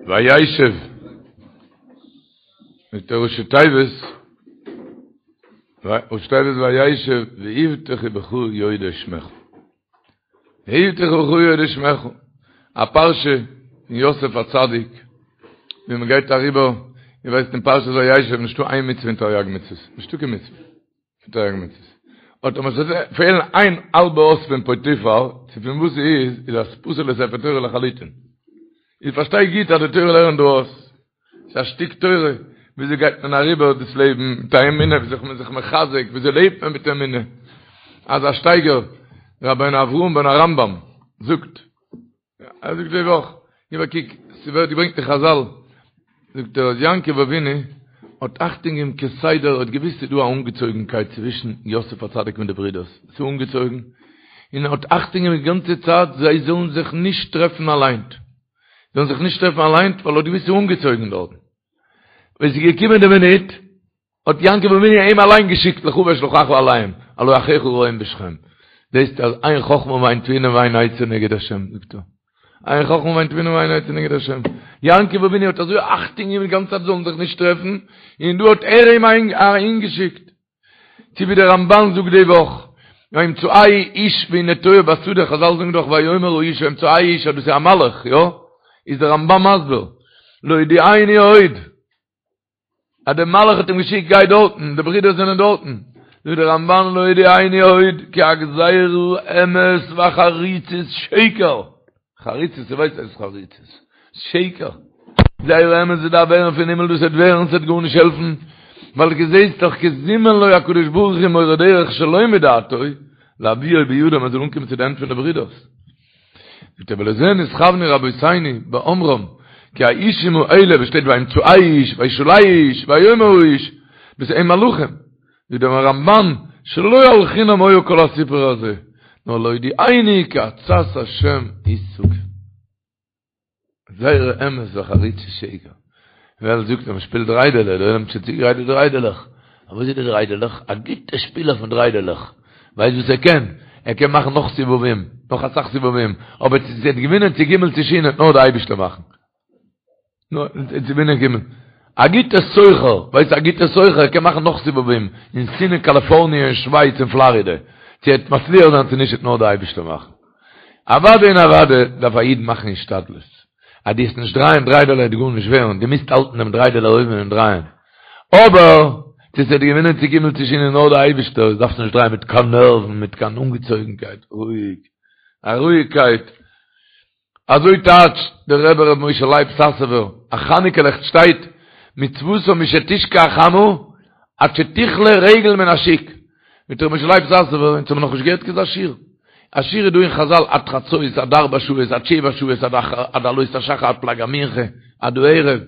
וישב מיט די ראשי תיבות, ראשי תיבות וישב ויבטחו בך יודעי שמך. ויבטחו בך יודעי שמך. א פרשה פון יוסף הצדיק, ווי מען גייט אריבער, איר ווייסט אין פרשת וישב נישטא איין מצוה אין תריג מצוות, נישטא קיין מצוה. תריג מצוות. אט אויב עס וועט פעלן איין האלבע אות פון פוטיפר, צו פון וואס ס'איז, איז דאס פסול לספר תורה לחלוטין. איך פארשטיי גוט אז די תורה לערנט דא אויס. ס'איז א שטיק תורה, וויאזוי גייט מען אריבער דאס לעבן מיט א אמונה, וויאזוי איז מען זיך מחזק, וויאזוי לעבט מען מיט אמונה. אזא שטייגער, רבינו אברהם בן הרמב"ם זאגט, ער זאגט די וואך, גיב א קוק, ס'ווערט געברענגט אין חזל, זאגט ער אז יעקב אבינו האט אכטונג געגעבן כסדר, האט געוואוסט ס'איז דא א אנגעצויגנקייט צווישן יוסף הצדיק מיט די ברידערס, ס'איז אנגעצויגן, און ער האט אכטונג געגעבן די גאנצע צייט זיי זאלן זיך נישט טרעפן אליין, זאלן זיך נישט טרעפן אליין, ווייל ער האט געוואוסט ס'איז אנגעצויגן דארטן. ווען ס'איז געקומען די מינוט, האט יעקב אבינו אים אליין געשיקט לכה ואשלחך אליהם, הלא אחיך רועים בשכם. זעסט אז אין חכמה ואין תבונה ואין עצה נגד השם, זאגט ער. אין חכמה ואין תבונה ואין עצה נגד השם. יעקב אבינו האט אזוי אכטונג געגעבן די גאנצע צייט זאלן זיך נישט טרעפן, און דא האט ער אים אהינגעשיקט. צו ווי דער רמבן זאגט די וואך, וימצאהו איש והנה תועה בשדה, חזל זאגן דאך ויאמר האיש וימצאהו איש אז דאס איז א מלאך, יא? איז דער רמבן מסביר, להודיעני עוד, אז דער מלאך האט אים געשיקט גיי דארטן, די ברידער זענען דארטן, זאגט דער רמבן להודיעני עוד כי הגזירה אמת והחריצות שקר, חריצות, איר ווייסט וואס איז חריצות, שקר, גזירה אמת וואס דארף ווערן פון הימל דאס וועט ווערן, ס'וועט גארנישט העלפן, ווייל דו זעסט דאך כי זימן לו הקדוש ברוך הוא מורה דרך שלא מדעתו, להביאו בידם ער זאל אנקומען צו די הענט פון די ברידערס. זאגט ער ולזה נתכוונו רבותינו באומרם כי האישים האלה וואס שטייט וימצאהו איש וישאלהו איש ויאמר האיש דאס הם מלאכים זאגט דער רמבן שלא על חינם היה כל הסיפור הזה נאר להודיענו כי עצת השם היא שגור גזירה אמת וחריצות שקר. ווער זאגט אז מען שפילט דריידעלע, דער עולם האט שוין צוגעגרייט די דריידעלעך. אבער וואס איז די דריידעלעך? א גוטע שפילער פון דריידעלעך. ווייסט וואס ער קען? ער קען מאכן נאך סיבובים, נאך אסאך סיבובים. אבער צו ס'וועט געווינען צו גימל צו שין וועט נאר די אייבישטער מאכן. נאר צו געווינען גימל. א גוטע סוחר, ווייסט א גוטע סוחר ער קען מאכן נאך סיבובים אין סין און קאליפארניע און שווייץ און פלארידע. צו ער וועט מצליח זיין צו נישט וועט נאר די אייבישטער מאכן. אוודאי און אוודאי דארף א איד מאכן השתדלות. אז דו וועסט נישט דרייען דריידעלע וועט גארנישט ווערן, דו מוזט האלטן דעם דריידעלע אויבן און דרייען. אבער, צו ס'וועט געווינען צו גימל צו שין איז נאר די אייבישטער, דארפסט נישט דרייען מיט קיין נערוון, מיט קיין אנגעצויגנקייט, רואיג, א רואיגקייט. אזוי טייטשט דער רבי ר' משה לייב סאסובער, א חנוכה לעכט שטייט, מצותה משתשקע החמה עד שתכלה רגל מן השוק. מיט ר' משה לייב סאסובער, אונז האבן נאכנישט געהערט כזה שיעור. א שיעור איז דא אין חזל עד חצות, עד ארבע שעות, עד שבע שעות, עד עלות השחר, עד פלג המנחה, עד הערב.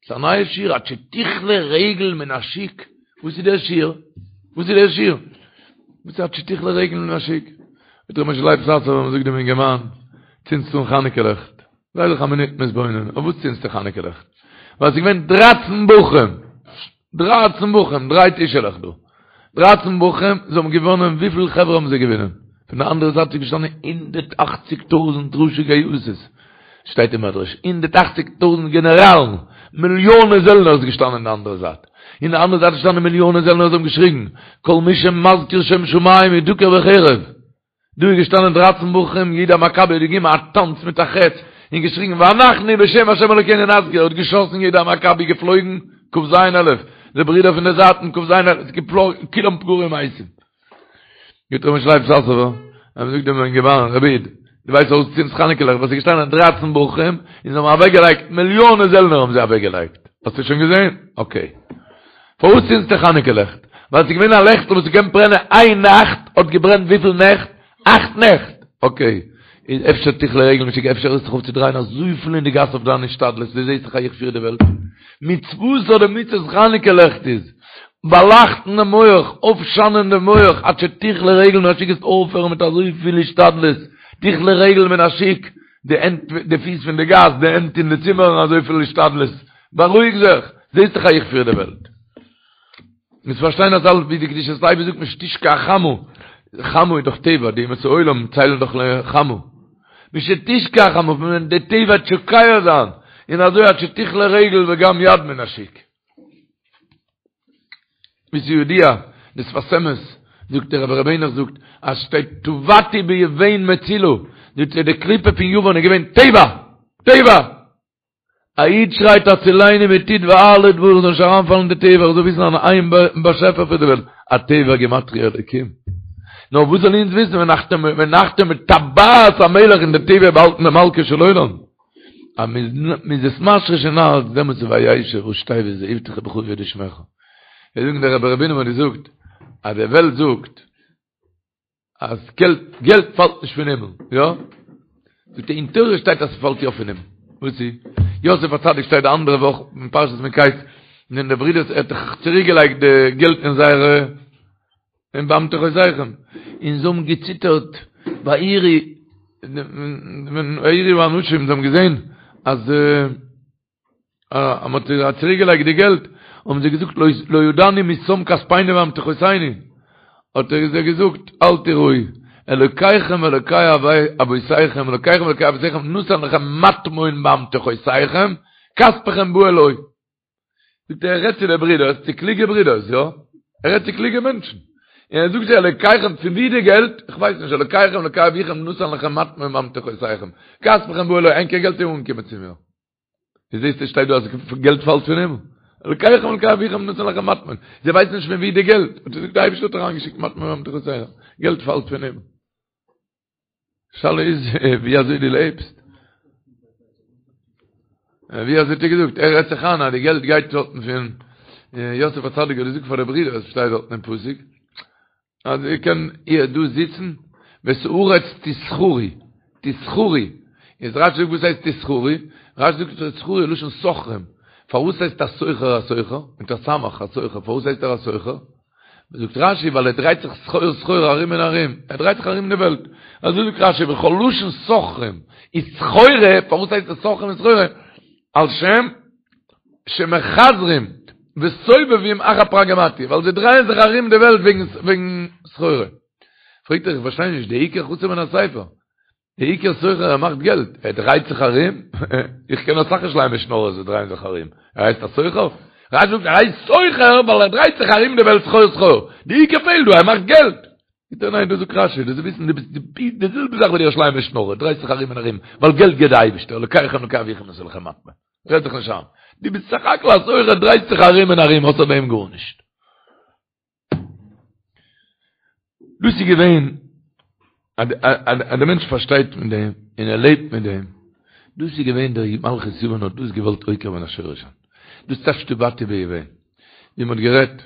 ס'איז א נייע שיעור, עד שתכלה רגל מן השוק. וואס איז דער שיעור? וואס איז דער שיעור? וואס איז עד שתכלה רגל מן השוק? מיט ר' משה לייב סאסובער, מ'זאגט דעם אינגערמאן, צינדסט אן חנוכה לעכט. זיי זיך א מינוט מתבונן, אויף וואס צינדסטו חנוכה לעכט? ווייל ס'איז געווען דרייצן בחורים, דרייצן בחורים, דריי טישעלעך דא, דרייצן בחורים, זיי האבן געוואונען, וויפיל חברה האבן זיי געוואונען? פון די אנדערע זייט איז געשטאנען הונדערט אכציג טויזנט ראשי גייסות, שטייט אין מדרש, הונדערט אכציג טויזנט גענעראלן, מיליאנען זעלנער איז געשטאנען אין די אנדערע זייט, אין די אנדערע זייט איז געשטאנען מיליאנען זעלנער, זיי האבן געשריגן, כל מי שמזכיר שם שמים ידוקר בחרב. דא איז געשטאנען דרייצן בחורים, יהודה המכבי האט געגעבן א טאנץ מיט א חץ, און געשריגן ואנחנו בשם השם אלוקינו נזכיר, האט געשאסן יהודה המכבי געפלויגן כ"ז אלף, די ברידער פון די זייטן כ"ז אלף, געפלויגן, כולם פגרים מתים. זאגט ר' משה לייב סאסובער, ער זאגט דעם אינגערמאן, רבי איד, דו ווייסט פארוואס דו צינדסט חנוכה לעכט, ווייל ס'איז געשטאנען דרייצן בחורים, און זיי האבן אוועקגעלייגט, מיליאנען זעלנער האבן זיי אוועקגעלייגט, האסטו שוין געזען? אקעי. פארוואס צינדסטו חנוכה לעכט? ווייל ס'איז געווען א לעכטל וואס ס'קען ברענען איין נאכט, האט געברענט וויפיל נעכט? אכט נעכט! אקעי, איז אפשר תכלה רגל מן השוק, אפשר הערסט זיך אויף צו דרייען אזויפיל אין די גאס אויף דיין השתדלות, דו זעסט דאך אז איך פיר די וועלט. מצותה די מצות חנוכה לעכט איז, באלייכטן דעם מח, אויפשיינען דעם מח, עד שתכלה רגל מן השוק וועסט אויפהערן מיט אזויפיל השתדלות, תכלה רגל מן השוק, די הענט, די פיס פון די גאס, די הענט אין די צימערן, אזויפיל השתדלות, בארואיג זיך, זעסט דאך אז איך פיר די וועלט. מוזט פארשטיין אז אלעס ווי די קדושת לוי זאגט משתשקע החמה, חמה איז דאך טבע, די אומות העולם ציילן דאך לחמה. משתשקע החמה, פון ווען די טבע וועט שוקע זיין. און אזוי עד שתכלה רגל וגם יד מן השוק. ווי ס'איז ידוע, די שפת אמת, זאגט דער רבי ר' העניך זאגט, אז שטייט טבעתי ביון מצולה, זאגט ער די קליפה פון יוון איז געווען טבע! טבע! א איד שרייט הצילני מטיט וארלה דבר איך זאל נישט אריינפאלן אין די טבע, איך זאל וויסן אז איין באשעפער פון די וועלט, הטבע גימטריא אלוקים. נאר וואס זאל אונז וויסן ונחתום בטבעת המלך אין די טבע באהאלטן די מלכו של עולם. אז מ'איז עס משריש אין הארץ דעמאלטס איז וישב ראשי תיבות ויבטחו בך וידעו שמך. זיי זאגן דער רבי ר' בונם האט געזאגט אז די וועלט זאגט אז געלט געלט פאלט נישט פון הימל, יא? זאגט ער אין תורה שטייט אז ס'פאלט יא פון הימל. וואס איז? יוסף הצדיק שטייט די אנדערע וואך אין פרשת מקץ ווען די ברידערס ער האט דאך צוריק געלייגט די געלט אין זייערע אין באמתחותיכם און זיי האבן געציטערט ויראו ויראו האנשים זיי האבן געזען אז אז מ'האט צוריק געלייגט די געלט, האבן זיי געזאגט לא ידענו מי שם כספינו באמתחותינו, האט ער זיי געזאגט אל תיראו, אלוקיכם ואלוקי אבותיכם, אלוקיכם ואלוקי אבותיכם נתן לכם מטמון באמתחותיכם, כספכם בא אלי. זאגט ער, ער רעדט צו די ברידערס, צו קלוגע ברידערס, יא? ער רעדט צו קלוגע מענטשן. און ער זאגט זיי, אלוקיכם, פון ווי די געלט? איך ווייס נישט, אלוקיכם ואלוקי אביכם נתן לכם מטמון באמתחותיכם, כספכם בא אלי, ענקער געלט איז אנגעקומען צו מיר. ווי זעסטו שטייט דא אז געלט פאלט פון הימל? אלקיכם אלקי אביכם נתן לכם מטמון. זיי ווייסן נישט פון ווי די געלט. האט ער געזאגט די אייבערשטער האט אריינגעשיקט מטמון באמתחותיכם. געלט פאלט פון הימל. שאלה איז ווי אזוי דו לעבסט. ווי אזוי האט ער געזאגט? ער רעדט זיך איין אז די געלט גייט דארטן פון יוסף הצדיק האט געזאגט פאר די ברידער, עס שטייט דארטן אין פסוק. אז איר קען איר דא זיצן, ואת הארץ תסחרו, תסחרו, איז רשי זאגט וואס הייסט תסחרו, רשי זאגט תסחרו לשון סוחרים, פארוואס הייסט א סוחר א סוחר, מיט א סמך א סוחר, פארוואס הייסט ער א סוחר? זאגט רשי ווייל ער דרייט זיך סחור סחור ארום און ארום, ער דרייט זיך ארום אין די וועלט, אזוי זאגט רשי וכל לשון סוחרים איז סחורה, פארוואס הייסט עס סוחרים און סחורה? על שם שמחזרים וסובבים אחר פרגמטיא, ווייל זיי דרייען זיך ארום די וועלט וועגן סחורה. פרעגט ער איך פארשטיי נישט, די עיקר חסר מן הספר, די עיקר סוחר ער מאכט געלט, ער דרייט זיך ארום, איך קען אסאך ירושלימ'ער שנארערס וואס דרייען זיך ארום, ער הייסט א סוחר? רשי זאגט ער הייסט סוחר ווייל ער דרייט זיך ארום די וועלט סחור סחור, די עיקר פעלט דא, ער מאכט געלט. זאגט ער ניין דאס זאגט רשי, דאס איז וויסן דו ביסט די זעלבע זאך ווי די ירושלימ'ער שנארער, דרייסט זיך ארום און ארום, ווייל געלט געבט די אייבערשטער, אלוקיכם אלוקי אביכם נתן לכם מטמון. רעד זיך נישט איין. דו ביסט סך הכל א סוחר, דרייסט זיך ארום און ארום, אויסער דעם גארנישט. דאס איז געווען, אז דער מענטש פארשטייט מיט דעם, און ער לעבט מיט דעם, דאס איז געווען דער מלכות יוון האט דאס געוואלט עוקר מן השורש זיין. דאס טייטש טבעתי ביון. ווי מען האט גערעדט,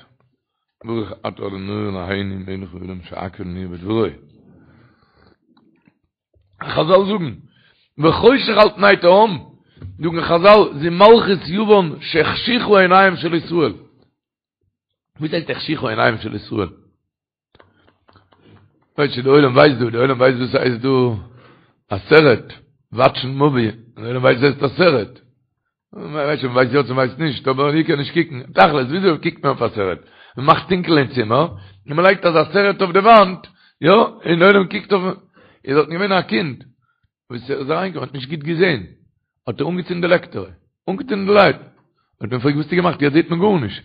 ברוך אתה ה' אלהינו מלך העולם שהכל נהיה בדברו. חזל זאגן, וחושך על פני תהום, זאגן חזל, זו מלכות יוון שהחשיכו עיניהם של ישראל. וואס הייסט החשיכו עיניהם של ישראל? ווייסט די עולם ווייסט דא, די עולם ווייסט וואס הייסט דא א סרט, וואטשן מאווי, די עולם ווייסט וואס הייסט א סרט. מ'ווייסט שוין, מ'ווייסט יא צו מ'ווייסט נישט, אבער איך קען נישט קוקן. תכלית, וויאזוי קוקט מען אויף א סרט? מ'מאכט טונקל אין צימער, און מ'לייגט אזא סרט אויף די וואנט, יא, און די עולם קוקט אויף. איז דארטן געווען א קינד, וואס איז אריינגעקומען, האט נישט גוט געזען, האט ער אנגעצינדן די לעקטער, אנגעצינדן די לייט. האט מען געפרעגט, וואס האסטו געמאכט? יעצט זעט מען גארנישט.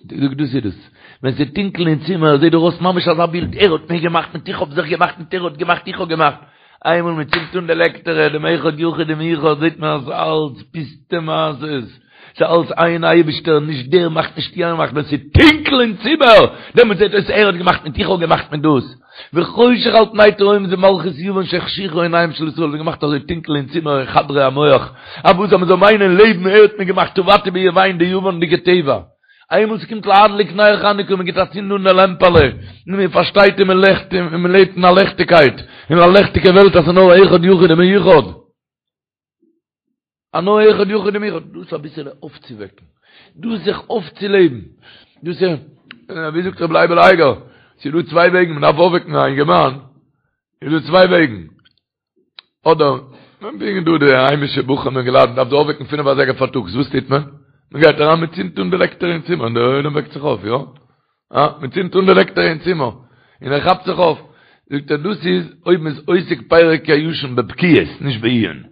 זאגט דאס איז דאס, ווען ס'איז טונקל אין צימער זעט דיר אויס ממש אזא בילד, ער האט מיר געמאכט מיט איך האב זיך געמאכט מיט ער האט געמאכט איך האב געמאכט, איינמאל מען צינדט אן די לעקטערע דעם אחד יחיד ומיוחד זעט מען אז אלץ פוסטע מעשות, ס'איז אלץ איין אייבישטער, נישט דער מאכט נישט יענער מאכט, ווען ס'איז טונקל אין צימער דעמאלט זעט אויס ער האט געמאכט מיט איך האב געמאכט מיט דאס. וחושך על פני תהום זה מלכות יוון שהחשיכו עיניהם של ישראל, זיי געמאכט אזוי טונקל אין צימער אין חדרי המוח, אז וואס אז מען זאל מיינען לעבן ער האט מיר געמאכט טבעתי ביון די יוונ'דיגע טבע, איינמאל ס'קומט להדליק נר חנוכה מען גיט א צינד אן די לעמפעלע, און מען פארשטייט און מען לעכט און מען לעבט אין א לעכטיגקייט, אין א לעכטיגע וועלט אז ס'איז נאר אחד יחיד ומיוחד. א נאר אחד יחיד ומיוחד, דאס אביסעלע אויפצווועקן, דאס זיך אויפצולעבן, דאס איז, ווי זאגט רבי לייבל אייגער, ס'איז דא צוויי וועגן, מען דארף אויפוועקן א אינגערמאן, איז דא צוויי וועגן, אדער, מען ברענגט דא די היימישע בחורים אינגעלייט, מען דארף זיי אויפוועקן פינף אזייגער פארטאגס, וואס טוט מען? מען גייט אריין מען צינדט אן די לעקטער אין צימער און דער עולם וועקט זיך אויף, יא? אה, מען צינדט אן די לעקטער אין צימער, און ער כאפט זיך אויף. זאגט ער, דאס איז אויב מען איז עוסק פרק הישן בבקיאות, נישט בעיון.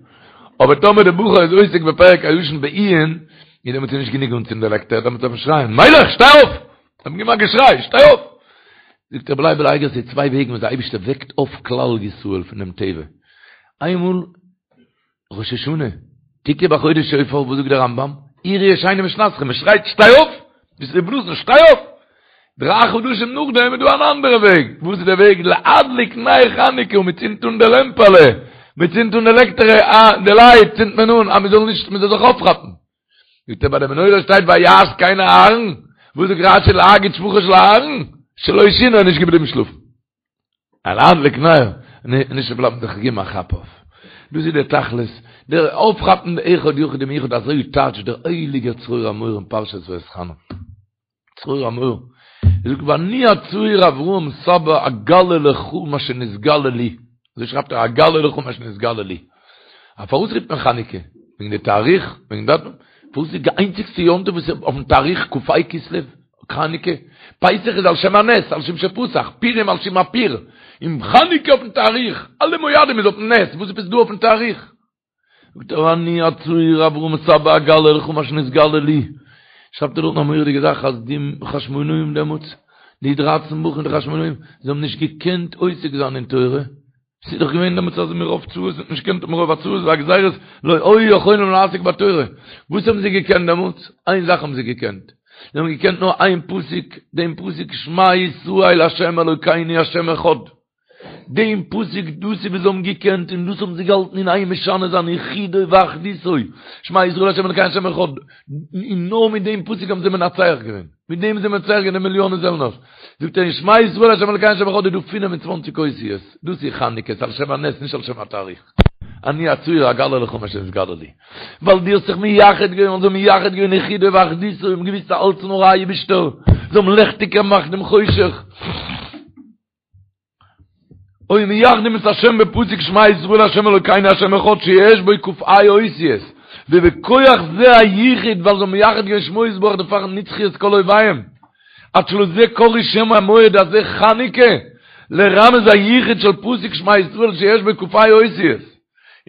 אבער טאמער די בחור איז עוסק בפרק הישן בעיון, איז דעמאלטס איז נישט גענוג אנצינדן די לעקטער, דעמאלטס דארף מען שרייען, מיילעך, שטיי אויף! דארף מען געבן א געשריי, שטיי אויף! זאגט רבי לייבל אייגער ס'איז צוויי וועגן וואס די אייבערשטער וועקט אויף כלל ישראל פון דעם טבע. איינמאל ראש השנה, תקעו בחודש שופר, וואס זאגט דער רמב"ם? עורו ישנים משנתכם, מען שרייט שטיי אויף! ביסט ר' נתן, שטיי אויף! דריי חדשים נאכדעם איז דא אן אנדערע וועג, וואס איז דער וועג? להדליק נר חנוכה, מען צינדט אן די לעמפעלע, מען צינדט אן די לעקטערע, אה, די לייט צינדט מען אן, אז מען זאל נישט, מען זאל זיך אויפכאפן. זאגט ער ביי די מנורה שטייט ויעש כן אהרן, וואס זאגט רש"י להגיד שבחו של אהרן? שלא שינה איז נישט געבליבן שלאפן. להדליק נר, נישט בלייבן זיך געבן א כאפ אויף. דאס איז דער תכלית, דער אויפכאפן די אחד יחיד ומיוחד אזוי טייטשט דער הייליגער צרור המור אין פרשת ואתחנן. צרור המור, ער זאגט ואני הצעיר אברהם סבא אגלה לך מה שנתגלה לי, אזוי שרייבט ער אגלה לך מה שנתגלה לי. א פארוואס רופט מען חנוכה? וועגן די תאריך? וועגן דאטום? פארוואס איז די איינציגסטע יום טוב וואס איז אויפן תאריך כ"ה כסלו? חנוכה? פסח איז על שם הנס, על שם שפסח, פורים על שם הפור, און חנוכה אויפן תאריך, אלע מועדים איז אויפן נס, וואס עפעס דא אויפן תאריך? זאגט ער אני הצעיר אברהם סבא אגלה לך מה שנתגלה לי, שרייבט ער דארטן א מורא'דיגע זאך אז די חשמונאים דעמאלטס, די דרייצן בחורים די חשמונאים, זיי האבן נישט געקענט עוסק זיין אין תורה, ס'איז דאך געווען דעמאלטס אז מרוב צרות האט נישט געקענט מרוב הצרות והגזירות לא היו יכולים לעסוק בתורה, וואס האבן זיי געקענט דעמאלטס? איין זאך האבן זיי געקענט, זיי האבן געקענט נאר איין פסוק, דעם פסוק שמע ישראל ה' אלוקינו ה' אחד, דעם פסוק דאס איז וואס זיי האבן געקענט און דאס האבן זיי געהאלטן אין איין משנה זיין יחידו ואחדותו, שמע ישראל ה' אלוקינו ה' אחד, און נאר מיט דעם פסוק האבן זיי מנצח געווען, מיט דעם זיי מנצח געווען די מיליאנען זעלנערס. זאגט ער אין שמע ישראל ה' אלוקינו ה' אחד איז דא 25 אותיות, דאס איז חנוכה, ס'איז על שם הנס נישט על שם התאריך. אני הצעיר אגלה לך מה שנתגלה לי. ווייל דו האסט זיך מייחד געווען, זיי האבן מייחד געווען יחידו ואחדותו, האבן געוויסט אז אלץ נאר אייבישטער, זיי האבן לעכטיג געמאכט דעם חושך. היו מייחדים את השם בפסוק שמע ישראל השם אלוקינו השם אחד שיש בו כ"ה אותיות ובכוח זה הייחוד ווייל זיי האבן מייחד געווען שמו יתברך דערפאר נצחו את כל אויביהם עד שלזה קראו שם המועד הזה חנוכה לרמז הייחוד של פסוק שמע ישראל שיש בו כ"ה אותיות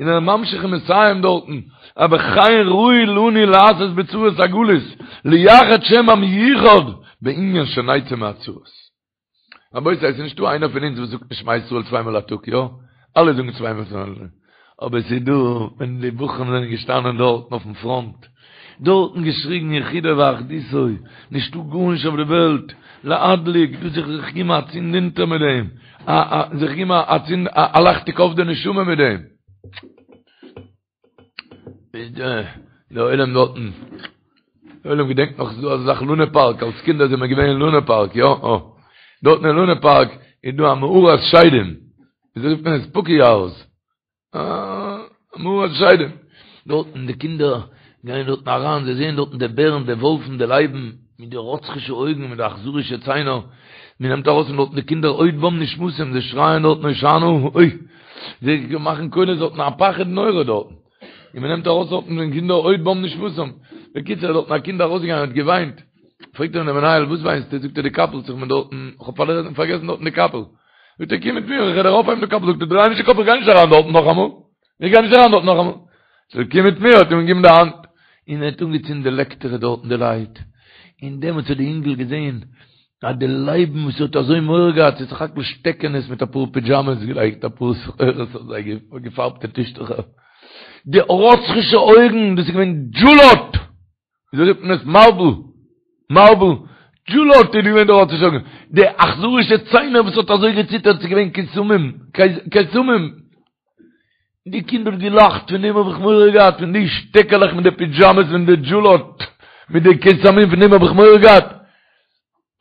און ער ממשיך און מסיים דארטן אז וכן ראוי לנו לעשות בצרות הגלות לייחד שם המיוחד בענין שנצא מהצרות רבותי, עס איז נישטא איינער פון אונז וואס זאגט נישט שמע ישראל צוויי מאל א טאג, יא? אלע זאגן צוויי מאל צוויי מאל. אבער עס איז דא, ווען די בחורים זענען געשטאנען דארטן אויפן פראנט, דארטן געשריגן יחידו ואחדותו, נישטא גארנישט אויף די וועלט, להדליק, דאס זיך זיך געבן א צינד אונטער מיט דעם, א א זיך געבן א צינד א לעכטיג אויף די נשמה מיט דעם. דער עולם דארטן, דער עולם געדענקט נאך ס'איז דא אזא זאך לונה פארק, אלס קינדער זענען מיר געווען אין לונה פארק, יא? אה. דארטן אין לונה פארק איז דא א מערת שדים, וויאזוי רופט מען עס? ספוקי האוז. אה, מערת שדים. דארטן די קינדער גייען דארטן אריין, זיי זעען דארטן די בערן, די וואלפן, די לייבן, מיט די רוצחישע אויגן, מיט די אכזרישע ציינער, מען נעמט ארויס פון דארטן די קינדער עוד בם נשמתם, זיי שרייען דארטן הושענא, אוי! זיי מאכן קולות דארטן א פחד נורא דארטן, און מען נעמט ארויס דארטן די קינדער עוד בם נשמתם, בקיצור איז דארטן א קינד ארויסגעגאנגען און האט געוויינט, פרעגט אים דער מנהל וואס וויינסטו, זאגט ער די קאפל האט זיך מיר דארטן, איך האב פארגעסן דארטן די קאפל, זאגט ער קום מיט מיר איך וועל דיר אויפהייבן די קאפל, זאגט ער דריי נישט די קאפ איך גיי נישט אריין דארטן נאכאמאל, איך גיי נישט אריין דארט נאכאמאל. זאגט ער קום מיט מיר, האט אים געגעבן די האנט, און ער האט אנגעצינדן די לעקטערע דארטן די לייט, און דעמאלטס האט די אינגל געזען אז די לייבן וואס ער האט אזוי מורא געהאט ס'איז סך הכל שטעקענעס מיט אפאר פידזשאמעס געלייגט אפאר סחורות אויף זיי געפארבטע טישטוכער, די רוצחישע אויגן דאס איז געווען דזשולאט! וויאזוי רופט מען עס? מארבל! מארבל! דזשולאט איז געווען די רוצחישע אויגן, די אכזרישע ציינער וואס האט אזוי געציטערט ס'איז געווען קיסמים! קיסמים! די קינד האט געלאכט, פון דעם האב איך מורא געהאט, פון די שטעקעלעך מיט די פידזשאמעס פון די דזשולאט, מיט די קיסמים, פון דעם האב איך מורא געהאט.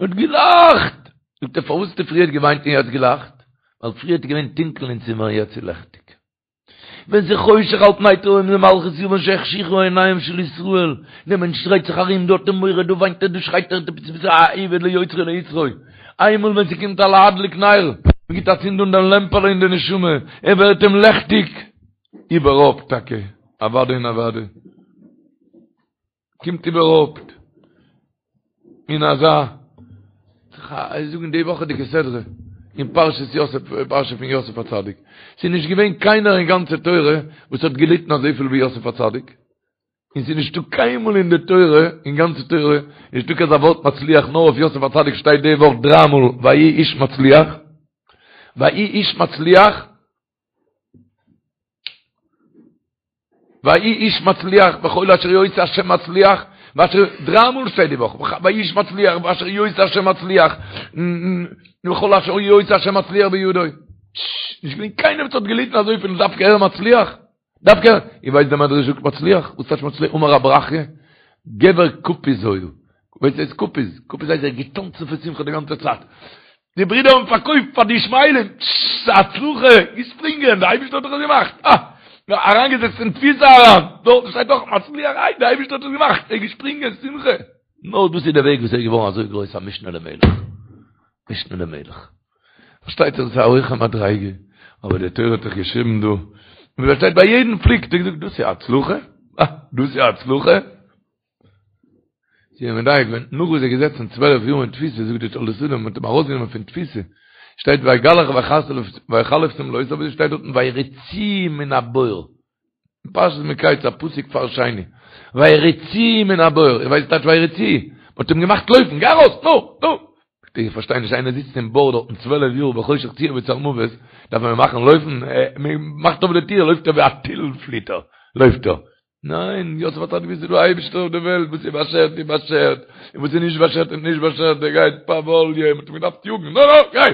האט געלאכט! זאגט ער, פארוואס האסטו פריערט געוויינט און יעצט געלאכט? ווייל פריערט איז געווען טונקל אין צימער און יעצט איז לעכטיג. ווען ס'איז חושך על פני תהום זה מלכות יוון שהחשיכו עיניהם של ישראל, דער מענטש דרייט זיך ארום, דא האט ער מורא, דא וויינט ער, דא שרייט ער, דו ביסט א עבד ליוצרו ליצרו. איינמאל ווען ס'קומט א להדליק נר, מ'גיט א צינד אן דעם לעמפעלע אין די נשמה, ער ווערט אים לעכטיג, איבערהויפט טאקע, אוודאי און אוודאי, קומט איבערהויפט אין אזא, זאגן די וואכעדיגע סדרה, אין פרשת יוסף, פרשה פון יוסף הצדיק. ס'איז נישט געווען קיינער אין גאנצע תורה וואס האט געליטן אזויפיל ווי יוסף הצדיק. און ס'איז נישטא קיינמאל אין די תורה, אין גאנצע תורה, נישטא קיין אזא ווארט מצליח, נאר אויף יוסף הצדיק שטייט די וואך דריי מאל ויהי איש מצליח, ויהי איש מצליח, ויהי איש מצליח בכל אשר יעשה השם מצליח, ואשר, דריי מאל שטייט די וואך, ויהי איש מצליח, ואשר יעשה השם מצליח, וכל אשר יעשה השם מצליח בידו. נישט געווען קיינער וואס האט געליטן אזויפיל דווקא ער מצליח. דווקא, איר ווייסט דער מדרש זאגט מצליח? וואס טייטש מצליח? אמר רב ברכיה, גבר קפיז היה. ווייסט וואס הייסט קפיז? קפיז הייסט ער האט געטאנצן פון שמחה די גאנצע צייט. די ברידער האבן פארקויפט פאר די ישמעאלים, ס'איז א הצלחה, געשפרינגען, די אייבערשטער האט דאך עס געמאכט. אה! אריינגעזעצט אין תפיסה אריין, דארט שטייט דאך מצליח, איי די אייבערשטער האט עס געמאכט, ער איז געשפרינגען, שמחה. נאר דאס איז דער וועג וואס ער איז געווארן אזוי גרויס א משנה למלך. משנה למלך. פארשטייט זיך דאס איז א הויכע מדריגה, אבער די תורה האט דאך געשריבן דא, און ווי פארשטייט ביי יעדן פליג האט ער געזאגט דאס איז א הצלחה, אה, דאס איז א הצלחה. זיי האבן מדייק געווען, נאך וואס ער איז געזעצן 12 יאר אין תפיסה, זאגט די תולדות אדם, מ'האט אים ארויסגענומען פון תפיסה, שטייט ויגלח ויחלף שמלותיו, אבער שטייט דארטן ויריצוהו מן הבור. פרשת מקץ א פסוק פאר שני ויריצוהו מן הבור איר ווייסט טייטש ויריצוהו מ'האט אים געמאכט לויפן גיי ארויס נו נו איך פארשטיי נישט איינער זיצט אין בור דארטן צוועלף יאר בחושך צור וצלמוות דארף מען אים מאכן לויפן מ'מאכט אויף די טיר לויפט ער ווי א טיל פליט ער לויפט ער ניין יוסף האט געוואוסט ס'איז דא אייבערשטער אויף די וועלט וואס איז באשערט איז באשערט און וואס איז נישט באשערט איז נישט באשערט דער גייט פאוואליע מ'האט אים געדארפט יאגן נו נו גיי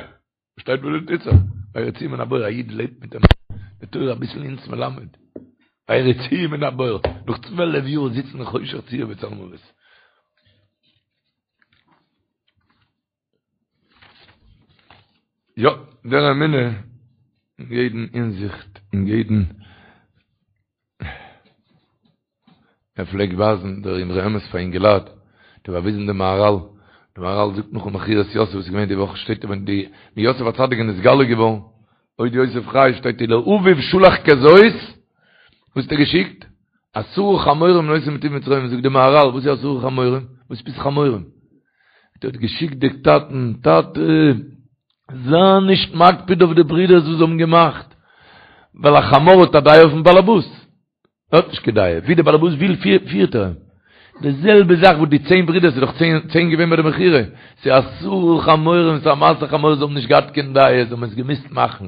שטייט וואס טוט זיך? ויריצוהו מן הבור, א איד לעבט מיט אים, די תורה אביסל אונז מלמד. ויריצוהו מן הבור, נאך צוועלף יאר זיצן אין חושך צור וצלמוות. יא, דער אמונה אין יעדן הינזיכט, אין יעדן ער פלעגט ווייזן דער אמרי אמת פאר אינגעלייט, האט ער באוויזן דעם מהרל, דער מהרל זאגט נאכן מכירת יוסף וואס איז געווען די וואך שטייט ווען די ווען יוסף הצדיק איז נתגלה געווארן, עוד יוסף חי שטייט ולאביו שלח כזאת, וואס האט ער געשיקט? עשרה חמורים נושאים מטוב מצרים, זאגט דער מהרל וואס איז עשרה חמורים? וואס איז חמורים? ער האט געשיקט די טאטן, טאטע זיי נישט מקפיד אויף די ברידערס וואס זיי האבן געמאכט, ווייל א חמור האט א דעה אויפן באלעבאס, ער האט נישט קיין דעה, ווי דער באלעבאס וויל פירט ער אים. די זעלבע זאך וואס די צען ברידער, ס'איז דאך צען געווען ביי די מכירה, ס'איז עשרה חמורים, ס'איז א מעשה חמור, זיי האבן נישט געהאט קיין דעה, זיי האבן עס געמוזט מאכן.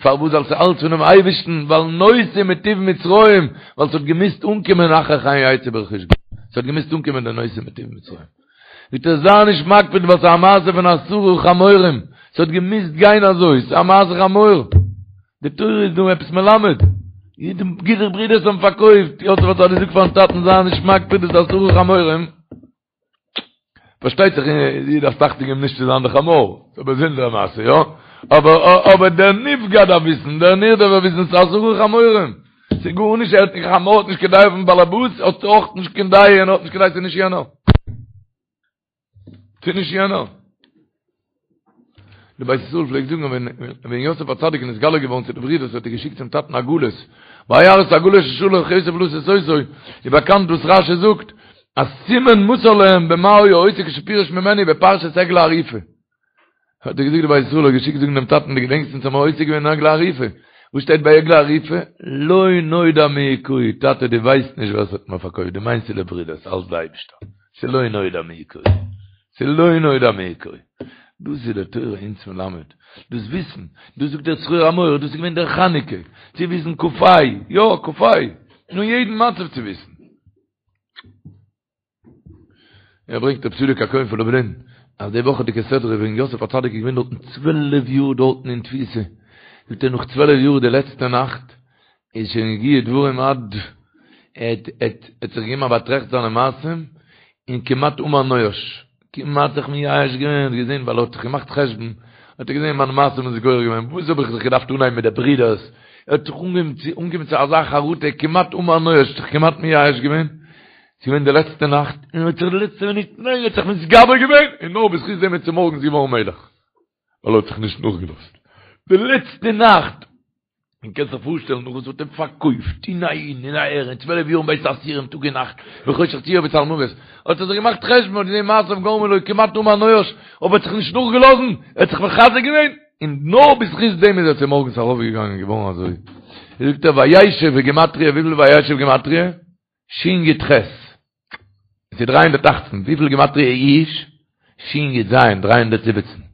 פארוואס? ווייל ס'איז אלץ פונעם אייבערשטן, ווייל נושאים מטוב מצרים, ווייל ס'האט געמוזט אנקומען אחרי כן יצאו ברכוש גדול, ס'האט געמוזט אנקומען די נושאים מטוב מצרים. זאגט ער זיי נישט מקפיד ווייל ס'איז א מעשה פון עשרה חמורים, ס'האט געמוזט גיין אזוי, ס'איז א מעשה חמור. די תורה איז דא עפעס מלמד. די די ברידערס האבן פארקויפט, יוסף הצדיק זאגט פארן טאטן זיי נישט מקפיד דאס עשרה חמורים. פארשטייט זיך דו דארפסט אכטונג געבן נישט צו זיין די חמור, ס'איז א באזונדערע מעשה, יא? אבער אבער דער נפגע דארף וויסן, דער נרדף דארף וויסן ס'איז עשרה חמורים. ס'איז גארנישט, ער האט נישט, חמור האט נישט קיין דעה אויפן באלעבאס, האט אויך נישט קיין דעה, יענער האט נישט קיין דעה, ס'איז נישט יענער. ס'איז נישט יענער. די בית ישראל פלעגט זאגן ווען ווען יוסף הצדיק איז נתגלה געווארן צו די ברידערס האט ער געשיקט צום טאטן עגלות. וירא את העגלות אשר שלח יוסף לשאת אותו, איז באקאנט וואס רשי זאגט אז סימן מסר להם במה היה עוסק כשפירש ממנו בפרשת עגלה ערופה. האט ער געזאגט די בית ישראל האט געשיקט זאגן דעם טאטן דו געדענקסט אונז האבן עוסק געווען אין עגלה ערופה וואס שטייט ביי עגלה ערופה לא נודע מי הכהו טאטע דו ווייסט נישט ווער ס'האט מיר פארקויפט דו מיינסט ס'איז די ברידערס אלץ די אייבישטער ס'איז לא נודע מי הכהו ס'איז לא נודע מי הכהו דאס איז די תורה אונז מלמד דאס וויסן דאס זאגט דער צרור המור דאס איז געווען דער חנוכה צו וויסן כ"ה יא כ"ה אין יעדן מצב צו וויסן ער ברענגט רב צדוק הכהן פון לובלין אז די וואכעדיגע סדרה ווען יוסף הצדיק איז געווען דארטן צוועלף יאר דארטן אין תפיסה, זאגט ער נאך צוועלף יאר די לעצטע נאכט איז שוין הגיעו דברים עד ער האט זיך געגעבן א באטראכט זיינע מעשים און כמעט אמר נואש, כמעט זיך מייאש געווען, האט געזען ווייל ער האט זיך געמאכט חשבון, האט ער געזען מיינע מעשים איז גורם געווען, וואס האב איך זיך געדארפט אנהייבן מיט די ברידערס, ער האט זיך אנגעהויבן צו אנגעקומען צו אזא חרטה, כמעט אמר נואש, זיך כמעט מייאש געווען, ס'איז געווען די לעצטע נאכט, און ער האט זיך די לעצטע מינוט, ניין, ער האט זיך מתגבר געווען, און נאר בזכות דעם איז צומארגנס געווארן מלך, ווייל ער האט זיך נישט נאכגעלאזט. די לעצטע נאכט! און קענסט זיך פארשטעלן נאך וואס מ'האט אים פארקויפט, און אהין און אהער, און צוועלף יאר אין בית האסירים טאג און נאכט, בחושך צור וצלמוות, האט ער זיך געמאכט חשבון, האט געזען מעשיו גרמו לו כמעט אמר נואש, אבער האט זיך נישט נאכגעלאזן, ער האט זיך מחזק געווען. און נאר בזכות דעם איז ער צומארגנס ארויפגעגאנגען און געווארן אזוי. זאגט ער וישב בגימטריא, וויפיל וישב גימטריא? שין יוד חית. עס איז 318, וויפיל גימטריא יאוש? שין יוד זיין, 317.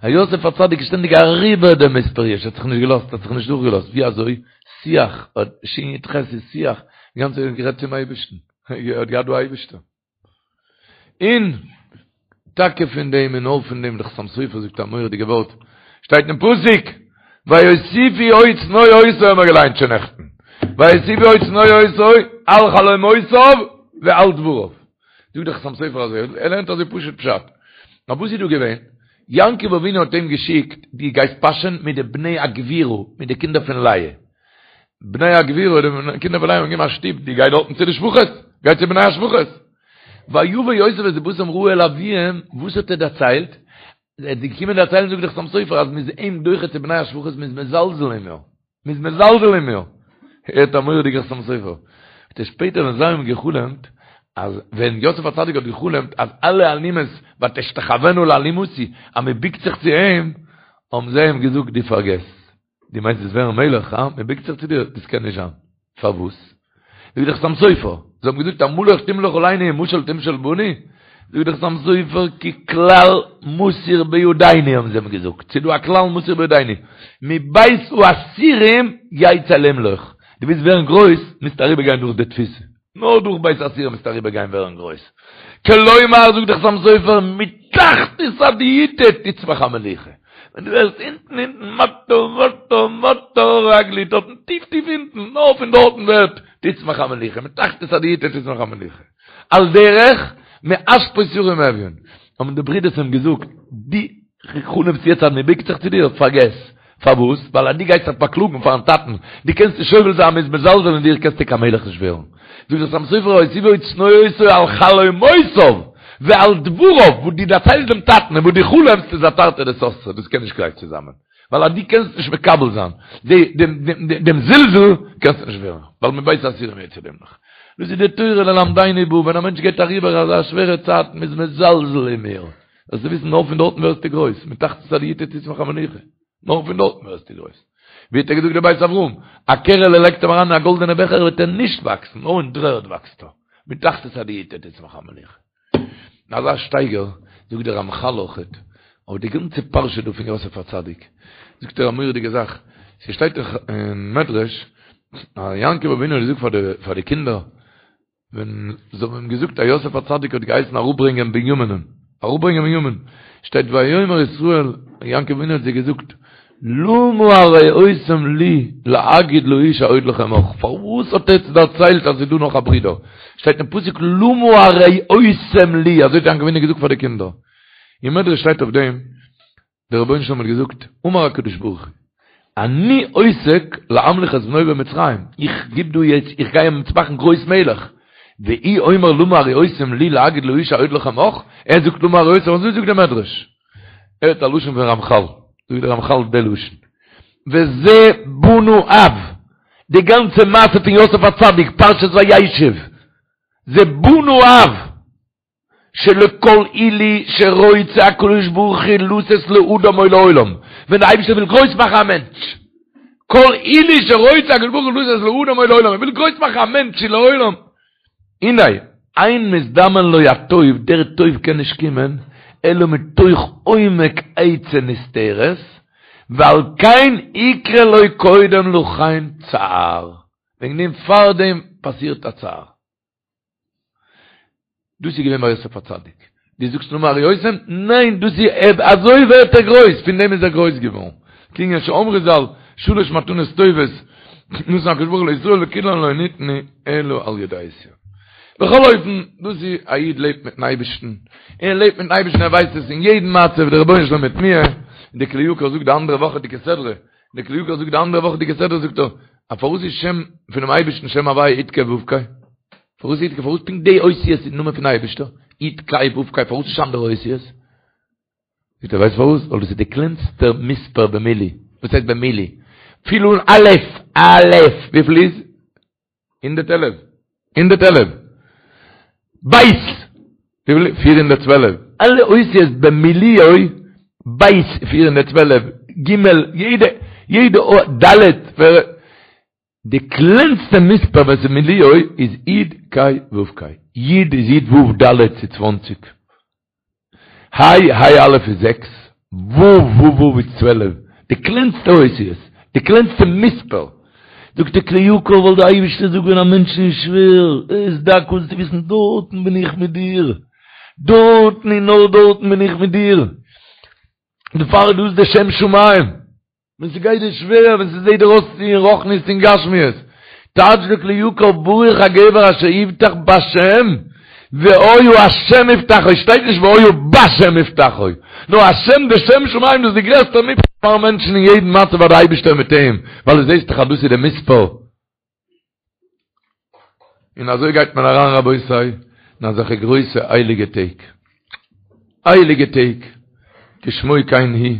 א יוסף הצדיק איז שטענדיג אריבער דעם מספר יאוש, האט זיך נישט געלאזט, האט זיך נישט דורכגעלאזט, ווי אזוי? שיח, שין יוד חית איז שיח, די גאנצע צייט גערעדט צום אייבערשטן, ער האט געהאט דא אייבערשטער. און טאקע פון דעם און נאר פון דעם, דער חתם סופר זאגט א מורא'דיגע ווארט, שטייט אין פסוק, ויוסיפו עוד שנוא אותו האבן מיר געליינט שוין נעכטן, ויוסיפו עוד שנוא אותו על חלומותיו ועל דבריו. זאגט דער חתם סופר אזוי, ער לערנט אזוי פשוט פשט. נאר וואס איז דא געווען? יעקב אבינו האט אים געשיקט, דו גייסט פאשען מיט די בני הגבירה, מיט די קינדער פון לאה. בני הגבירה, די קינדער פון לאה האבן געגעבן א שטופ, דו גיי דארטן צו די שפחות, גיי צו בני השפחות. ויבא יוסף את דבתם רעה אל אביהם, וואס האט ער דערציילט? ער איז געקומען דערציילן זאגט דער חתם סופר אז מ'איז אים דוחה צו בני השפחות מ'איז מזלזל אין מיר, מ'איז מזלזל אין מיר. הערט א מורא'דיגע חתם סופר. האט ער שפעטער ווען זיי האבן גע'חלומ'ט אז ווען יוסף הצדיק האט גע'חלומ'ט אז אלע אלומות ותשתחוין לאלומתי אז מ'בוקט זיך צו אים, האבן זיי אים געזאגט דו פארגעס, דו מיינסט וועסט ווערן מלך, הא? מען בוקט זיך צו דיר? דאס קען נישט זיין. פארוואס? זאגט דער חתם סופר, זיי האבן געזאגט המלוך תמלוך עלינו ומשול תמשול בנו? זאגט דער חתם סופר, כי כלל מסור בידינו האבן זיי אים געזאגט, ס'איז דא א כלל מסור בידינו, מבית האסורים יצא למלוך, דו ווילסט ווערן גרויס, מוזטו אריבערגיין דורך די תפיסה. נאר דורך בית האסורים מוזטו אריבער גיין ווערן גרויס. כלומר זאגט דער חתם סופר מתחתית הדיוטא תצמח המלוכה. ווען דו ווערסט אונטן אונטן מטה מטה מטה רגלי דארטן טיף טיף אונטן נאר פון דארטן ווערט תצמח המלוכה מתחתית הדיוטא תצמח המלוכה. על דרך מאשפות ירים אביון האבן די ברידערס אים געזאגט דו חלומסט יעצט אז מען בוקט זיך צו דיר? פארגעס. פארוואס? ווייל אז דו גייסט זיך באקלאגן פארן טאטן, דו קענסט נישט סובל זיין מ'איז מזלזל אין דיר קענסטו קיין מלך נישט ווערן. זאגט דער חתם סופר ויוסיפו עוד שנוא אותו על חלומותיו ועל דבריו, וואס דו דערציילסט דעם טאטן און וואס דו חלומסט איז א תרתי דסתרי, דאס קען נישט גלייך צוזאמען. ווייל אז דו קענסט נישט מקבל זיין דעם זלזול, קענסטו נישט ווערן, ווייל מבית האסורים יצא למלוך. דאס איז די תורה ללמדנו בא, ווען א מענטש גייט אריבער אזא שווערע צייט, מ'איז מזלזל אין מיר. זאלסטו וויסן נאר פון דארטן ווערסטו גרויס, מתחתית הדיוטא תצמח המלוכה, נאר פון דארטן ווערסטו גרויס. ווי האט ער געזאגט דער בית אברהם, א קערעלע לייגט אים אריין אין א גאלדענע בעכער וועט ער נישט וואקסן, נאר אין דר'ערד וואקסט ער, מתחתית הדיוטא תצמח המלוכה. אזא שטייגער זאגט דער רמחל אויכעט, אויף די גאנצע פרשה דא פון יוסף הצדיק, זאגט ער א מורא'דיגע זאך, ס'שטייט אין מדרש, אז יעקב אבינו האט געזאגט פאר די קינדער, ווען זיי האבן אים געזאגט אז יוסף הצדיק האט געהייסן אראפברענגען בנימינ'ן, אראפברענגען בנימין, שטייט ויאמר ישראל, יעקב אבינו האט זיי געזאגט, למה הרעותם לי להגיד לאיש העוד לכם אח, פארוואס האט עטץ דערציילט אז ס'איז דא נאך א ברודער? שטייט אין פסוק למה הרעותם לי, אזוי האט יעקב אבינו געזאגט פאר די קינדער. אין מדרש שטייט אויף דעם, דער רבונו של עולם האט געזאגט, אמר הקדוש ברוך הוא, אני עוסק להמליך את בנו במצרים, איך גיב דא יעצט, איך גיי אים מאכן גרויס מלך, והוא אומר למה הרעותם לי להגיד לאיש העוד לכם אח, ער זאגט למה הרעותם, אזוי זאגט דער מדרש. הערט א לשון פון רמחל, זאגט דער רמחל די לשון, וזה בנה אב, די גאנצע מעשה פון יוסף הצדיק, פרשת וישב, זה בנה אב, שלכל עילוי שרוצה הקדוש ברוך הוא לתת לאדם או לעולם, ווען דער אייבערשטער וויל גרויס מאכן א מענטש, כל עילוי שרוצה הקדוש ברוך הוא לתת לאדם או לעולם, ער וויל גרויס מאכן א מענטש צו לעולם, הנה, אין מזדמן לו הטוב, דער טוב קען נישט קומען, אלא מתוך עומק עצה נסתרת, ועל כן יקרה לו קודם לכן צער, וועגן דעם פארדעם פאסירט א צער. דאס איז געווען ביי יוסף הצדיק. דו זאגסט למה הרעותם? ניין, דאס איז אזוי ווערט ער גרויס, פון דעם איז ער גרויס געווארן. כענין שאמרו ז"ל, שלש מתנות טובות נתן הקדוש ברוך הוא לישראל וכולן לא ניתנו אלא על ידי יסורים. בכל אופן, דאס איז א איד לעבט מיטן אייבערשטן, ער לעבט מיטן אייבערשטן, ער ווייסט עס אין יעדן מצב, דער רבונו של עולם מיט מיר, די כלי יקר זאגט די אנדערע וואכעדיגע סדרה, די כלי יקר זאגט די אנדערע וואכעדיגע סדרה זאגט ער, א פארוואס איז שם פונעם אייבערשטן שם הוויה יוד קיי וו קיי? פארוואס יוד קיי פארוואס פונקט די אותיות איז די נאמען פון אייבערשטער? יוד קיי וו קיי פארוואס נישט אנדערע אותיות? זאגט ער ווייסט פארוואס? ווייל דאס איז די קלענסטע מספר במילוי, וואס הייסט במילוי? פיל אן א' א' וויפיל איז? 111. 111. בית! 412. אלע אותיות במילואו, בית 412. ג', יעדע, יעדע אות, ד', די קלענסטע מספר ווען ס'איז מילואו איז י' ק' ו' ק'. י' איז י' ו' ד' ס'איז צוואנציג. ה', ה' א' איז זעקס, ו' ו' ו' איז 12. די קלענסטע אותיות, די קלענסטע מספר. זאגט די כלי יקר ווייל די אייבערשטער זאגט ווען א מענטשן איז שווער, ער איז דק זאלסטו וויסן דארטן בין איך מיט דיר. דארטן און נאר דארטן בין איך מיט דיר. דערפאר איז דאס די שם שמים. ווען ס'גייט דיר שווער, ווען ס'זעט דיר אויס אין רוחניות און גשמיות, טייטש די כלי יקר ברוך הגבר אשר יבטח בהשם, והיה השם מבטחו, שטייט נישט והיה בשם מבטחו, נאר השם די שם שמים דאס איז די גרעסטע מבטח פארן מענטשן אין יעדן מצב ווייל די אייבערשטער מיט אים, ווייל דו זעסט דאך אז דאס איז די מספר. און אזוי גייט מען אריין רבותי אין אזעלכע גרויסע הייליגע טעג, הייליגע טעג, כשמו כן הוא.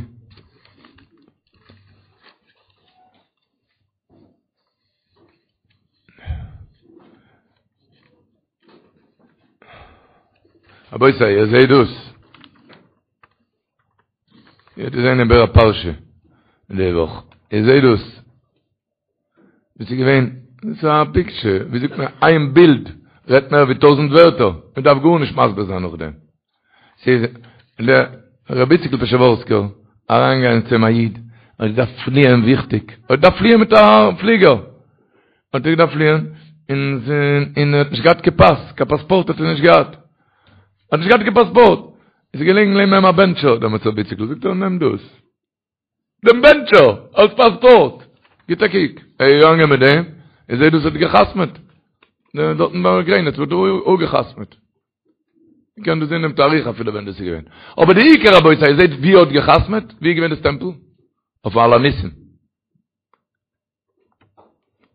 רבותי, איר זעט דאס? איר האט געזען איבער א פרשה די וואך, איר זעט דאס? וואס איז געווען? דאס איז א פיקטשער, ווי זאגט מען, איין בילד רעדט מער ווי טויזענט ווערטער, מען דארף גארנישט מסביר זיין נאכדעם. ס'איז דער רבי איציקל פשעווארסקער אריינגעגאנגען צו אים א איד, ער האט געדארפט פליען וויכטיג, ער האט געדארפט פליען מיט א פליגער, האט ער געדארפט פליען, און און ער האט נישט געהאט קיין פאס, קיין פאספארט האט ער נישט געהאט, ער האט נישט געהאט קיין פאספארט, איז געלעגן לעבן אים א בענטשער, דעמאלטס רבי איציקל זאגט ער נעם דאס. דעם בענטשער אלס פאספארט. גיט א קוק, ער איז געגאנגען מיט דעם, און זעט דאס האט גע'חתמ'עט. דארטן ביים גרעניץ וואלט ער אפגע'חתמ'עט. מען קען דאס זען דעם תאריך אפילו ווען דאס איז געווען. אבער די עיקר רבותי, איר זעט ווי ער האט גע'חתמ'עט? ווי איז געווען די סטעמפל? אויפן על הניסים.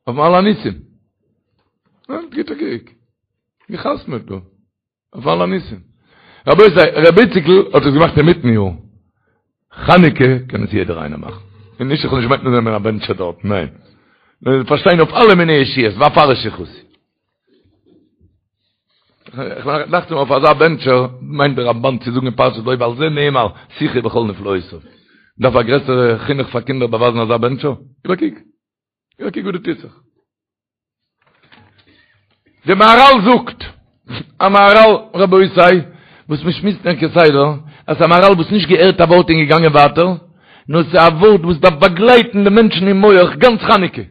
אויפן על הניסים. גיט א קוק. גע'חתמ'עט דא. אויף על הניסים. רבותי, רבי איציקל האט עס געמאכט אינמיטן יאר. חנוכה קען עס יעדער איינער מאכן. און נישט איך האב נישט געמיינט נעמען א בענטשער דארט, ניין. נאר פארשטיין אויף אלע מיני ישועות, ואפרש יחוסי. איך דאכט מיר אויף אזא בענטשער מיינט דער רמבן צו זאגן אין פרשת בא ועל זה נאמר שיחי בכל נפלאותיו. דארף א גרעסערע חינוך פאר קינדער באווייזן אזא בענטשער? גיב א קוק. גיב א קוק וואס דא טוט זיך. די מהרל זאגט, א מהרל רבותי, וואס מען שמועסט נאר כסדר, אז ס'איז א מהרל וואס נישט געהערט א ווארט און געגאנגען ווייטער, נאר ס'איז א ווארט וואס דארף באגלייטן די מענטשן אין מח גאנץ חנוכה.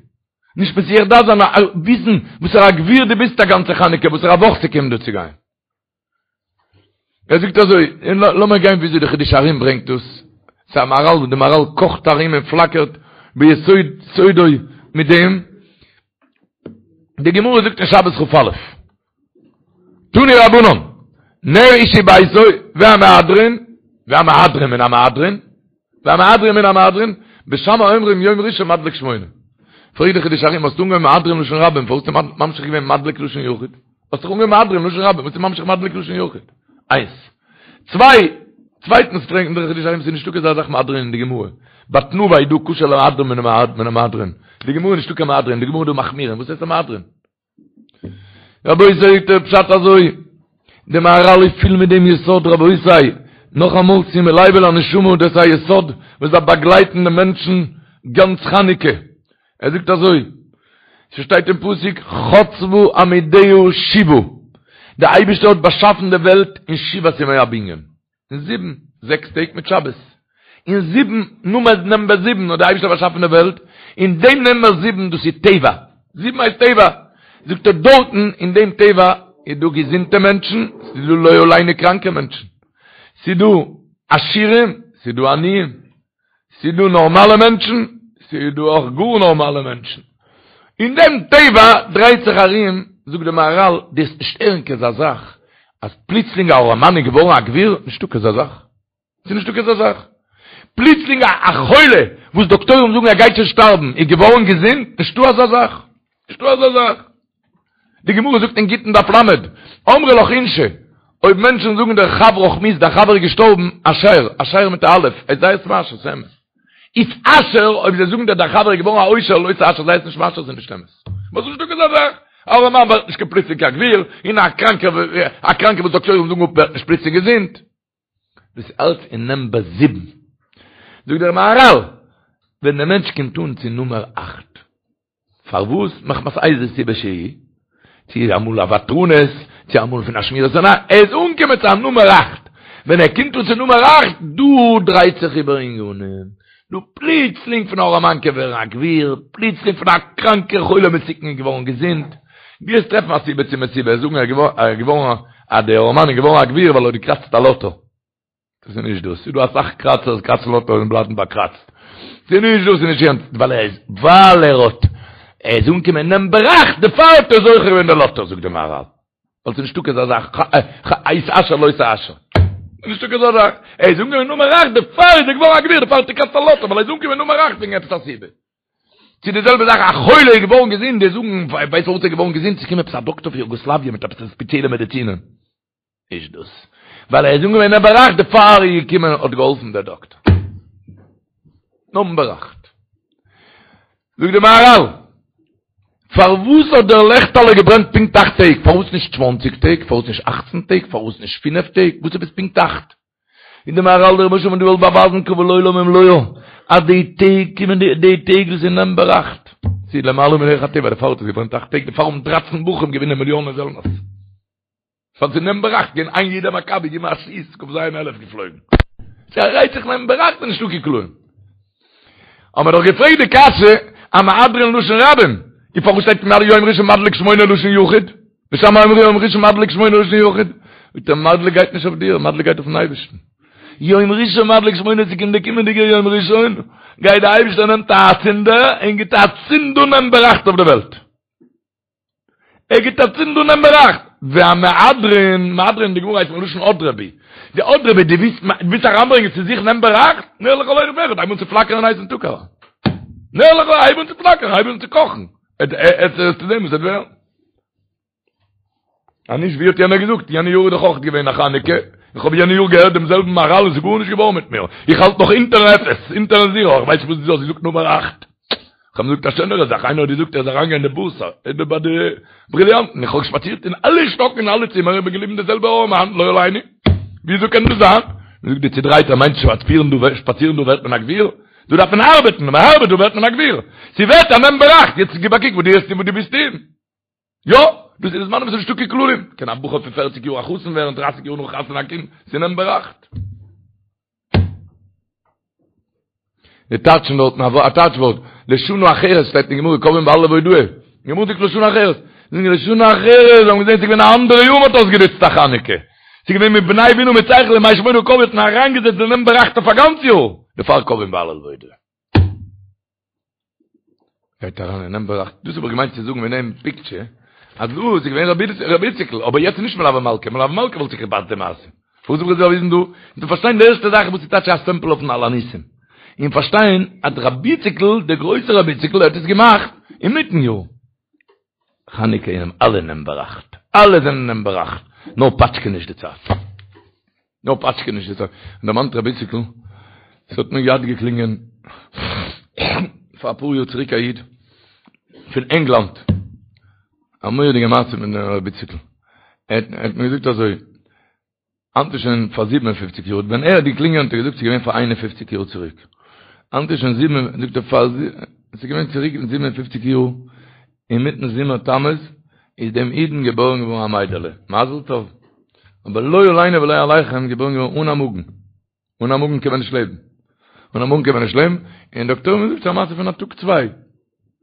נישט מסיח דעת זיין, וויסן וואסערע א גביר דו ביסט א גאנצע חנוכה, וואסערע א וואך ס'קומט דא צו גיין. ער זאגט אזוי, און לאמיר גיין וויאזוי די חידושי הרי"ם ברענגט דאס, ס'איז א מהר"ל וואס די מהר"ל קאכט ארום און פלאקערט ביסוד סודו מיט דעם, די גמרא זאגט אין שבת כ"א, תנו רבנן, נר איש וביתו והמהדרין, והמהדרין מן המהדרין, והמהדרין מן המהדרין, בית שמאי אומרים יום ראשון מדליק שמונה. פרעגט די חידושי הרי"ם, האסט אנגעהויבן מהדרין לשון רבים, פארוואס האסטו ממשיך געווען מדליק לשון יחיד? האסט דאך אנגעהויבן מהדרין לשון רבים, וואס איז ממשיך מדליק לשון יחיד? איינס. צוויי, צווייטנס פרעגט דער חידושי הרי"ם, ס'איז נישטא אזא זאך מהדרין אין די גמרא. ביי תנובה איז דא כשר למהדרין מן המהדרין. די גמרא איז נישטא קיין מהדרין, די גמרא איז דא מחמירין. וואס הייסט א מהדרין? רבותי זאגט דער פשט אזוי, די מהר"ל איז פיל מיט דעם יסוד, רבותי, נאכאמאל שימו לב אל הנשמה, דאס איז א יסוד וואס דארף באגלייטן די מענטשן גאנץ חנוכה, ער זאגט אזוי, ס'שטייט אין פסוק חצבה עמודיה שבעה, די אייבערשטער האט באשאפן די וועלט אין שבעת ימי הבנין, אין זיבן, זעקס טעג מיט שבת. אין זיבן, נומער נומבער זיבן האט דער אייבערשטער באשאפן די וועלט, אין דעם נומבער זיבן, דאס איז טבע, זיבן הייסט טבע, זאגט ער דארטן אין דעם טבע איז דא געזונטע מענטשן, ס'איז דא לא עלינו קראנקע מענטשן, ס'איז דא עשירים, ס'איז דא עניים, ס'איז דא נארמאלע מענטשן, ס'איז דא אויך גאר נארמאלע מענטשן. אין דעם טבע דרייט זיך ארום, זאגט די מהר"ל, דו וועסט נישט הערן כזה זאך, אז פלוצלינג א ארעמאן איז געווארן א גביר, נישטא כזה זאך. ס'איז נישטא כזה זאך. פלוצלינג א חולה וואס דאקטוירים זאגן ער גייט שוין שטארבן, איז געווארן געזונט, נישטא אזא זאך. נישטא אזא זאך. די גמרא זאגט אין גיטין דף ל', אמרי לך אינשי, אויב מענטשן זאגן דיר חברך מית, דיין חבר איז געשטארבן, אשר, אשר מיט א אלף, איז זיי עס מאשר, ס'איז אמת. איתעשר, אויב זיי זאגן דיר דיין חבר איז געווארן א עושר, לא תאשר, זיי עס נישט מאשר, ס'איז נישט אמת. וואס נישטא אזא זאך? א ארעמאן ווערט נישט קיין פלוצלינג קיין גביר, און א קראנקער, א קראנקער וואס דאקטוירים זאגן אפ ווערט נישט פלוצלינג געזונט. דאס איז אלץ אין נומבער זיבן. זאגט דער מהרל, ווען דער מענטש קומט אן צו נומער אכט, פארוואס? מחמת איזה סיבה שהיא, צו אמאל א ותרנות, צו אמאל פון א שמירת עיניים, ער איז אנגעקומען צו א נומער אכט, ווען ער קומט אן צו נומער אכט, דא דרייט זיך איבער ענינים, דא פלוצלינג פון א ארעמאן קען ווערן א גביר, פלוצלינג פון א קראנקער חולה מסוכן איז געווארן געזונט, דו וועסט טרעפן א סיבה צו מסיבה, זאגן ער איז געווארן אז דער ארעמאן איז געווארן א גביר ווייל ער האט געקראצט א לאטא. דאס איז נישט דאס, ס'איז דא אסאך קראצערס קראצן לאטא און בלייבן באקראצט. ס'איז נישט דאס, ס'איז נישט יענץ, ווייל ער איז, ווייל ער האט, ער איז אנגעקומען נומבער אכט, דערפאר האט ער זוכה געווען די לאטא, זאגט דער מהרל. ווייל ס'איז נישטא קיין אזא זאך, התעשר לא תעשר. ס'איז נישטא קיין אזא זאך. ער איז אנגעקומען נומער אכט, דערפאר איז ער געווארן א גביר, דערפאר האט ער געקראצט א לאטא, ווייל ער איז אנגעקומען נומער אכט וועגן עפעס א סיבה. צו די זעלבע זאך, א חולה איז געווארן געזונט, די זאגן, ווייסט פארוואס ער איז געווארן געזונט? ס'איז געקומען עפעס א דאקטער פון יוגאסלאוויע מיט עפעס ספעציעלע מעדיצינען. נישט דאס. ווייל ער איז אנגעקומען נומבער אכט דערפאר איז געקומען האט געהאלפן דער דאקטער. נומבער אכט. זאגט די מהרל, פארוואס האט דער לעכטעלע געברענט פונקט אכט טעג? פארוואס נישט צוואנציג טעג? פארוואס נישט אכצן טעג? פארוואס נישט פינף טעג? וואס עפעס פונקט אכט? זאגט די מהרל דער רבוש"ע האט געוואלט באווייזן קבל עולם ומלואו אז די טעג קומען די די טעג וואס איז נומבער אכט. ס'איז למעלה מדרך הטבע דערפאר האט עס געברענט אכט טעג דערפאר האבן דרייצן בחורים געווינען מיליאנען זעלנערס. ס'האט זיך נומבער אכט געווען איין יעדער מכבי געבן א שיס כ"ז אלף געפלויגן. ס'רייט זיך נומבער אכט איז נישטא קיין כללים. האבן מיר דאך געפרעגט די קשיא המהדרין לשון רבים, און פארוואס שטייט יום ראשון מדליק שמונה לשון יחיד? בית שמאי אומרים יום ראשון מדליק שמונה לשון יחיד. זאגט ער מדליק גייט נישט אויף דיר, מדליק גייט אויפן אייבערשטן. יום ראשון מדליק שמונה ס'קומט די קומענדיגע יום ראשון גייט די אייבערשטער נעמט א צינדער און גיבט א צינד אן נומבער אכט אויף די וועלט. ער גיט א צינד אן נומבער אכט. והמהדרין, מהדרין אין די גמרא הייסט מלשון הדרי בי. די הדרי בי, דו ווילסט, ווילסט אריינברענגען צו זיך נומבער אכט? נר לכל אחד ואחד, הייב אן צו פלאקערן אין הייסן טאג אריין. נר לכל, הייב אן צו פלאקערן, הייב אן צו קאכן. עסטו זען וואס עט ווערן. אז נישט ווי האט יענער געזאגט, יענע יאר איז דאך אויך געווען א חנוכה, איך האב יענע יאר געהערט דעם זעלבן מהר"ל און ס'איז גארנישט געווארן מיט מיר, איך האלט נאך אונטערן אפס, אונטערן זירא, איך ווייס נישט וואס דו האסט געזאגט נומער אכט. כ'האב געזאגט א שענערע זאך, איינער האט געזאגט ער איז אריינגעגאנגען אין די בורסא, איבער ביי די בריליאנטן, איך האב שפאצירט אין אלע שטאקן אין אלע צימער, איך בין געבליבן די זעלבע ארעמאן, לא עלינו, וויאזוי קען דאס זיין? מען זאגט די צודרייטער מיינט שפאצירן דא, שפאצירן דא ווערט מען א גביר? דא דארף מען ארבעטן, ווען מען ארבעט דא ווערט מען א גביר, ס'ווערט א נומבער אכט, יעצט גיב א קוק וואס דו האסט און וואס דו ביסט אין. יא, דאס איז די זמנים וואס איז נישטא קיין כללים, קען א בחור פון פערציג יאר א חתן ווערן, דרייסיג יאר נאך חתונה א קינד, ס'איז נומבער אכט. די טייטשן דארטן א טייטש ווארט, לשנה אחרת שטייט אין גמרא קובעין בהלל והודאה, די גמרא זאגט לשנה אחרת, זאגן לשנה אחרת, זיי האבן געזען ס'איז געווען א אנדערע יאר מ'האט אויסגענוצט א חנוכה, ס'איז געווען מבני בינה מיט שכל ימי שמונה קבעו האט מען אריינגעזעצט די נומבער אכט אויף א גאנץ יאר, דערפאר קובעין בהלל והודאה. גייט אריין אין נומבער אכט, דאס האב איך געמיינט צו זאגן מיט דעם פיקטשער, אז דא איז געווען רבי איציקל, אבער יעצט איז נישט מלוה מלכה, מלוה מלכה וואלט זיך געפאסט די מעשה. וואס האב איך באוויזן דא? און צו פארשטיין די ערשטע זאך וואס איז טייטש א סטעמפל אויפן על הניסים. און פארשטיין אז רבי איציקל, דער גרויסער רבי איציקל, האט עס געמאכט אינמיטן יאר. חנוכה אינעם אלע נומבער אכט, אלע זענען נומבער אכט, נאר פאטשקע נישט די צייט. נאר פאטשקע נישט די צייט. און דערמאנט רבי איציקל, ס'האט מיר געהאט געקלינגען פאר אפאר יאר צוריק א איד פון ענגלאנד, א מורא'דיגע מעשה מיט רבי איציקל, ער האט מיר געזאגט אזוי, היינט איז שוין פאר זיבן און פופציג יאר, ווען ער האט געקלינגען האט ער געזאגט ס'איז געווען פאר איין און פופציג יאר צוריק, היינט איז שוין זיבן, זאגט ער פאר, ס'איז געווען צוריק זיבן און פופציג יאר, אינמיטן זומער תמוז איז דעם אידן געבוירן געווארן א מיידעלע, מזל טוב, אבער לא עלינו ולא עליכם געבוירן געווארן אן א מאגן. אן א מאגן קען מען נישט לעבן. אן א מאגן קען מען נישט לעבן, און דאקטוירים האבן געזאגט ס'איז א מעשה פון א טאג צוויי.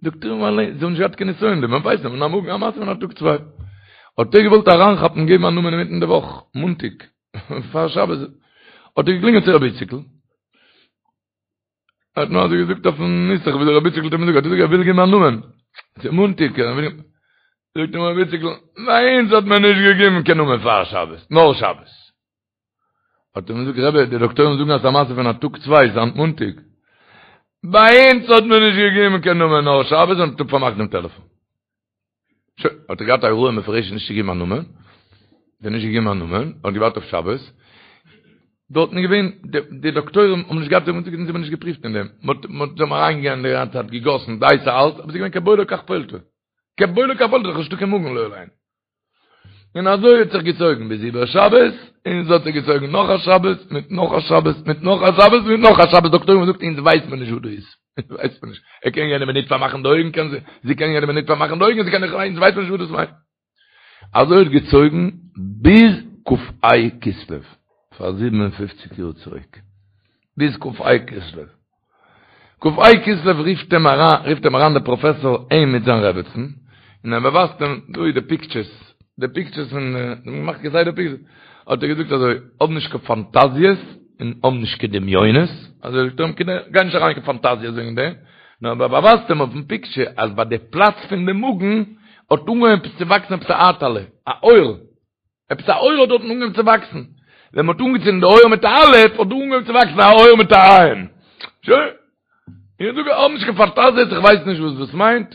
דאקטוירים אליין, זיי האבן נישט געהאט קיין נסיון, מען ווייסט אן א מאגן, א מעשה פון א טאג צוויי. האט ער געוואלט אריינכאפן געבן א נאמען אינמיטן די וואך, מאנטאג, פאר שבת, האט ער געקלינגען צו רבי איציקל, ער האט נאר אזוי געזאגט אויפן נוסח ווי דער רבי איציקל האט אים געזאגט, האט ער געזאגט ער וויל געבן א נאמען, ס'איז מאנטאג, ער וויל געבן, זאגט אים רבי איציקל, ביי אונז האט מען נישט געגעבן קיין נאמען פאר שבת, נאר שבת. האט ער אים געזאגט, רבי, די דאקטוירים זאגן אז ס'איז א מעשה פון א טאג צוויי, ס'איז היינט מאנטאג. ביי אונז האט מען נישט געגעבן קיין נאמען נאר שבת, און האט פארמאכט דעם טעלעפאן. שוין, האט ער געהאט א הוראה מפורשת נישט צו געבן א נאמען, האט ער נישט געגעבן א נאמען, האט געווארט אויף שבת, דארטן איז געווען, די דאקטוירים האבן נישט געהאט, זיי האבן נישט געפריווט אין דעם, מ'האט, מ'האט, זיי האבן אריינגעגאנגען די גאנצע צייט, געגאסן, די הייסע אלץ, אבער ס'איז געווען כבולעו כך פולטו, כבולעו כך פולטו, נישטא קיין מאגן לא עלינו. און אזוי האט זיך געצויגן ביז איבער שבת, און עס האט זיך געצויגן נאך א שבת, מיט נאך א שבת, מיט נאך א שבת, מיט נאך א שבת, דאקטוירים האבן געזאגט אונז ווייסט מען נישט וואס דא איז, אונז ווייסט מען נישט, ער קען יענע מינוט פארמאכן די אויגן, קען זי, זי קען יענע מינוט פארמאכן די אויגן, זי קען נישט, אונז ווייסט מען נישט וואס דאס מיינט. אזוי האט געצויגן ביז כ"ה כסלו, פאר 57 יאר צוריק, ביז כ"ה כסלו. כ"ה כסלו רופט אים אריין, רופט אים אריין דער פראפעסאר אים מיט זיין רעבעצן, און ער באווייזט אים, דא איז די פיקטשערס, די פיקטשערס פון, זיי האבן געמאכט כסדר פיקטשערס, האט ער געזאגט אזוי, האב נישט קיין פאנטאזיעס, און האב נישט קיין דמיונות, אזוי זאגט ער אים, גיי נישט אריין אין קיין פאנטאזיעס וועגן דעם, נאר ער באווייזט אים אויפן פיקטשער, אז ביי די פלאץ פון די מאגן, האט אנגעהויבן עפעס צו וואקסן עפעס א הייטעלע, א עור, עפעס א עור האט דארטן אנגעהויבן צו וואקסן. ווען מ'האט אנגעצינדן די אור מיט א א', האט דא אנגעהויבן צו וואקסן א עור מיט א ע'. שוין. איך זאג, האב נישט קיין פאנטאזיעס, איך ווייס נישט וואס דאס מיינט.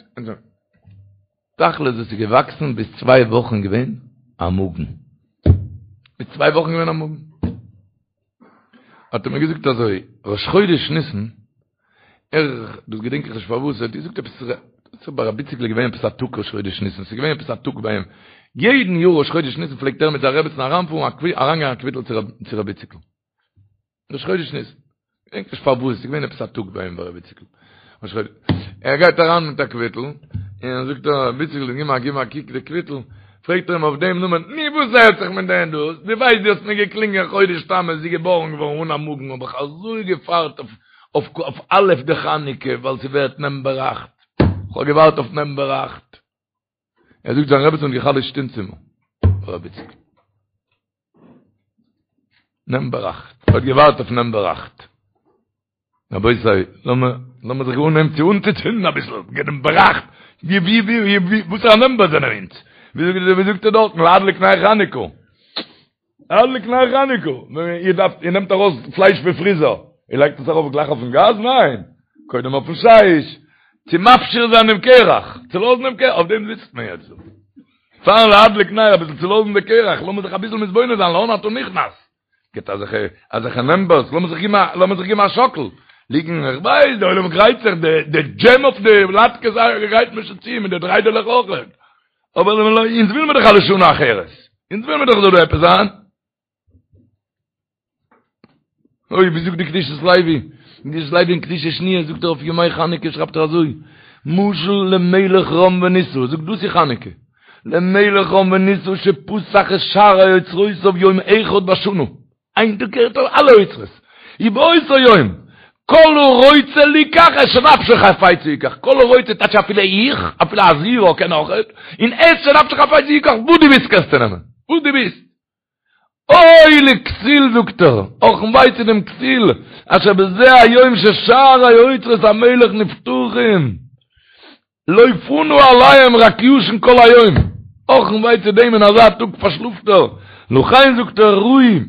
תכלית דאס איז געוואקסן ביז צוויי וואכן געווען א מאגן. ביז צוויי וואכן געווען א מאגן. האט ער מיר געזאגט אזוי, ראש חודש ניסן, ער, דאס געדענק איך נישט פארוואס, ער האט געזאגט עפעס, ס'איז ביי רבי איציק'ל געווען עפעס א טאג ראש חודש ניסן, ס'איז געווען עפעס א טאג ביי אים, יעדן יאר ראש חודש ניסן פלעגט ער מיט זיין רעבעצן אריינפארן, אריינגיין א קוויטל צו רבי איציק'ל. ראש חודש ניסן. געדענק נישט פארוואס, ס'איז געווען עפעס א טאג ביי אים ביי רבי איציק'ל. ראש חודש. ער גייט אריין מיט א קוויטל, און זאגט ער, רבי איציק'ל, גיב מיר גיב מיר א קוק די קוויטל, פרעגט ער אים אויף דעם נאמען, נו וואס הערט זיך מיט דעם דאס, דו ווייסט דו האסט מיר געקלינגען חודש תמוז, זי געבארן געווארן אן א מאגן, האב איך אזוי געווארט אויף אויף א' דחנוכה, ווייל ס'ווערט נאמבער אכט, כ'האב געווארט אויף נאמבער אכט. ער זאגט זיין רעבעצן האט גע'חלש'ט אין צימער, רבי איציק'ל. נאמבער אכט, האט געווארט אויף נאמבער אכט. רבותי, לאמיר לאמיר זיך אנהייבן צו אנצוצינדן אביסל, נאמבער אכט, ווי ווי ווי ווי וואסערע נאמבער זענען אונז? ווי זאגט ווי זאגט ער דארטן, להדליק נר חנוכה. להדליק נר חנוכה. איר דארפט, איר נעמט ארויס פלייש פון פריזער, איר לייגט עס ארויף גלייך אויפן גאז? ניין! קודם אויפן שיש, צו מפשיר זיין דעם קרח, צו לאזן דעם קרח, אויף דעם זיצט מען יעצט דא. פארן להדליק נר אביסל צו לאזן די קרח, לאמיר זיך אביסל מתבונן זיין, לאן אתה נכנס? גיט אזעלכע אזעלכע נאמבערס, לאמיר זיך געבן א לאמיר זיך געבן א שאקל, ליגן, איך ווייס, די עולם גרייט זיך, די די דזשעם אויף די לאטקעס גרייט מען שוין צו, מיט די דריידעלעך אויך, אבער אונז וויל מיר דאך א לשנה אחרת, אונז וויל מיר דאך זאל דא עפעס זיין. אוי, ווי זאגט די קדושת לוי? קדושת לוי אין קדושה שניה זאגט ער אויף ימי חנוכה שרייבט ער אזוי, משל למלך רם ונישא, זאגט דאס איז חנוכה, למלך רם ונישא שפתח את שערי אוצרותיו יום אחד בשנה, איין טאג קערט ער אלע אוצרות, ובאותו יום, כל הרוצה ליקח את שנפשו חפצה יקח, כל הרוצה טייטש אפילו איך, אפילו א זירא קען אויכעט, און את שנפשו חפצה יקח, וואס דו ווילסט קענסטו נעמען, וואס דו ווילסט. אוי לכסיל זאגט ער, אך און וויי צו דעם כסיל, אשר בזה היום ששערי אוצרות המלך נפתחים, לא פנה עליהם רק ישן כל היום, אך און וויי צו דעם אין אזא טאג פארשלאפט ער, לכן זאגט ער ראוי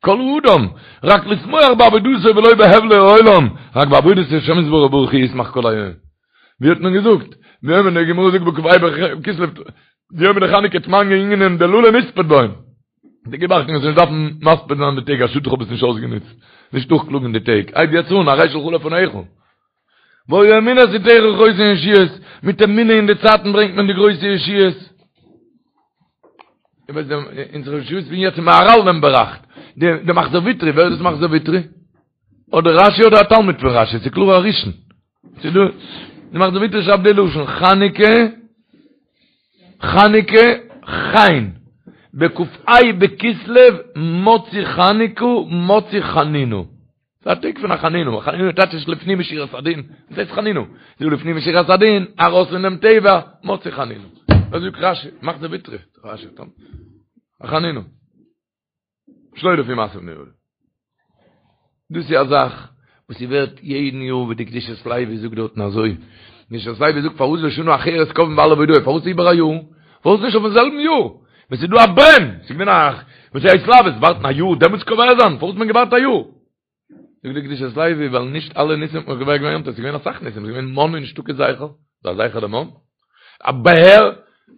כל אדם רק לשמוח בעבודתו ולא בהבלי העולם, רק בעבודת השם יתברך ברוך הוא ישמח כל היום. ווי האט מען געזאגט? ביומא די גמרא זאגט בכ"ה בכסלו ביומא דחנוכה תמניא אינון דלא למספד בהון. די גיב אכטונג זאלסט נישט דארפן מספיד זיין די טעג א שאד איך האב עס נישט אויסגענוצט. נישט נאכקלאגן די טעג. הייב יעצט אן הרי שלך לפניך. והיה אמונת עתיך חוסן ישועות, מיט אמונה אין די צייטן ברענגט מען די גרויסע ישועות. איך ווייס דעם אונזערע ישועות פון יעצט מהר"ל נאמבער אכט. די מחזור ויטרי, ווער איז דאס מחזור ויטרי? אדער רשי אדער א תלמיד פון רשי, ס'איז קלאר א ראשון. ס'איז דא, די מחזור ויטרי שרייבט די לשון, חנוכה, חנוכה, חן, בכ"ה בכסלו, מצאו חנוכה, מצאו חנינה. ס'איז א טאג פון א חנינה, חנינה טייטש איז לפנים משורת הדין, וואס הייסט חנינה? ס'איז לפנים משורת הדין, ארויס פונעם טבע, מצאו חנינה. אזוי זאגט רשי, מחזור ויטרי, רשי, א חנינה. שלא לפי מעשה בני אדם. דאס איז א זאך וואס ס'ווערט יעדן יאר ווי די קדושת לוי זאגט דארטן אזוי. קדושת לוי זאגט פארוואס לשנה אחרת קובעים בהלל והודאה, פארוואס איבער א יאר? פארוואס נישט אויפן זעלבן יאר? ווען ס'איז דא א ברען, ס'איז געווען א וואס איז התלהבות, ווארטן א יאר דעמאלטס קובע זיין, פארוואס האט מען געווארט א יאר? זאגט די קדושת לוי ווייל נישט אלע ניסים האט מען קובע געווען יום טוב, ס'איז געווען אסאך ניסים, ס'איז געווען מן איז נישטא קיין זכר, ס'איז א זכר למן, א באר,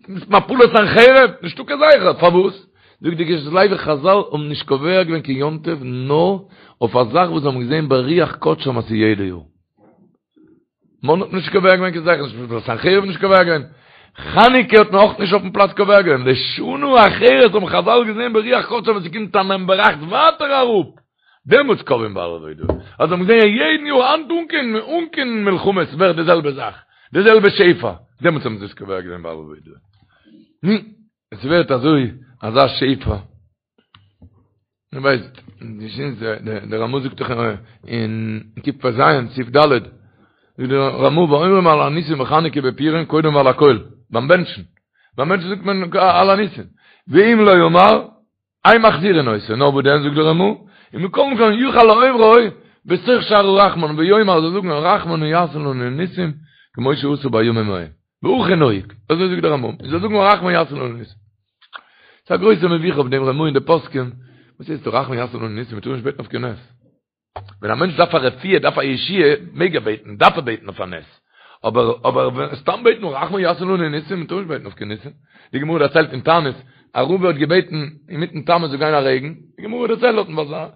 מפלת סנחריב, נישטא קיין זכר, פארוואס? זאגט די קדושת לוי חזל האבן נישט קובע געווען קיין יום טוב נאר אויף א זאך וואס זיי האבן געזען ברוח קדשם אז ס'איז יעדע יאר. מן האט נישט קובע געווען קיין זכר, מפלת סנחריב נישט קובע געווען. חנוכה האט מען אויך נישט אויפן פלאץ קובע געווען, לשנה אחרת האבן חזל געזען ברוח קדשם ווען ס'קומט א נעם בראכט ווייטער אראפ, דעמאלטס קובעים בהלל והודאה. אז האבן געזען יעדן יאר היינט אן קיין אן קיין מלחמות ווערט די זעלבע זאך, די זעלבע שפע, דעמאלטס האבן זיי עס קובע געווען בהלל והודאה. נו, עס ווערט אזוי אזא שפע. דו ווייסט, דער רמא זאגט דאך אין קפ"ז, סעיף ד', זאגט דער רמא ואומרים על הניסים בחנוכה בפורים קודם על הכל, ביים בענטשן, ביים בענטשן זאגט מען על הניסים, ואם לא אמר, אין מחזירין אותו, נאר וואס דען זאגט דער רמא, ומכל מקום יוכל לאומרו בתוך שאר הרחמן ויאמר זאל זאגן הרחמן הוא יעשה לנו ניסים כמו שעשה בימים ההם, והכי נהוג, אזוי זאגט דער רמא, זאל זאגן הרחמן יעשה לנו ניסים. ס'איז א גרויסע מבוכה אויף דעם רמא און די פוסקים, וואס הייסט הרחמן יעשה לנו ניסים, מ'טאר נישט בעטן אויף קיין נס. ווען א מענטש דארף א רפואה, דארף א ישועה, מעג ער בעטן, דארף ער בעטן אויף א נס. אבער אבער סתם בעטן הרחמן יעשה לנו ניסים, מ'טאר נישט בעטן אויף קיין ניסים. די גמרא דערציילט אין תענית, אז רבא האט געבעטן אינמיטן תמוז זאל גיין א רעגן, די גמרא דערציילט דארטן ווייל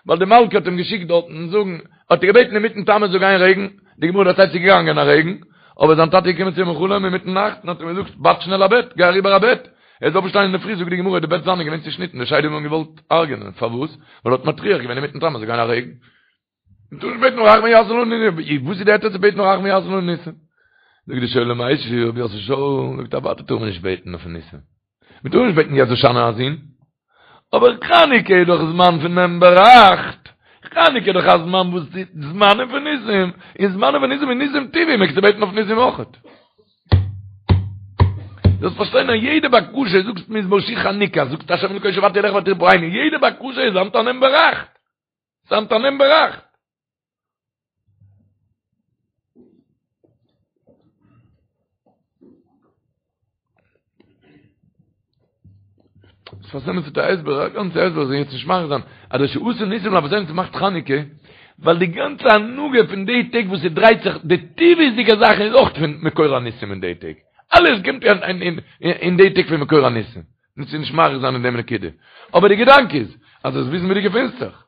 ווייל די מלכה האט אים געשיקט דארטן זאגן, האט ער געבעטן אינמיטן תמוז זאל גיין רעגן, די גמרא דערציילט ס'איז געגאנגען א רעגן, אבער זיין טאטע איז געקומען צו אים אין חלום אינמיטן נאכט און האט אים געזאגט, בייט שנעל א בעט, גיי אריבער א בעט, ער איז אויפגעשטאנען אינדערפרי זאגט די גמרא די בעט זיינע איז געווען צושניטן, די שדים האבן אים געוואלט הרג'ענען, פארוואס? ווייל ער האט מטריח געווען אינמיטן תמוז זאל גיין א רעגן. מ'טאר נישט בעטן הרחמן יעשה לנו ניסים, וואס איז די היתר צו בעטן הרחמן יעשה לנו ניסים? זאגט די שואל ומשיב רבי יוסף שאול, זאגט אוודאי טאר מען נישט בעטן אויף ניסים. מען טאר נישט בעטן יעצט הושענא א זון, אבער חנוכה איז דאך זמן פון נעם בראכט, חנוכה איז דאך א זמן וואס איז זמנים פון ניסים, און זמנים פון ניסים איז ניסים טבעי, מעגסטו בעטן אויף ניסים אויכעט. זאלסט פארשטיין אז יעדע בקשה, זאגסט מזמור שיר חנוכה, זאגסט השם אלוקי שועתי אליך ותרפאני, יעדע בקשה איז היינט א נעם בראכט. ס'היינט א נעם בראכט. שפת אמת האט א הסבר, א גאנצע הסבר, זאל יעצט נישט מאריך זיין, אז דער שעשה ניסים לאבותינו ס'מאכט חנוכה, ווייל די גאנצע הנהגה פון די טעג וואס ס'דרייט זיך, די טבעיות'דיגע זאכן איז אויך פון מקור הניסים אין די טעג. אלעס קומט אין די טעג פון מקור הניסים. מ'זאל נישט מאריך זיין אין דעם נקודה. אבער די געדאנק איז, אז זאלסט וויסן ווי דו געפינסט זיך.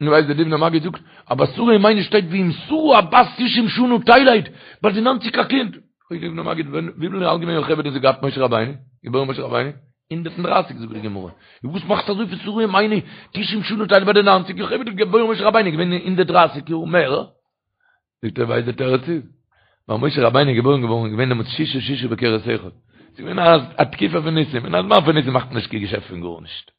נו ווייסט דער דובנער מגיד זאגט, אז ביי שרה אמנו שטייט ואם שרה הבת תשעים שנה תלד, ביי די ניינציג א קינד. פרעגט דער דובנער מגיד, ווען וויפיל אלט געווען יוכבד ווען זי געהאט משה רבינו, געבוירן משה רבינו? הונדערט און דרייסיג זאגט די גמרא. און וואס מאכסטו אזוי פון שרה אמנו תשעים שנה תלד ביי די ניינציג, יוכבד האט געבוירן משה רבינו געווען הונדערט דרייסיג יאר מער. זאגט ער ווייסט די תירוץ איז ווייל משה רבינו איז געבוירן געווארן איז געווען דעמאלטס ששה ששה בכרס אחד ס'איז געווען א תקופה פון ניסים אין א זמן פון ניסים מאכט מען נישט קיין געשעפט פון גארנישט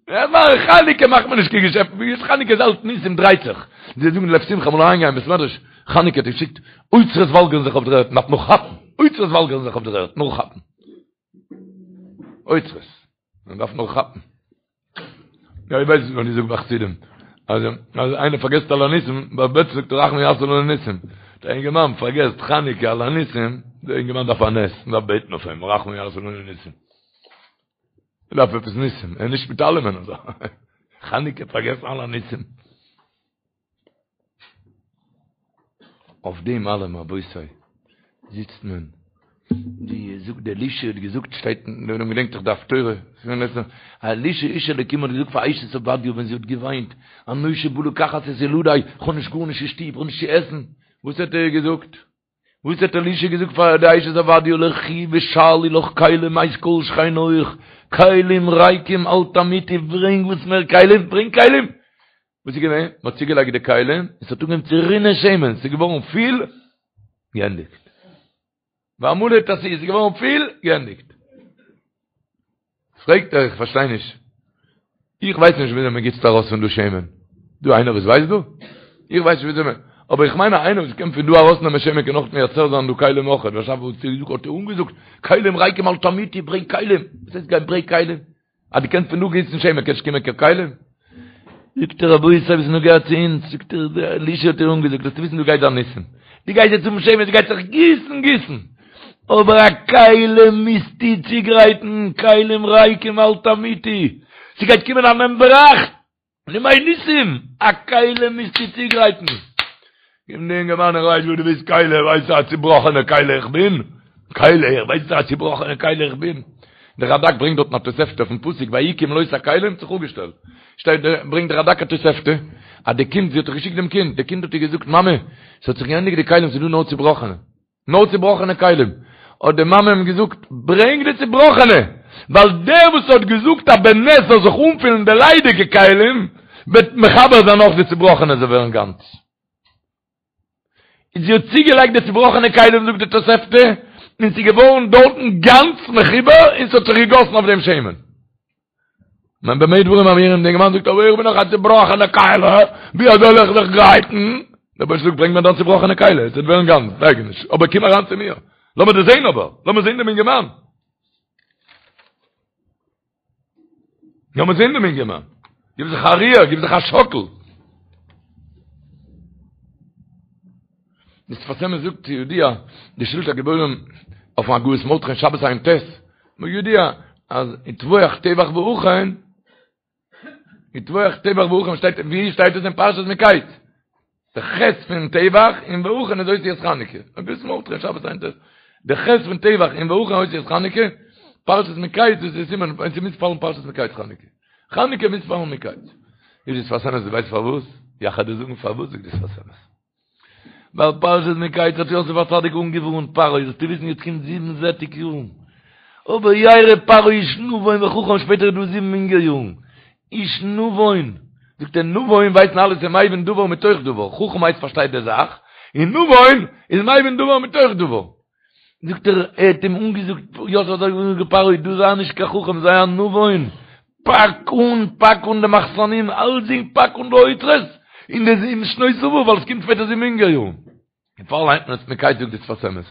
אין זמן חנוכה מאכט מען נישט קיין געשעפט ווי איז חנוכה איז אלץ ניסים דרייט זיך זיי זאגן לב שמחה אמאל אריינגיין בית מדרש חנוכה האט געשיקט אוצרות וואלגערן זיך אויף דער ערד מ'דארף נאר כאפן אוצרות וואלגערן זיך אויף דער ערד נאר כאפן אוצרות מען דארף נאר כאפן. יא, איך ווייס נישט ווען איך זאג ביי חסידים. אז אז איינער פארגעסט על הניסים, ביי בעט זאגט הרחמן יעשה לנו ניסים. דער אינגערמאן פארגעסט חנוכה על הניסים, דער אינגערמאן דארף א נס, מען דארף בעטן אויף אים, הרחמן יעשה לנו ניסים. ער דארף עפעס ניסים, ער איז נישט מיט אלעמען אזוי. חנוכה פארגעסן על הניסים. אויף דעם אלעם רבותי זיצט מען, ווי זאגט דער אלישע האט געזאגט שטייט אין דער עולם געדענקט דאך די הפטורה, אלישע איש אלוקים האט געזאגט פאר אשת עובדיה ווען זי האט געוויינט, הנושה בא לקחת את ילדי, איך האב נישט גארנישט אין שטוב, איך האב נישט צו עסן, וואס האט ער געזאגט? וואס האט אלישע געזאגט פאר די אשת עובדיה לכי ושאלי לך כלים מאת כל שכניך, כלים ריקים אל תמעיטי, ברענג וואס מער כלים, ברענג כלים! וואס איז געווען? מען האט צוגעלייגט די כלים, און ס'האט אנגעהויבן צו רינען שמן, ס'איז געווארן פיל, געענדיגט. והמלא תשיאי, ס'איז געווארן פיל, געענדיגט. פרעגט ער, איך פארשטיי נישט. איך ווייס נישט וויאזוי מען גיסט ארויס פון דא שמן. דא איינער וואס ווייסט דא? איך ווייס נישט וויאזוי מען... אבער איך מיין אז איינער וואס קען פון דא ארויסנעמען שמן קען אויך מייצר זיין דא כלים אויך. וואס האט ער אנגעזאגט? כלים ריקים אל תמעיטי, ברענג כלים. וואס הייסט גיין ברענג כלים? אז דו קענסט פון דא גיסן שמן קענסט קומען קיין כלים? זאגט ער רבותי וואס איז נוגע צו אונז? זאגט ער אלישע האט איר אנגעזאגט זאלסטו וויסן דא גייט זיין ניסים, דו גייסט יעצט האבן שמן ס'גייט זיך גיסן גיסן, אבער א כלי מוזטו צוגרייטן, כלים ריקים אל תמעיטי, ס'גייט קומען א נעם בראך, ימי ניסים, א כלי מוזטו צוגרייטן. קומט די אינגערמאן ער ווייסט וואס דו ביסט כלי, ווייסט א צובראכענע כלי איך בין? כלי, איך ווייס א צובראכענע כלי איך בין. דער רדק ברענגט דארטן א תוספתא אויפן פסוק ויהי כמלאת הכלים האט זיך אפגעשטעלט. שטייט דער ברענגט דער רדק א תוספתא אז די קינד זי האט דאך געשיקט דעם קינד, די קינד האט איר געזאגט מאמע ס'האט זיך געענדיגט די כלים ס'איז דא נאר צובראכענע. נאר צובראכענע כלים. האט די מאמע אים געזאגט, ברענג די צובראכענע, ווייל דער וואס האט געזאגט אז בנס זאל זיך אנפילן די ליידיגע כלים, וועט מחבר זיין אויך די צובראכענע זאל ווערן גאנץ. און זי האט צוגעלייגט די צובראכענע כלים זאגט די תוספתא, און ס'איז געווארן דארטן גאנץ מחובר און ס'האט זיך געגאסן אויף דעם שמן. מען במה דברים אמורים, דער אינגערמאן זאגט אבער איך בין דאך א צובראכענע כלי, ווי אזוי זאל איך זיך גרייטן? דער אייבערשטער זאגט ברענג מיר דיין צובראכענע כלי, עס וועט ווערן גאנץ, דאגה נישט, אבער קום אריין צו מיר, לאמיר דאס זען אבער, לאמיר זען דעם אינגערמאן. לאמיר זען דעם אינגערמאן. גיב זיך א ריר, גיב זיך א שאקל. דער שפת אמת זאגט כידוע, די שלטי הגיבורים אויפן הגהות מרדכי אין שבת ע"ט, כידוע אז וטבוח טבח והכן, וטבוח טבח והכן שטייט, ווי שטייט עס אין פרשת מקץ? די ח' פון טבח און והכן איז אותיות חנוכה. הגהות מרדכי אין שבת ע"ט. די ח' פון טבח און והכן אותיות חנוכה, פרשת מקץ דאס איז סימן, און ס'מוז פאלן פרשת מקץ חנוכה. חנוכה מוז פאלן מקץ. זאגט די שפת אמת, דו ווייסט פארוואס? יאך וועל דיר זאגן פארוואס זאגט די שפת אמת. ווייל פרשת מקץ האט יוסף הצדיק אנגעווארנט פרעה, זאלסטו וויסן יעצט קומט זיבן זעטיג יארן, אבער ירא פרעה איש נבון וחכם שפעטער איז דא זיבן הונגער יארן, איש נבון, זאגט ער נבון ווייסן אלע ס'איז מבין דבר מתוך דבר, חכם הייסט פארשטייט די זאך, און נבון איז מבין דבר מתוך דבר. זאגט ער, ער האט אים אנגעזאגט, יוסף האט אנגעזאגט פרעה, דו זיי נישט קיין חכם, זיי א נבון, פאק אן, פאק אן די מחסנים, אלסדינג, פאק אן די אוצרות, אין די זיבן שנות שובע, ווייל עס קומט שפעטער זיבן הונגער יארן. דערפאר ליינט מען עס מקץ זאגט די שפת אמת.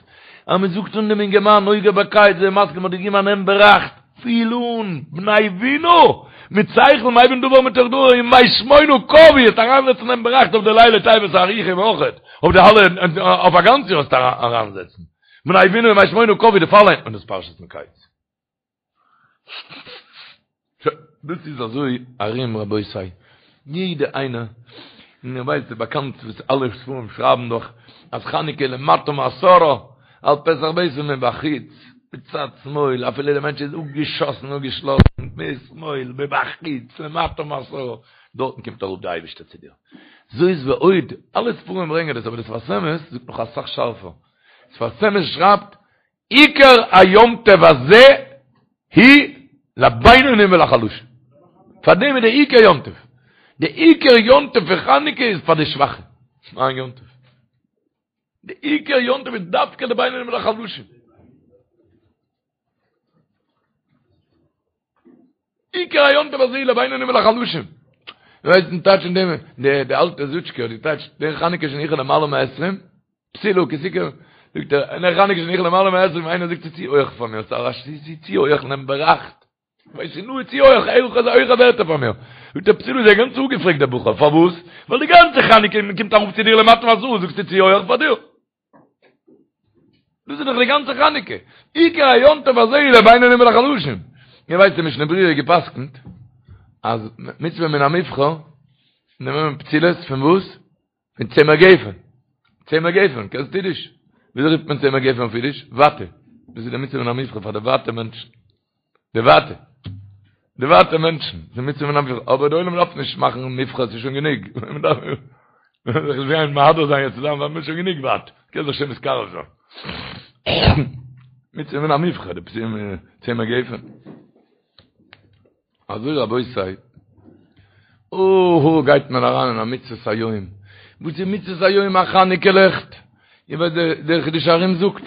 אז מען זאגט אן דעם אינגערמאן נוגע בקיץ, זיי מסכים האט געגעבן א נעם בראכט, פיל אן, בני בינה, מיט שכל מבין דבר מתוך דבר, ימי שמונה קבעו, וועסט אריינזעצן דעם בראכט אויף די לילי טבת הארוכים אויכעט, אויף די אלע, אויף א גאנץ יאר וועסטו אריינזעצן. בני בינה ימי שמונה קבעו, דערפאר ליינט מען דאס פרשת מקץ. דאס איז אזוי ארום רבותי, יעדע איינער, און איר ווייסט ס'איז באקאנט וואס אלע ספרים שרייבן דאך אז חנוכה למטה מעשרה על פתח ביתו מבחוץ, מצד שמאל, אפילו דער מענטש איז אפגעשאסן אפגעשלאסן, משמאל, מבחוץ, למטה מעשרה, דארטן קומט אראפ די אייבערשטער צו דיר. זאת ועוד, אלע ספרים ברענגען דאס, אבער די שפת אמת זאגט נאך אסאך שארפער. שפת אמת שרייבט עיקר היום טוב הזה הוא לבינונים ולחלשים. פאר דעם איז דער עיקר יום טוב. דער עיקר יום טוב פון חנוכה איז פאר די שוואכע. מיין יום טוב. דער עיקר יום טוב איז דווקא לבינונים ולחלשים. עיקר היום טוב הזה לבינונים ולחלשים. ווייסט דעם טייטש אין דעם, די אלטע זוטשקע האט געטייטשט, נר חנוכה שהניחו למעלה מעשרים, פתילה כי תקרב, זאגט ער, נר חנוכה שהניחו למעלה מעשרים, איינער זאגט ס'איז צו הויך פאר מיר, ס'איז צו הויך נעם בראכט. ווייס איך נו, צו הויך, הויך איז הויכע ווערטער פאר מיר. זאגט ער, פתילה איז ער גאנץ אפגעפרעגט דער בחור, פארוואס? ווייל די גאנצע חנוכה מ'קומט אראפ צו דיר למטה מעשרה, זאגסטו צו הויך פאר דיר. דאס איז דאך די גאנצע חנוכה. עיקר היום טוב הזה הוא לבינונים ולחלשים. איר ווייסט די משנה ברורה געפסקנט אז מצוה מן המובחר נעמען מען פתילות פון וואס? פון צמר גפן. צמר גפן, קענסט אידיש? וויאזוי רופט מען צמר גפן אויף אידיש? וואטע. דאס איז די מצוה מן המובחר פאר די וואטע מענטשן. די וואטע. די וואטע מענטשן. די מצוה מן המובחר. אבער די עולם דארף נישט מאכן מבחר, ס'איז שוין גענוג. מען דארף זיך נישט גיין מהדר זיין יעצט צוזאמען, ווייל מ'איז שוין גענוג וואט. קען זיך שוין מתקרב זיין. מצוה מן המובחר, די צמר גפן. אזוי רבותי, אוהו גייט מען אריין אין א מצוות היום. וואס איז מצוות היום? א חנוכה לעכט. איר ווייסט דער חידושי הרי"ם זאגט,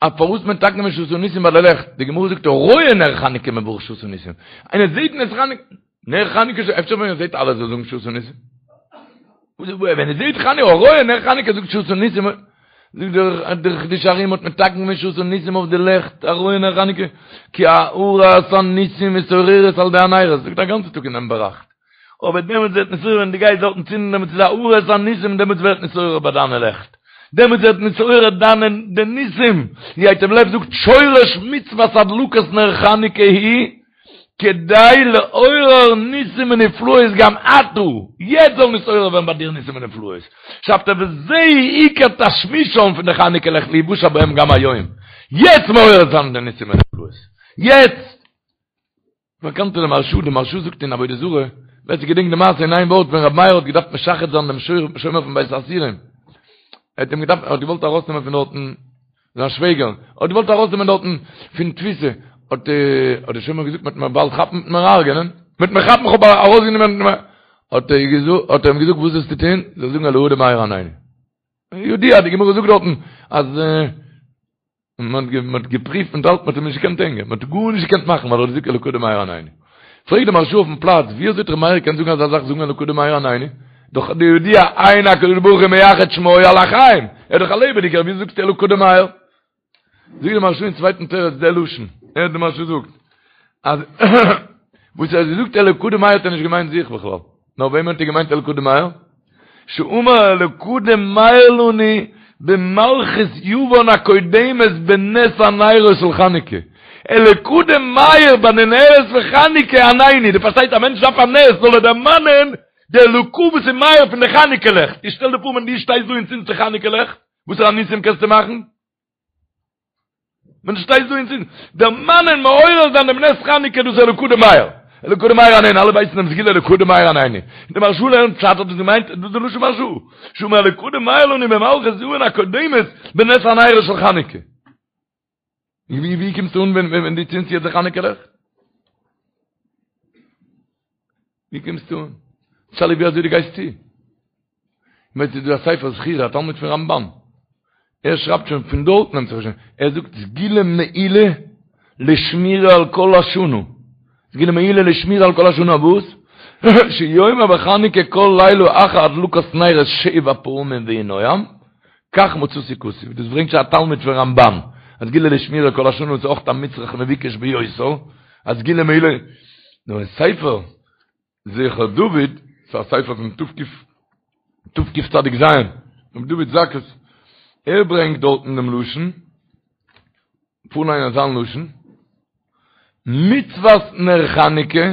אז פארוואס מען מתקן געווען שעשה ניסים ביי די לעכט, די גמרא זאגט הרואה נר חנוכה מברך שעשה ניסים, איינער זעט נס חנוכה, נר חנוכה, אפשר ווען ער זעט אלעס זאל זאגן שעשה ניסים? ווען ער זעט חנוכה, הרואה נר חנוכה זאגט שעשה ניסים, זאגט דער דער חידושי הרי"ם האט מתקן געווען שעשה ניסים אויף די לעכט, הרואה נר חנוכה, כי הארת הניסים מתעוררת על ידי הנרות, זאגט א גאנצע טאג אינעם באראכט. אבער דעמאלטס ווערט נתעורר ווען דו גייסט דארטן צינדן דעמאלטס איז הארת הניסים דעמאלטס ווערט נתעורר ביי דיינע לעכט דעמאלטס ווערט נתעורר דיינע די ניסים ווי ייטב לב זאגט שורש מצוות הדלקת נר חנוכה היא כדי לעורר ניסים ונפלאות גם עתה יעצט זאל נתעורר ווערן ביי דיר ניסים ונפלאות שרייבט ער וזה עיקר תשמישם פון די חנוכה לעכט להיוושע בהם גם היום יעצט מעורר זיין די ניסים ונפלאות יעצט באקאנט די מהרשא, די מהרשא זאגט אין עבודה זרה, ווער ס'געדענקט די מעשה אין איין ווארט ווען רבי מאיר האט געדארפט משחד זיין דעם שומר פון בית האסורים, ער האט אים געדארפט, ער האט געוואלט ארויסנעמען פון דארטן. זיין שוועגער, האט געוואלט ארויסנעמען דארטן פון תפיסה, האט האט דער שומר געזאגט מ'וועט מיר באלד כאפן מ'וועט מיר הרג'ענען, מ'וועט מיר כאפן כ'האב ארויסגענומען, האט ער געזאגט, האט ער אים געזאגט וואס זאלסטו טון, זאלסט זאגן אלקא דמאיר ענני. ידוע, די גמרא זאגט דארטן אז מען האט געפריווט מיט אלץ, מען האט אים נישט געקענט הענגען, מען האט גארנישט געקענט מאכן ווייל ער האט געזאגט אלקא דמאיר ענני. פרעגט די מהרש"א אויפן פלאץ, ווי אזוי האט ר' מאיר געקענט זאגן אזא זאך זאגן אלקא דמאיר ענני? דאך די ידוע אין הקדוש ברוך הוא מייחד שמו על החיים, ער איז דאך א לעבעדיגער, ווי זאגסטו אלקא דמאיר? זאגט די מהרש"א אין צווייטן תירוץ די לשון, הערט די מהרש"א זאגט, אז וואס ער האט געזאגט אלקא דמאיר האט ער נישט געמיינט זיך בכלל, נאר וועמען האט ער געמיינט אלקא דמאיר? שאמר אלקא דמאיר לנו במלכות יוון הקודמת בנס הנרות של חנוכה, אלקא דמאיר ביי די נרות פון חנוכה ענני, דו פארשטייסט א מענטש דארף א נס זאל ער דערמאנען די אלקא וואס איז מאיר פון די חנוכה לעכט, איך שטעל דיר פאר ווען דו שטייסט דא און צינדסט די חנוכה לעכט, וואסערע ניסים קענסטו מאכן? ווען דו שטייסט דא און צינדסט, דערמאנען מעורר זיין דעם נס חנוכה דאס איז אלקא דמאיר, אלקא דמאיר ענני, אלע ווייסן דעם סגולה אלקא דמאיר ענני, און די מהרש"א לערנט פשט האט עס געמיינט, דאס איז די לשון מהרש"א, שאמר אלקא דמאיר לנו במלכות יוון הקודמת בנס הנרות של חנוכה. ווי ווי קומסטו אן ווען ווען דו צינדסט יעצט די חנוכה לעכט? ווי קומסטו אן? שאלה ווי אזוי דו גייסט צו. כ'מיין ס'איז דא א ספר זכירה, א תלמיד פון רמב"ן. ער שרייבט שוין פון דארט נעמט זיך שוין. ער זאגט סגולה מעולה לשמירה על כל השנה. סגולה מעולה לשמירה על כל השנה וואס? שיאמר בחנוכה כל לילה אחר הדלקת נרות שבע פעמים ויהי נועם, כך מצאתי כתוב. דאס ברענגט שוין א תלמיד פון רמב"ן. א סגולה לשמירה כל השנה איז אויך א מצרך מבוקש ביותר. א סגולה מעולה. נו אין ספר זכר דוד, ס'איז א ספר פון תקצ"ז, רבי דוד זכות, ער ברענגט דארטן דעם לשון, פארליינען זיין לשון, מצוות נר חנוכה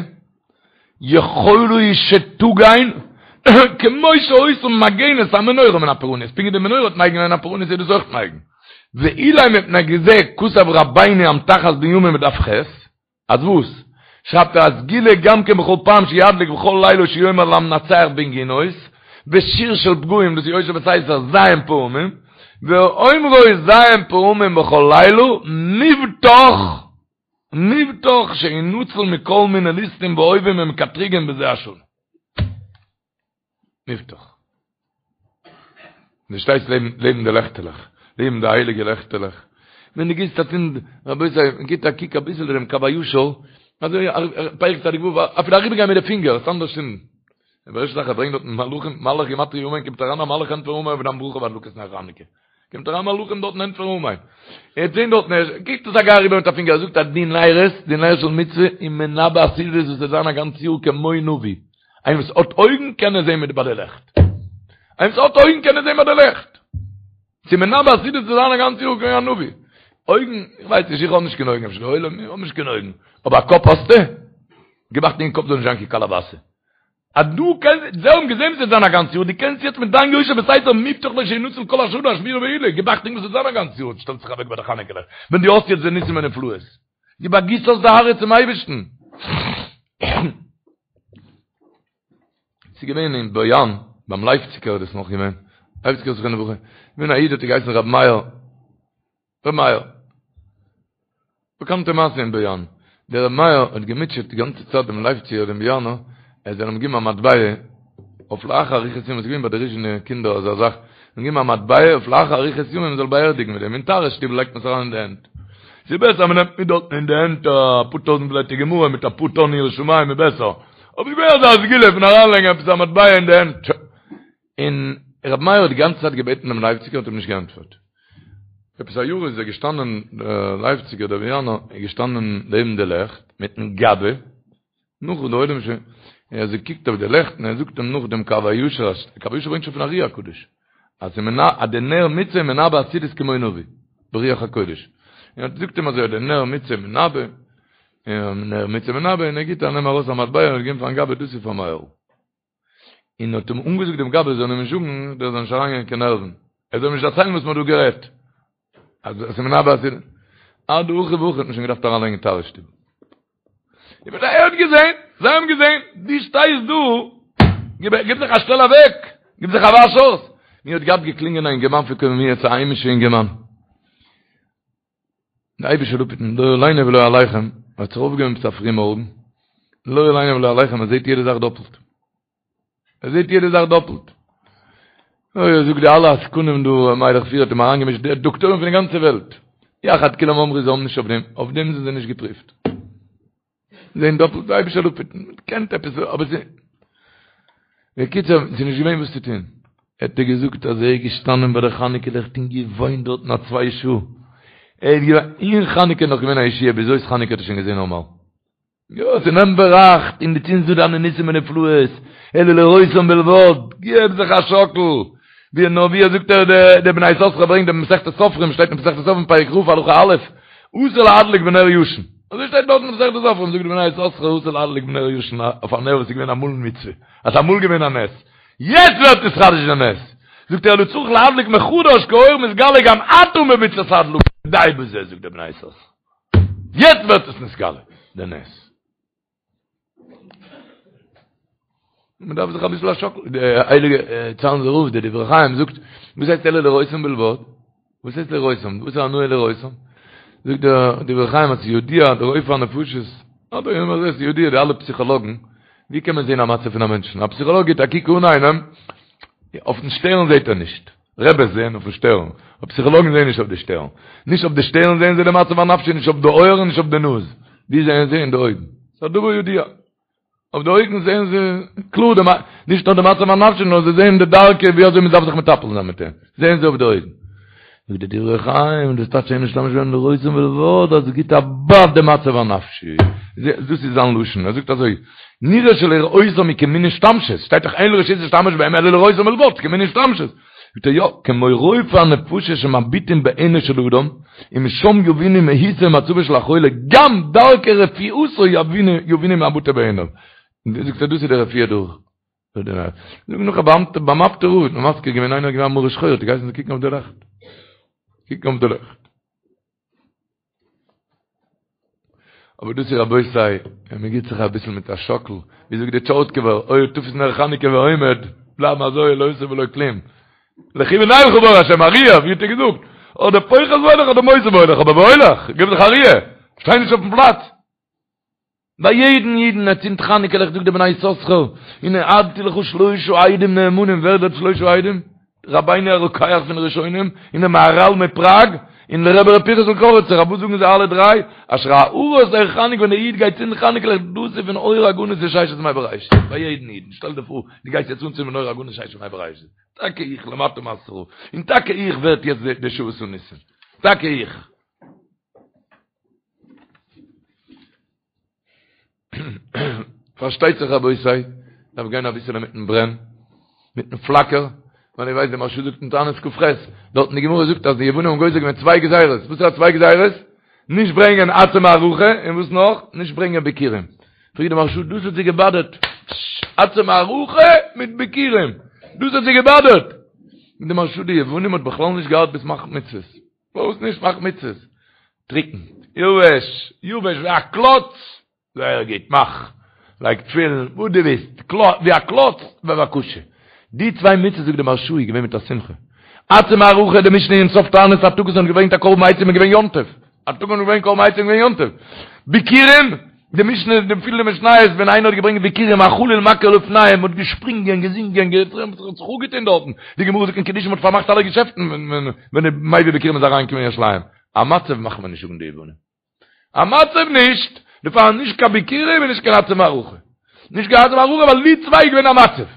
יכולה היא שתגן כמו שהיתה מגנת המנורה מן הפורענות, פונקט ווי די מנורה האט מגין געווען הפורענות איז דאס אויך מגין. ואולי מפני זה כתב רבינו אמתחת בנימין בדף ח', אז וואס? שרייבט ער א סגולה גם כן בכל פעם שידליק בכל לילה שיאמר למנצח בנגינות, בשיר של פגעים דאס איז יושב בסתר ז' פעמים, ואומרו ז' פעמים בכל לילה מובטח מובטח שינצל מכל מיני ליסטים ואויבים ומקטריגים בזה השנה. מובטח. דו שטייסט לעבן לעבן די לעכטעלעך, לעבן די הייליגע לעכטעלעך, ווען דו גיבסט א צינד, רבותי, מען גיבט א קוק אביסל דעם קב הישר, אזוי פרק צדיק ו', אפילו אריבערגיין מיט די פינגער, עס אנדערש צינדן. דער ערשטע זאך ער ברענגט דארטן מלאכים, מלאך גימטריא אמן, קומט אריין א מלאך ענטפערן אמן אויף דיין ברכה ביי הדלקת נר חנוכה. קומט אריין מלאכים דארטן ענטפערן אמן. ער האט זען דארטן, ער קוקט עס א גיי אריבער מיט א פינגער, ער זאגט אז די נרות, די נר של מצוה, איז מנבא עתידות וואס וועט זיין א גאנץ יאר כמו נביא. איינער וואס האט אויגן קען עס זען מיט ביי די לעכט. איינער וואס האט אויגן קען עס זען ביי די לעכט. ס'איז מנבא עתידות צו זיין א גאנץ יאר כמו א נביא. אויגן, איך ווייס נישט, איך האב נישט קיין אויגן, אפשר די עולם, איך האב נישט קיין אויגן. אבער א קאפ האסטו? גיב אכטונג אין קאפ זאל נישט זיין קיין קאלאבאסע. אז דו קענסט, זיי האבן געזען וואס וועט זיין א גאנץ יאר, דו קענסט יעצט מיט דיין יושב בסתר מובטח לו שינצל כל השנה א שמירה מעולה, גיב אכטונג וואס וועט זיין א גאנץ יאר, שטעלט זיך אוועק ביי די חנוכה לעכט, ווען דו האסט יעצט די ניסים ונפלאות, גיב א גיס אויס די הארץ צום אייבערשטן. ס'איז געווען אין באיאן, ביים לייפציקער איז דאס נאך געווען, לייפציקער זכרונו לברכה, געווען א איד האט ער געהייסן רבי מאיר, ר' מאיר. באקאנטע מעשה אין באיאן. דער ר' מאיר האט געמוטשעט די גאנצע צייט דעם לייפציגער דעם באיאנער, ער זאל אים געבן א מטבע אויף לאחר אריכות ימים, עס איז געווען ביי די ריזשינער קינדער אזא זאך, אים געבן א מטבע אויף לאחר אריכות ימים מען זאל באערדיגן מיט דעם, אין טהרה שטיבל לייגט מען עס אריין אין די הענט. ס'איז בעסער מען נעמט מיט דארטן אין די הענט אפאר טויזנט בלעטער גמרא מיט אפאר טאן יראת שמים איז בעסער. אבער ס'איז געווען אזא סגולה פון אריינלייגן עפעס א מטבע אין די הענט. און רבי מאיר האט די גאנצע צייט געבעטן דעם לייפציגער האט אים נישט געענטפערט. עפעס א יאר איז ער געשטאנען דער לייפציגער דער באיאנער איז געשטאנען לעבן די לעכט מיטן גבאי, נאך וואס די עולם שוין, און ער האט געקוקט אויף די לעכט און ער זאגט אים נאך דעם קב הישר, אז קב הישר ברענגט שוין פון ארי הקדוש, אז ס'איז מנ אז די נר מצוה איז מנבא עתידות כמו נביא, ברוח הקודש. און ער זאגט אים אזוי אז די נר מצוה מנבא, און נר מצוה מנבא, און ער גיבט א נעם ארויס א מטבע און האט געגעבן פארן גבאי דאס איז פאר מאיר'ל. און האט אים אנגעזאגט דעם גבאי זאל אים נישט זאגן, דער זאל נישט אריינגיין קיין נערוון, ער זאל אים נישט דערציילן וואס מען האט דא גערעדט, אז עס איז מנבא אז אדהכי והכי האט מען שוין געדארפט אריינלייגן אין טהרה שטיבל. איך בין ער האט געזען, זיי האבן געזען, דו שטייסט דא, גיב גיב זיך א שטעל אוועק, גיב זיך א וואש אויס. מיר האט געהאט געקלינגען א אינגערמאן פון קוממיות, א היימישע אינגערמאן. די אייבישטער זאל אפהיטן לא עלינו ולא עליכם, האט זיך אויפגעהויבן עפעס א פרי מארגן, לא עלינו ולא עליכם, ער זעט יעדע זאך דאפלט. ער זעט יעדע זאך דאפלט. אוי, ער זאגט די אלע עסקנים דא, מיילעך פירער האט אים אריינגעמישט, די דאקטוירים פון די גאנצע וועלט. יחד כולם אמרו זיי האבן נישט אויף דעם, אויף דעם זענען זיי נישט געפריווט. זעהן דאפלט, די אייבישטער זאל אפהיטן, מען קען עפעס, אבער ס'איז, בקיצור, ס'איז נישט געווען וואס צו טון. האט ער געזאגט אז ער איז געשטאנען ביי די חנוכה לעכט און געוויינט דארטן א צוויי שעה. ער איז געווען, אין חנוכה איז נאך געווען א ישועה, ביז אויס חנוכה האט ער שוין געזעהן נארמאל. יא, ס'נעמט בראכט און דו צינדסט דא דיינע ניסים ונפלאות, אלא לראותם בלבד, געב זיך א שאקל, ווי נאר ווי ער זאגט ער די בני יששכר ברענגט די מסכת סופרים שטייט אין מסכת סופרים פרק כ' הלכה א', אסור להדליק בנר ישן, אזוי שטייט דארט אין מסכת סופרים, זאגט די בני יששכר אסור להדליק בנר ישן אויף א נר וואס איז געווען אמאל מצוה, אז ס'איז אמאל געווען א נס, יעצט ווערט נתחדש די נס, זאגט ער אלא צריך להדליק מחדש כי האור מתגלה גם עתה ממצות הדלקה, די בזה זאגט די בני יששכר. יעצט ווערט עס נתגלה, די נס. מען דארף זיך אביסל א שאקל, די הייליגע צאנזער רב, די דברי חיים זאגט, וואס הייסט אלא לראותם בלבד? וואס הייסט לראותם? וואס איז הנאה לראותם? זאגט דער דברי חיים אז ס'ידוע דער רופא הנפשות, אדער ווי מען זעט ס'ידוע די אלע פסיכאלאגן, ווי קען מען זען א מצב פון א מענטשן? א פסיכאלאג גיט א קוק אן איינעם, אויפן שטערן זעט ער נישט. רעבעס זעען אויפן שטערן, אבער פסיכאלאגן זעען נישט אויף די שטערן. נישט אויף די שטערן זעען זיי די מצב הנפשי, נישט אויף די אויערן, נישט אויף די נאז. ווי זעען זיי? אין די אויגן. ס'איז א דבר ידוע. אויף די אויגן זעען זיי קלאר די, נישט נאר די מצב הנפשי, נאר זיי זעען די דרכי ווי אזוי מ'דארף זיך מטפל זיין מיט אים. זעען זיי אויף די אויגן. זאגט די דברי חיים, דאס טייטש אין משתמש בהם לראותם בלבד, אז עס גיט א בייט די מצב הנפשי. דאס איז זיין לשון. ער זאגט אזוי, נראה שלראותם היא כמין השתמשות, שטייט דאך אין רשות להשתמש בהם אלא לראותם בלבד, כמין השתמשות. זאגט ער יא, כמו רופאי הנפשות שמביטים בעינו של אדם, ומשם יבינו מהותו ומצבו של החולה, גם דרכי רפואתו יבינו מהבטה בעיניו. זאגט ער דאס איז די רפואה דורך. זאג נאך א באאמטע ביים אפטער רב האט מען מזכיר געווען איינער איז געווען א מרה שחורה האט ער געהייסן זיי קוקן אויף די לעכט. קוקן אויף די לעכט. אבער דאס איז רבותי, ווען מען גיט זיך אביסל מיט א שאקל, ווי זאגט די טשארטקובער, היה תפוס נר חנוכה ועומד, בלייבן אזוי לא עושה ולא כלום. לכו ונלכה באור השם, א ריר, ווי האט ער געזאגט? אדער פוחת והולך אדער מוסיף והולך, אבער והולך, גיב זיך א ריר, שטיי נישט אויפן פלאץ. ביי יעדן אידן ער צינדט חנוכה לעכט זאגט דער בני יששכר, והעדתי לך שלושה עדים נאמנים, ווער די שלושה עדים? רבינו הרוקח פון ראשונים, און דער מהרל מפראג, און דער רבי ר' פנחס'ל קאריצער, וואס זאגן זיי אלע דריי? אשר הארת אור חנוכה ווען דער איד גייט צינדן חנוכה לעכט דאס איז פון אור הגנוז פון ששת ימי בראשית, ביי יעדן אידן, שטעל דיר פאר דו גייסט יעצט אנצינדן אור הגנוז ששת ימי בראשית, טאקע איך למטה מעשרה, און טאקע איך ווערט יעצט די שעשה ניסים, טאקע איך. פארשטייט זיך רבותי, דארף גיין אביסעלע מיטן ברען, מיטן פלאקער, ווייל איר ווייסט די מהרש"א זאגט אין תענית כ"ח, דארט אין די גמרא זאגט אז די יוונים האבן גוזר געווען צוויי גזירות, וואס איז א צוויי גזירות? נישט ברענגען עצי מערכה, און וואס נאך? נישט ברענגען ביכורים. פרעגט די מהרש"א, דאס האט זיי געבאדערט, עצי מערכה מיט ביכורים, דאס האט זיי געבאדערט. זאגט די מהרש"א, די יוונים האט בכלל נישט געארט ביז מאכן מצוות. פארוואס נישט מאך מצוות? טריקן, יבש, יבש ווי א קלאץ, זייער גוט, מאך, לייג תפילין, וואס דו ווילסט, ווי א קלאץ, בבקשה. די צוויי מצוות זאגט די מהרש"א איז געווען מיט א שמחה. עצי מערכה, די משנה אין סוף תענית א טאג וואס מען האט געברענגט א קרבן עצים איז געווען יום טוב. א טאג וואס מען האט געברענגט קרבן עצים איז געווען יום טוב. ביכורים, די משנה די פילע משניות ווען איינער האט געברענגט ביכורים החליל מכיר לפניהם מ'האט געשפרינגען געזינגען געטרעמפט זיך זיך אפגעטון דארטן די גמרא זאגט אין קידושין מ'האט פארמאכט אלע געשעפטן ווען די מביא ביכורים איז אריינגעקומען אין ירושלים א מצב מאכט מען נישט זאגן די יוונים א מצב נישט דערפאר נישט קיין ביכורים און נישט קיין עצי מערכה נישט קיין עצי מערכה ווייל די צוויי איז געווען א מצב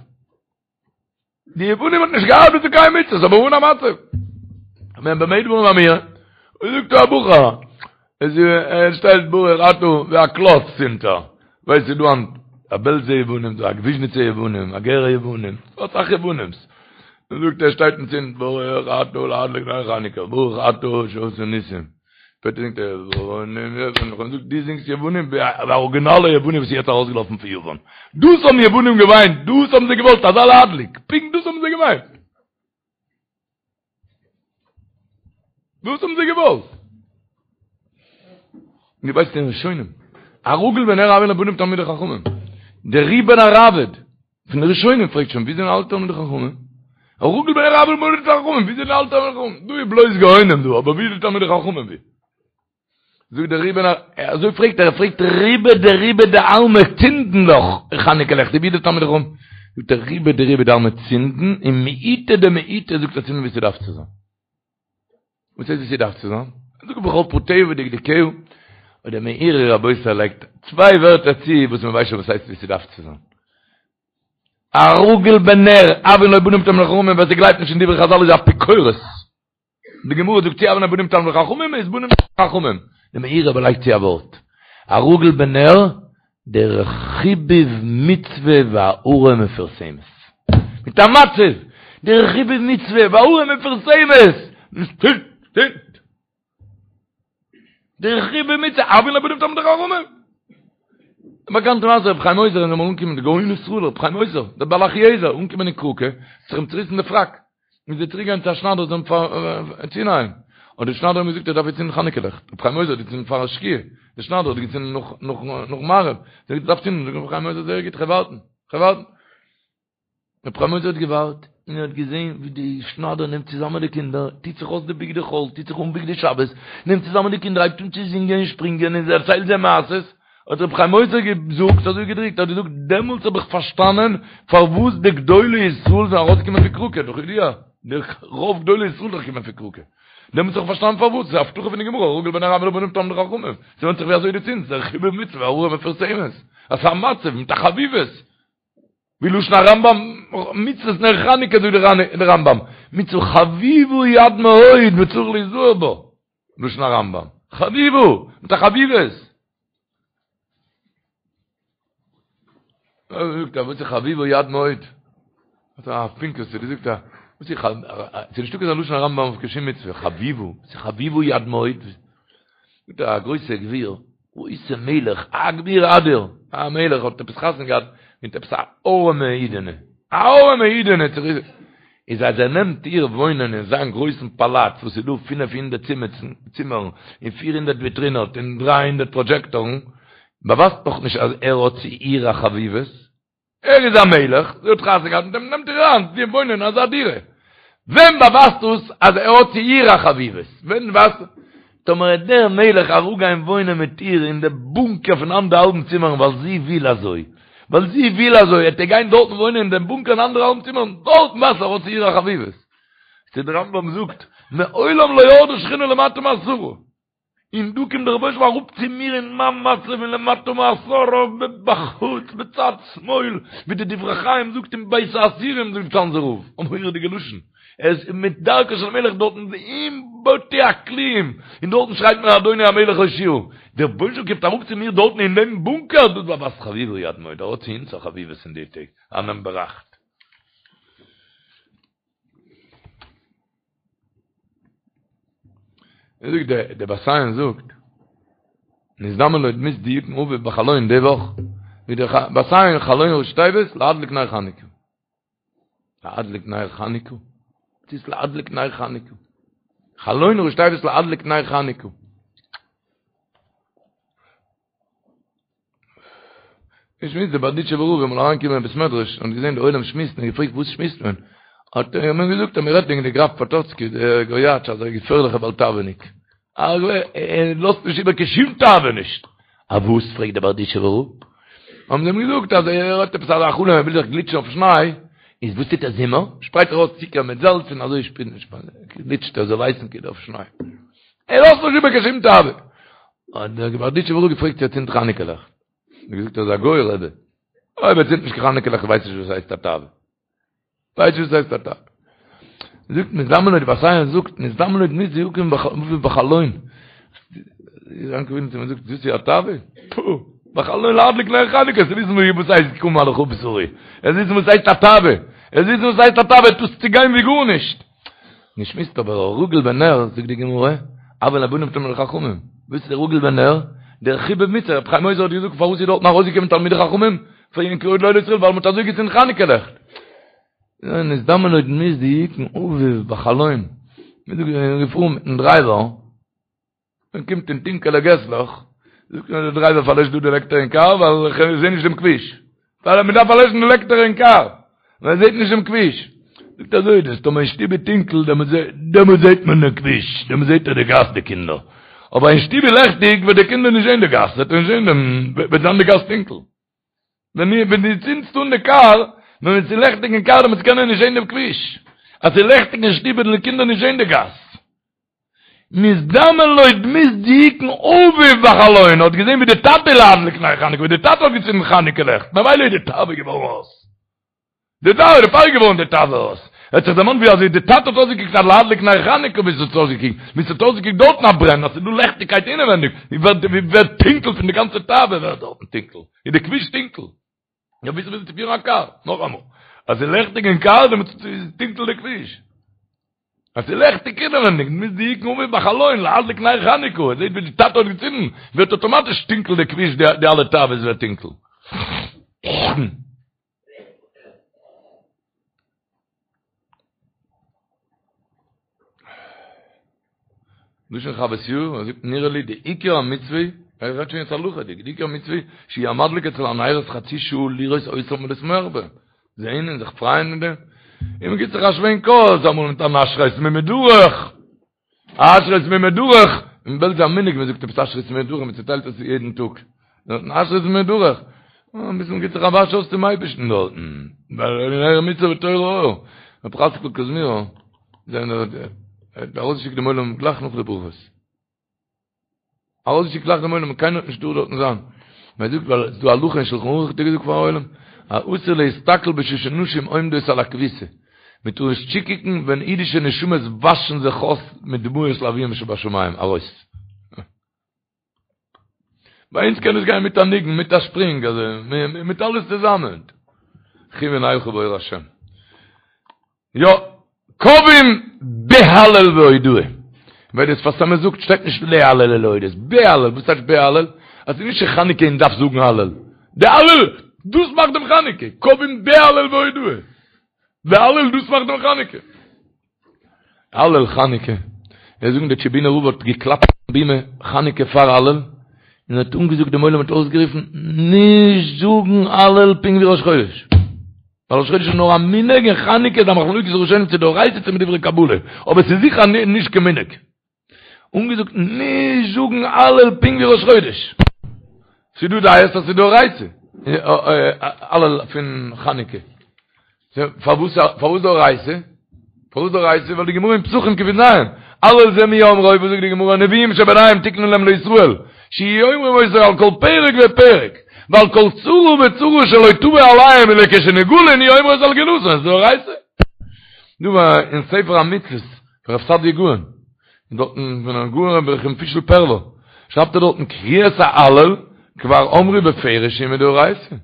די יוונים האט נישט געארט צו קיין מצוות, אבער אן א מצב. ווען במה דברים אמורים, און זאגט א בחור, עס ער שטייט ברוך אתה ווי א קלאץ צינדט ער. ווייסט ס'איז דא היינט א בעלזע יוונים, דא א וויזשניצע יוונים, א גערע יוונים, אסאך יוונים'ס. און זאגט ער שטייט און צינדט ברוך אתה להדליק נר חנוכה, ברוך אתה שעשה ניסים. שפעטער זינגט ער יוונים יוונים, זאגט דו זינגסט יוונים ווי א אריגינאלע יווני וואס איז יעצט ארויסגעלאפן פון יוון. דאס האבן יוונים געוויינט, דאס האבן זיי געוואלט, אזא להדליק, פונקט דאס האבן זיי געמיינט. דאס האבן זיי געוואלט. דו ווייסט אין ראשונים, הרגיל בנר הויין ליה בנים תלמידי חכמים. דער רי בן הראבד, פון די ראשונים פרעגט שוין ווי זענען אלע תלמידי חכמים? הרגיל בנר הויין ליה בנים תלמידי חכמים, ווי זענען אלע תלמידי חכמים? דא איז בלויז גאונים דא, אבער ווי איז די תלמידי חכמים ווי? זאגט דער רבי אזוי פרעגט ער, ער פרעגט רובא דרובא דעלמא צינדן דאך חנוכה לעכט, ווי די תלמידי חכמים, זאגט ער רובא דרובא דעלמא צינדן און מיעוטא דמיעוטא זאגט ער צינדן ווי ס'דארף צו זיין. וואס הייסט ווי ס'דארף צו זיין? זאגט בכל פרטיה ודקדוקיה, און דער מאירי רבותי לייגט צוויי ווערטער צו וואס מ'ווייסט שוין וואס הייסט ווי ס'דארף צו זיין. הרגיל בנר, הויין לו בנים תלמידי חכמים, ווער ס'גלייבט נישט אין דברי חזל איז אפיקורס. די גמרא זאגט צו הויין לו בנים תלמידי חכמים איז בנים חכמים. די מאירי אבער לייגט צו א ווארט. הרגיל בנר, דרך חיבוב מצוה והארה מפורסמת. מיט א מצב! דרך חיבוב מצוה והארה מפורסמת! דרך חיבוב מצוה, הויין לו בנים תלמידי חכמים! באקאנטע מעשה רבי חיים עוזר איז אמאל אנגעקומען די גאון ישראל רבי חיים עוזר, דער בעל אחיעזר, אנגעקומען אין קראקע, האט זיך אים צוריסן די פראק, מוז ער צוריק גיין צו א שניידער זאל אים צונייען, האט דער שניידער אים געזאגט ער דארף יעצט צינדן חנוכה לעכט, רבי חיים עוזר האט געצינדן פאר שקיעה, דער שניידער האט געצינדן נאך נאך נאך מעריב, זאגט ער דארף צינדן, זאגט רבי חיים עוזר זייער גוט כ'וועל ווארטן, כ'וועל ווארטן. רבי חיים עוזר האט געווארט, און ער האט געזען ווי די שניידער נעמט צוזאמען די קינדער, טוט זיך אויס די בגדי חול, טוט זיך אן בגדי שבת, נעמט צוזאמען די קינדער, הייבט אן צו זינגען און שפרינגען און דערציילט זיי מעשות, האט רבי חיים עוזר געזאגט, אזוי געדרוקט, האט געזאגט, דעמאלטס האב איך פארשטאנען פארוואס די גדולי ישראל זענען ארויסגעקומען פון קראקע, דאך ידוע, די רוב גדולי ישראל זענען געקומען פון קראקע, דעמאלטס האב איך פארשטאנען פארוואס, ס'איז א הבטחה פון די גמרא, הרגיל בנר הויין לו בנים תלמידי חכמים, ס'ווענדט זיך ווי אזוי דו צינדסט, דער חיבוב מצוה והארה מפורסמת, אז ס'איז א מצב מיט א חביבות, ווי לשון הרמב"ם, מצוות נר חנוכה זאגט דער רמב"ם, מצוה חביבה היא עד מאוד וצריך להיזהר בה, לשון הרמב"ם, חביבה, מיט א חביבות. זאגט ער, וואס איז חביבה היא עד מאוד? האט א פינקעס צו די זאגט ער, וואס איז ס'איז נישטא כזה לשון הרמב"ם אויף קיין שום מצוה, חביבה, וואס איז חביבה היא עד מאוד? זאגט ער, א גרויסע גביר, גרויסע מלך, א גביר אדיר, א מלך האט עפעס חתונה געהאט מיט עפעס א ארעמע אידענע, א ארעמע אידענע, איז אז ער נעמט איר וואוינען אין זיין גרויסן פאלאץ וואס איז דא פינף הונדערט צימערן און פיר הונדערט וויטרינעס און דריי הונדערט פראדזשעקטארן, באווייזט נאך נישט אז ער האט צו איר א חביבות, ער איז א מלך, זי האט חתונה געהאט מיט אים, נעמט איר אריין צו וואוינען אין אזא דירה. ווען באווייזט דאס אז ער האט צו איר א חביבות? ווען ווייזט טאמער וועט דער מלך אראפגיין וואוינען מיט איר אין די בונקער פון אנדערהאלבן צימערן ווייל זי וויל אזוי, ווייל זי וויל אזוי, וועט ער גיין דארטן וואוינען אין דעם בונקער אין אנדערהאלבן צימערן, דארטן ווייזט ער האט צו איר א חביבות. צו דער רמב"ם זאגט, מעולם לא ירדה שכינה למטה מעשרה. און דא קומט דער רבונו של עולם אראפ צו מיר אין מיין מצב אין למטה מעשרה בחוץ בצד שמאל, ווי די דברי חיים זאגט אין בית האסירים זאגט צאנזער רב, א מורא'דיגע לשון, ער איז מיט דרכו של מלך דארטן אין בתי הכלאים, און דארטן שרייט מען אדוני המלך הושיעה, דער רבונו של עולם קומט אראפ צו מיר דארטן אין דעם בונקער, דאס באווייזט חביבה היא עד מאוד, ער האט צו אונז א חביבות אין די טעג, א נאמבער אכט. ער זאגט דער דער בת עין זאגט נזדמן לו דמות דיוקן אביו בחלון די וואך ווי דער בת עין חלון ראשי תיבות להדליק נר חנוכה להדליק נר חנוכה וואס איז להדליק נר חנוכה חלון ראשי תיבות להדליק נר חנוכה איך שמועס דער בארדיטשובער רב איז אמאל אריינגעקומען אין בית מדרש און געזען די עולם שמועסן און געפרעגט וואס שמועסט מען? האט ער אים געזאגט אז מען רעדט וועגן די גראף פאטאצקי דער גויאטש אזא געפערליכע בעל תאווה'ניק ער לאזט נישט איבער קיין שום תאווה נישט. א וואס? פרעגט דער בארדיטשובער רב. האבן זיי אים געזאגט אז ער האט עפעס אזא חלום ער וויל זיך גליטשן אויף שניי, איז וואס טוט ער זומער? שפרייט ער אויס צוקער מיט זאלץ און אזוי גליטשט ער זאל ווייסן כאילו אויף שניי. ער לאזט נישט איבער קיין שום תאווה. האט דער בארדיטשובער רב געפרעגט צו ער צינדט חנוכה לעכט. האט ער געזאגט ער איז א גוי רבי. אויב ער צינדט נישט קיין חנוכה לעכט ווייסט נישט וואס הייסט א תאווה. ווייסט נישט וואס הייסט א תאווה. זאגט נזדמן לו די בת עין זאגט נזדמן לו דמות דיוקן אביו בחלון. יעקב אבינו צו זאגט דאס איז א תאווה? פו! בחלון להדליק נר חנוכה, צו וויסן וואס הייסט קום על בשרי. ער וויסן וואס הייסט א תאווה. ער וויסן וואס הייסט א תאווה, דאס צו גיין ווי גארנישט. מ'שמועסט אבער הרגיל בנר, זאגט די גמרא, הויין לו בנים תלמידי חכמים, וואס איז דער רגיל בנר? דער חיבוב מצוה, רבי חיים עוזר האט געזאגט פארוואס איז דארטן ארויסגעקומען תלמידי חכמים פון גדולי ישראל ווייל מ'האט אזוי געצינדן חנוכה לעכט. נזדמן לו דמות דיוקן אביו בחלון, מ'איז געפארן מיטן דרייווער, מען קומט אין טונקעלע געסלעך, זאגט מיר דער דרייווער פארלעש דא די לעקטער אין קאר ווייל איך זעה נישט דעם כביש. ווייל מען דארף פארלעשן די לעקטער אין קאר, ווייל מען זעט נישט דעם כביש. זאגט אזוי איז דאס, טאמער אין שטוב איז טונקל, דעמאלט זעט מען דעם כביש, דעמאלט זעט ער די גאס די קינדער. אבער אין שטוב איז לעכטיג וועט די קינדער נישט זען די גאס, וועט ער נישט זען דעם, וועט זיין די גאס טונקל. ווען ווען דו צינדסט אן די קאר, ווען עס איז לעכטיג אין קאר דעמאלטס קען ער נישט זען דעם כביש. אז ס'איז לעכטיג אין שטוב וועלן די קינדער נישט זען די גאס. נזדמן לו דמות דיוקן אביו בחלון, האט געזען ווי די טאטע להדליק נר חנוכה, ווי די טאטע האט געצינדן חנוכה לעכט, ממילא איז די תאווה געווארן אויס. די תאווה, דערפאר איז געווארן די תאווה אויס. ער האט זיך דערמאנט ווי אזוי די טאטע האט אויסגעקוקט אז להדליק נר חנוכה ווי עס האט אויסגעקוקט, ווי עס האט אויסגעקוקט דארטן א ברען, אז ס'איז דא לעכטיגקייט אינעווענדיג, ווי ווערט ווי ווערט טונקל פון די גאנצע תאווה ווערט דארטן טונקל, איז די כביש טונקל. יא וויאזוי ווילסטו פירן א קאר? נאכאמאל, אז ס'איז לעכטיג אין קאר דעמאלטס איז טונקל די כביש. אז ס'איז לעכטיג אינעווענדיג, דמות דיוקן אביו בחלון, להדליק נר חנוכה, ער זעט ווי די טאטע האט געצינדן, ווערט אטאמאטיש טונקל די כביש, די אלע תאוות ווערט טונקל. לשון חוות יאיר, ער זאגט נראה לי די עיקר המצוה, ער רעדט שוין יעצט הלכה'דיג, די עיקר המצוה שיהיה המדליק אצל הנרות חצי שעה לראות אותם ולשמוח בהם, זעהן און זיך פרייען מיט דעם, און מען גיבט זיך א שווענק אויס אמאל מיט אן אשרי תמימי דרך, אשרי תמימי דרך, אין בעלז איז א מנהג מען זאגט עפעס אשרי תמימי דרך, מען צוטיילט עס יעדן טאג, דארטן אשרי תמימי דרך, אביסל מען גיבט זיך א וואש אויס צום אייבערשטן דארטן, ווייל נר מצוה ותורה אור, רבי חצקל קוזמירער, האט ארויסגעשיקט דעם עולם גלייך נאך די ברכות. ארויסגעשיקט גלייך דעם עולם, קיינער האט נישט דא דארטן זיין. מען זאגט ווייל ס'איז דא הלכה אין שלחן ערוך האט ער געזאגט פארן עולם, אסור להסתכל בשעה שנשים עומדות על הכביסה. מען טאר נישט צוקוקן ווען אידישע נשמות וואשן זיך אויס מיט דמעות לאביהם שבשמים, ארויס. ביי אונז קען עס גיין מיט א ניגון, מיט א שפרינג, אזוי, מיט אלעס צוזאמען. לכו ונלכה באור השם. יא, קובעים בהלל והודאה. ווייל דער שפת אמת זאגט שטייט נישט להלל ולהודות, בהלל, וואס טייטש בהלל? אז ס'איז נישט חנוכה און דארף זאגן הלל. די הלל, דאס מאכט דעם חנוכה. קובעים בהלל והודאה. די הלל דאס מאכט דעם חנוכה. הלל חנוכה. זיי זאגן דער טשעבינער רב האט געקלאפט אויפן בימה חנוכה פאר הלל, און האט אנגעזאגט דעם עולם האט אויסגערופן, נישט זאגן הלל פונקט ווי ראש חודש. ווייל ראש חודש איז נאר א מנהג און חנוכה איז א מחלוקת ראשונים צו דאורייתא צו מדברי קבלה, אבער ס'איז זיכער נישט קיין מנהג. אנגעזאגט נישט זאגן הלל פונקט ווי ראש חודש. ס'איז דא דעות אז ס'איז דאורייתא הלל פון חנוכה. פארוואס פארוואס דאורייתא? פארוואס דאורייתא? ווייל די גמרא אין פסחים קי"ז, הלל זה מי אמרו, וואס זאגט די גמרא, נביאים שביניהם תיקנו להם לישראל, שיהיו אומרים אותו על כל פרק ופרק, ועל כל צרה וצרה שלא תבוא עליהם ולכשנגאלין יהיו אומרים אותו על גאולתן, איז דאורייתא. דא אין ספר המצוות פון רב סעדיה גאון, און דארטן פון הגאון רבי ר' פישל פערלא, שרייבט ער דארטן קריאת ההלל כבר אמרו בפירוש שהיא מדאורייתא.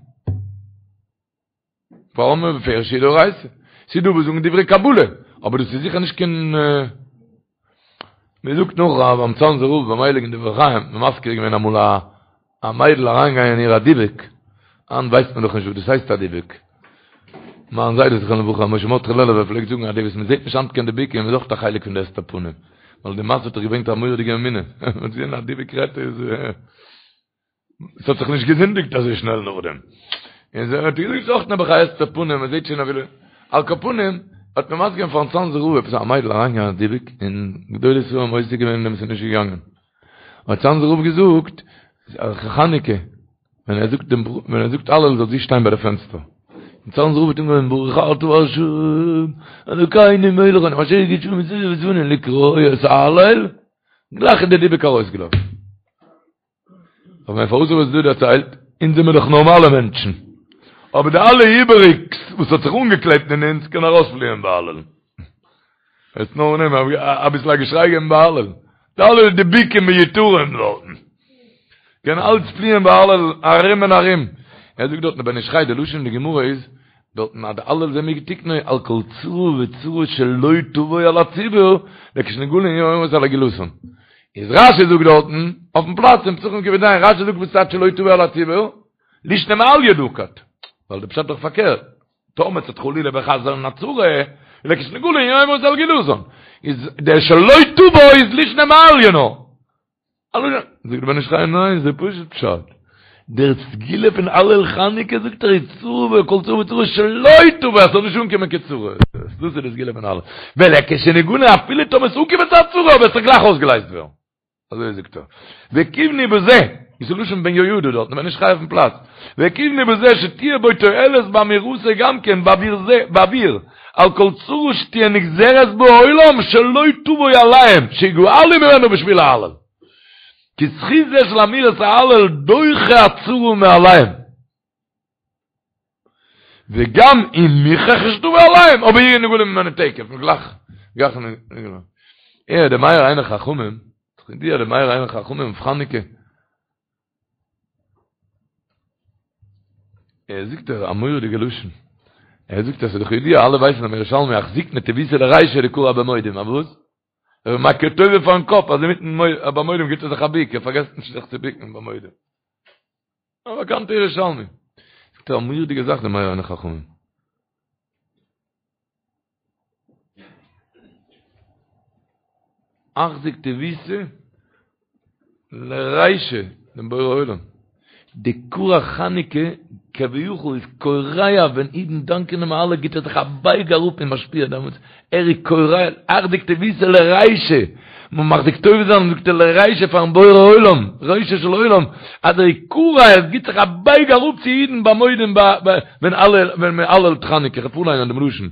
כבר אמרו בפירוש שהיא דאורייתא. ס'איז דא וואס זאגן דברי קבלה, אבער דאס איז זיכער נישט קיין מען זאגט נאך אז ביים צאנזער רב ביים הייליגן דברי חיים האט מען מזכיר געווען אמאל א א מיידל אריינגעגאנגען אין איר א דיבוק, היינט ווייסט מען דאך נישט וואס דאס הייסט א דיבוק. מיין זיידע זכרונו לברכה משה מרדכי לעלובער פלעגט זאגן אז די וואס מען זעט נישט היינט קיין דיבוקים איז אויך א חלק פון די הסתר פנים, ווייל די מעשה האט דאך געברענגט א מורא'דיגע אמונה, מען האט געזען א דיבוק רעדט איז. עס האט זיך נישט געזינדיגט אזוי שנעל נאכדעם. און זיי האט געזאגט אויך נעבעך א הסתר פנים, מען זעט שוין אפילו, על כל פנים, האט מען מזכיר געווען פארן צאנזער רב עפעס א מיידל אריינגעגאנגען א דיבוק, און גדולי ישראל האבן עוסק געווען אין דעם עס איז נישט געגאנגען. האט צאנזער רב געזאגט, חנוכה, ווען ער זאגט דעם ווען ער זאגט הלל זאל זי שטיין ביי די פענסטער. און צאנזער רב האט אנגעהויבן ברוך אתה ה' אלוקינו מלך העולם אשר קדשנו במצותיו וצונו לקרוא את ההלל, גלייך איז די דיבוק ארויסגעלאפן. אבער פארוואס האב איך עס דא דערציילט? אונז זעמיר דאך נארמאלע מענטשן. אבער די אלע איבעריגס וואס האט זיך אנגעקלעבט אין אונז קען ארויספליען ביי הלל. עס נאר נעמען אביסל א געשריי געבן ביי הלל. די אלע דיבוקים מיותרים דארטן. קען אלץ פליען ביי הלל ארום און ארום. ער זאגט דארטן בן איש חי די לשון אין די גמרא איז דארטן אז די הלל זה מי תיקנו על כל צרה וצרה שלא תבוא על הציבור לכשנגאלין יהיו אומרים אותו על גאולתן. איז רשי זאגט דארטן אויפן פלאץ אין פסחים קי"ז רשי זאגט וואס טייטש שלא תבוא על הציבור לישנא מעליא נקט ווייל די פשט איז דאך פארקערט טאמער ס'וועט חלילה וחס זיין א צרה לכשנגאלין יהיו אומרים אותו על גאולתן איז דער שלא תבוא איז לישנא מעליא נאר זאגט דער בן איש חי ניין ס'איז פשוט פשט דער סגולה פון הלל חנוכה זאגט ער איז צרה וכל צרה וצרה שלא תבוא אז ס'זאל נישט אנקומען קיין צרה דאס איז די סגולה פון הלל ולכשנגאלין אפילו טאמער ס'אנקומען צו א צרה אבער עס זאל גלייך אויסגעלייזט ווערן. אזוי זאגט ער. וכיוונו בזה, איז לשון בן יהוידע דארט, בן איש חי אויפן פלאץ. וכיוונו בזה שתהיה בו תועלת באמירתו גם כן בעבור זה, בעבור, על כל צרה שתהיה נגזרת בעולם שלא תבוא עליהם, שיגאלו ממנו בשביל ההלל. כי זכות זה של אמירת ההלל דוחה הצרה מעליהם. וגם אם מוכרח שתבוא עליהם, אבער יהיו נגאלים ממנו תיכף, גלייך, גלייך נגאלים. אה, דער מאיר עיני חכמים, די דער מאיר עיני חכמים אויף חנוכה. ער זאגט א מורא'דיגע לשון. ער זאגט אז ס'איז דאך ידוע אלע ווייסן אז ירושלמי אחזיק נטיבותא לרישא דכרע במודים, א וואס? ער איז מכיר טובה פארן קאפ, אז אינמיטן ביי מודים גיבט ער זיך א ביק, ער פארגעסט נישט זיך צו ביקן ביי מודים. א באקאנטע ירושלמי. זאגט ער א מורא'דיגע זאך די מאיר עיני חכמים. אחזיק טיבותא לרישא דעם בורא עולם. דכרע חנוכה כביכול איז כורע ווען אידן דאנקען אים אלע גיט ער זיך א בייג אראפ און משפיע דעמאלטס ער איז כורע אחזיק טיבותא לרישא מען מחזיק טובה זיין זאגט ער לרישא פארן בורא עולם רישא של עולם אז ער איז כורע ער גיט זיך א בייג אראפ צו אידן ביי מודים ווען אלע ווען מען הלל'ט חנוכה כ'וועל פארליינען דעם לשון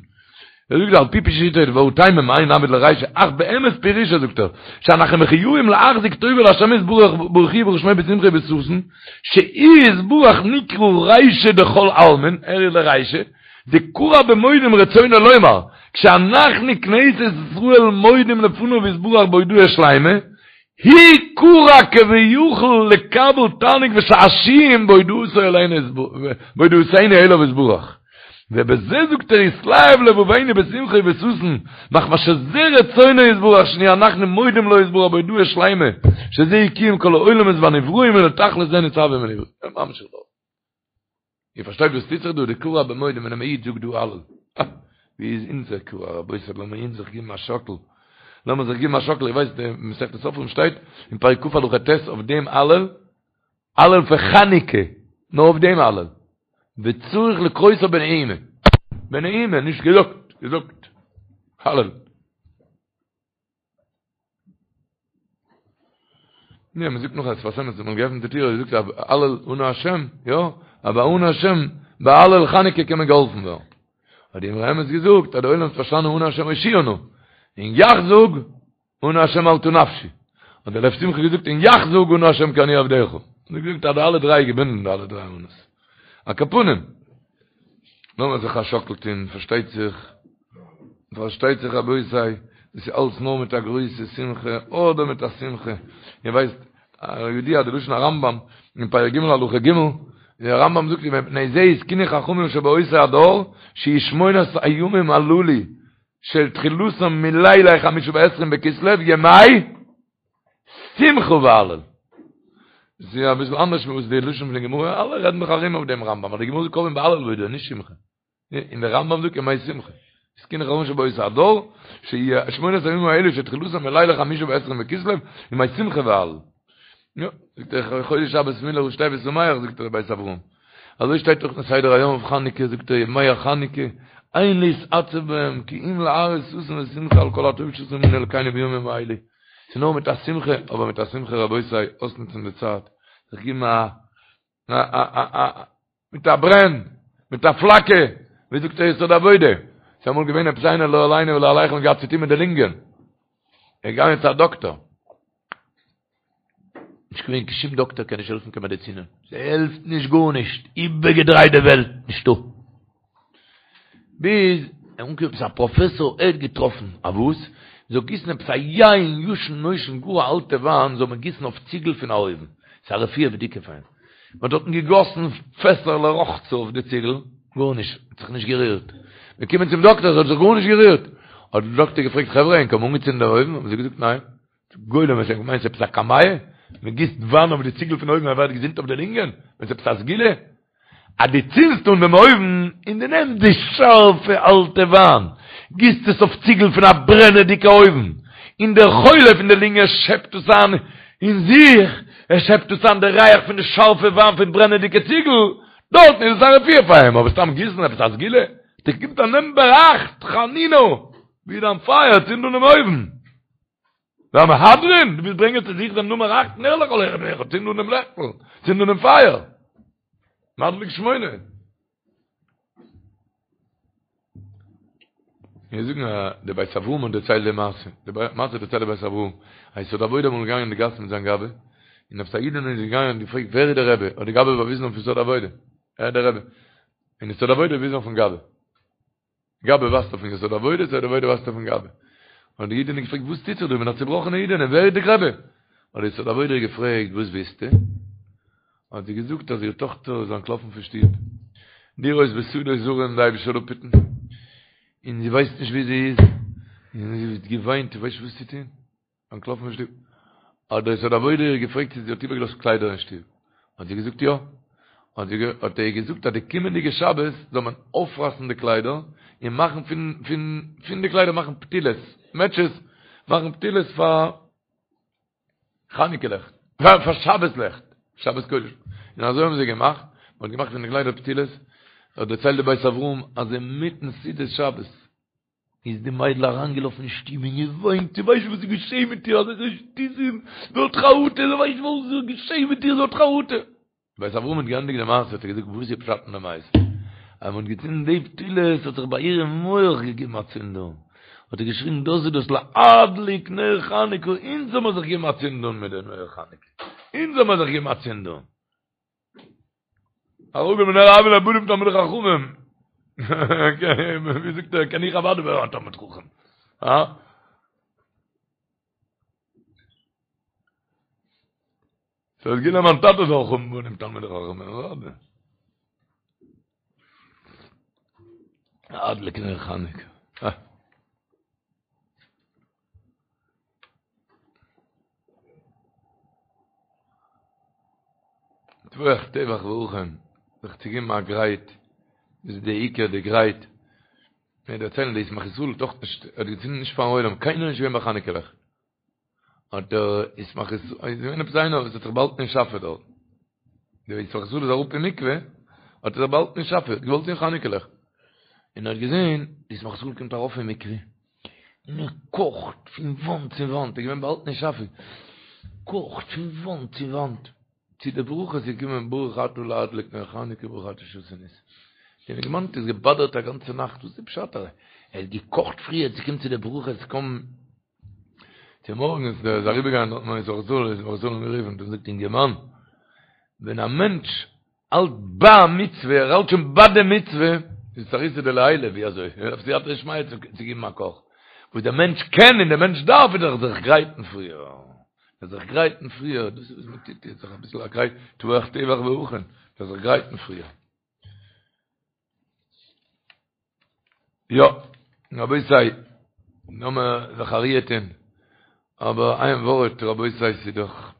ער זאגט על פי פשיטא והוא טעמא מאי נעביד לרישא אך באמת פירושו זאגט ער שאנחנו מחויבים להחזיק טובה להשם יתברך ברוך הוא וברוך שמו בשמחה ובששון שהוא יתברך נקרא רישא דכל עלמין ער איז דער רישא דכרע במודים רצונו לומר כשאנחנו כנסת ישראל מודים לפניו יתברך בהודאה שלימה הוא כרע כביכול לקבל תענוג ושעשועים בהודאתו אלינו בהודאתנו אליו יתברך. ובזה זאגט ער יתלהב לבבינו בשמחה ובששון מחמת שזה רצונו יתברך שנהיה אנחנו מודים לו יתברך בהודאה שלימה שזה קיום כל העולמות והנבראים ולתכלית זה נצטווינו. ממשיך דארט. איר פארשטייט וואס טוט זיך דא? דכרע במודים ווען א איד זאגט דא הלל. אה! ווי איז אונזער כרע רבותי? לאמיר אונז זיך געבן א שאקל. לאמיר זיך געבן א שאקל. איר ווייסט אין מסכת סופרים שטייט אין פרק כ' הלכה ט' אויף דעם הלל, הלל פון חנוכה, נאר אויף דעם הלל. וצריך לקרותו בנעימה. בנעימה, נישט געזאגט, געזאגט. הלל. יא, מען זאגט נאך אז שפת אמת האט מען געעפנט די טיר, ער זאגט הלל אנא השם, יא, אבער אנא השם, ביי הלל חנוכה קען מען געהאלפן ווערן. האט די אמרי אמת געזאגט אז די עולם האט פארשטאנען אנא השם הושיעה נא, און יאך זאג אנא השם מלטה נפשי. האט דער לב שמחה געזאגט און יאך זאג אנא השם כי אני עבדך. האט ער געזאגט אז די אלע דריי געבינדן די אלע דריי אנא'ס. על כל פנים, לאמיר זיך א שאקל טון, פארשטייט זיך, פארשטייט זיך רבותי, דאס איז אלץ נאר מיט א גרויסע שמחה, אדער מיט א שמחה, איר ווייסט, ידוע די לשון הרמב"ם אין פרק ג' הלכה ג', דער רמב"ם זאגט ומפני זה התקינו חכמים שבאותו הדור, שיהיו שמונת הימים הללו של תחילתם מלילי חמישה ועשרים בכסלו ימי שמחה והלל. דאס איז אביסל אנדערש ווי וואס די לשון פון די גמרא, אלע רעדן דאך ארום אויף דעם רמב"ם, אבער די גמרא זאגט קובעים בהלל והודאה, נישט שמחה. און דער רמב"ם זאגט ימי שמחה. התקינו חכמים שבאותו הדור, שיהיו שמונת הימים האלה שתחילתם מלילי חמישה ועשרים בכסלו, ימי שמחה והלל. יא, זאגט ער, חודש שבת מילה ראשי תיבות שמח, זאגט דער בית אברהם. אזוי שטייט דאך אין סדר היום אויף חנוכה, זאגט ער, ימי החנוכה, אין להתעצב בהם, כי אם להראות ששון ושמחה על כל הטוב שעשה עמנו אלקינו בימים האלה. ס'איז נאר מיט א שמחה, אבער מיט א שמחה רבותי, אויסנוצן די צייט, זיך געבן א א א א מיט א ברען, מיט א פלאקער, ווי זאגט דער יסוד העבודה, ס'איז אמאל געווען עפעס איינער לא עלינו ולא עליכם האט געהאט צוטון מיט די לונגען, ער איז געגאנגען צו א דאקטאר, נישט געווען קיין שום דאקטאר קען נישט העלפן קיין מעדיצינען, ס'העלפט נישט גארנישט, איבערגעדרייט די וועלט, נישטא. ביז ער אנגעקומען עפעס א פראפעסאר ער האט געטראפן א וואס מ'זאל גיסן עפעס א יין ישן נושן גאר א אלטע וויין זאל מען גיסן אויף ציגל פון א אויוון, ס'איז א רפואה בדוקה פאר אים. מ'האט דארטן געגאסן פעסער לרחצה אויף די ציגל, גארנישט, האט זיך נישט גערירט. מ'איז געקומען צום דאקטער, ס'האט זיך גארנישט גערירט. האט דער דאקטער געפרעגט, חברה, ענק האבן אנגעצינדן דעם אויוון? האבן זיי געזאגט, ניין. גולם, ענק מיינען ס'איז עפעס א קמיע? מ'גיסט וויין אויף די ציגל פון אויוון ער ווערט געזונט אויף די לונגען? ווען ס'איז עפעס א סגולה? אז דו צינדסט אן דעם אויוון און דו נעמסט די שארפע אלטע וויין, גיסט עס אויף ציגל פון א ברענעדיגע אויוון, און דער חולה פון די לונגען שעפט עס איין אין זיך, ער שעפט עס איין די ריח פון די שארפע וויין פון ברענעדיגע ציגל, דארטן איז עס א רפואה פאר אים, אבער סתם גיסן עפעס א סגולה? דו קומט א נאמבער אכט, חנינא, ווי דיין פייער, צינד אן דעם אויוון. והמהדרין, דו ווילסט ברענגען צו זיך דעם נומער אכט נר לכל אחד ואחד, צינד אן דעם לעכטל, צינד אן דעם פייער. מדליק שמונה. מיר זאגן א דער בית אברהם האט דערציילט די מעשה, די מעשה דערציילט דער בית אברהם, א יסוד העבודה אמאל געגאנגען אין די גאס מיט זיין גבאי, און עפעס א אידענע איז געגאנגען און געפרעגט ווער איז דער רבי, האט די גבאי באוויזן אויף יסוד העבודה, ער איז דער רבי, און יסוד העבודה וויזן אויפן גבאי. גבאי ווייזט אויפן יסוד העבודה, יסוד העבודה ווייזט אויפן גבאי. האט די אידענע געפרעגט, וואס טוט זיך דא? איך בין א צובראכענע אידענע, ווער איז די רבי? האט די יסוד העבודה געפרעגט, וואס ווילסטו? האט זי געזאגט אז איר טאכטער איז אנטלאפן פון שטוב, לרעות בשדות זרים די אייבישטער זאל אפהיטן, און זי ווייסט נישט וואו זי איז, און זי האט געוויינט, זי ווייסט נישט וואס צו טון. אנטלאפן פון שטוב. האט דער יסוד העבודה איר געפרעגט צו זי האט איבערגעלאזט קליידער אין שטוב. האט זי געזאגט יא. האט זי האט ער איר געזאגט אז די קומענדיגע שבת זאל מען אויפרייסן די קליידער און מאכן פון פון פון די קליידער מאכן פתילות, מעטשעס, מאכן פתילות פאר חנוכה לעכט, פאר פאר שבת לעכט, שבת קודש. און אזוי האבן זיי געמאכט, מען האט געמאכט פון די קליידער פתילות. האט דערציילט די בית אברהם אז אינמיטן סעודת שבת איז די מיידל אריינגעלאפן אין שטוב און געוויינט, זי ווייסט וואס איז געשעהן מיט איר, אזעלכע שטותים, זי האט חרטה, זי ווייסט וואס איז געשעהן מיט איר, זי האט חרטה. בית אברהם האט געענדיגט די מעשה האט ער געזאגט וואס איז פשט אין די מעשה? אז מען האט געצינדן די פתילות האט זיך ביי איר אין מח געגעבן א צינד אן, האט ער געשריגן דאס איז דאס להדליק נר חנוכה, אונז זאל מען זיך געבן א צינד אן מיט די נר חנוכה, אונז זאל מען זיך געבן א צינד אן. הרוגים בנר הויין ליה בנים תלמידי חכמים. ווי זאגט ער, קען איך אוודאי ווערן א תלמיד חכם. הא? ס'איז געווען מיין טאטע זאל האבן בנים תלמידי חכמים, אוודאי. להדליק נר חנוכה. אה. טבוח טבח והכן, זיך צו געבן א גרייט, דאס איז די עיקר די גרייט, מיר דערציילן די ישמח ישראל האט דאך נישט, האט געצינדן נישט פארן עולם, קיינער איז נישט געווען ביי חנוכה לעכט, האט דער ישמח ישראל, איז געווען עפעס איינער וואס האט זיך באהאלטן אין שאפע דארט, דער ישמח ישראל איז אראפ אין מקווה, האט ער זיך באהאלטן אין שאפע, האט געוואלט זען חנוכה לעכט, און ער האט געזען, די ישמח ישראל קומט ארויף אין מקווה, און ער קאכט פון וואנט צו וואנט, ער איז געווען באהאלטן אין שאפע, קאכט פון וואנט צו וואנט, צו די ברכות איז געקומען ברוך אתה להדליק נר חנוכה ברוך אתה שעשה ניסים. דעם אינגערמאן האט עס געבאדערט א גאנצע נאכט, וואס איז פשט ער האט געקאכט פריער צו קומען צו די ברכות, קוים צומארגנס איז ער אריבערגעגאנגען דארט מיט ישמח ישראל, ישמח ישראל אים גערופן און געזאגט אינגערמאן, ווען א מענטש האלט ביי א מצוה, ער האלט שוין ביי די מצוה, איז אתערותא דלעילא, ווי אזוי? ער דארף סייעתא דשמיא צו געבן א קאך. וואס דער מענטש קען און דער מענטש דארף איז דאך זיך גרייטן פריער. זיך גרייטן פריער, דאס איז וואס מען טוט יעצט, זיך אביסל א גרייט, טבוח טבח והכן, זיך גרייטן פריער. יא, רבותי, לאמיר זיך א ריר טון, אבער איין ווארט רבותי, ס'איז דאך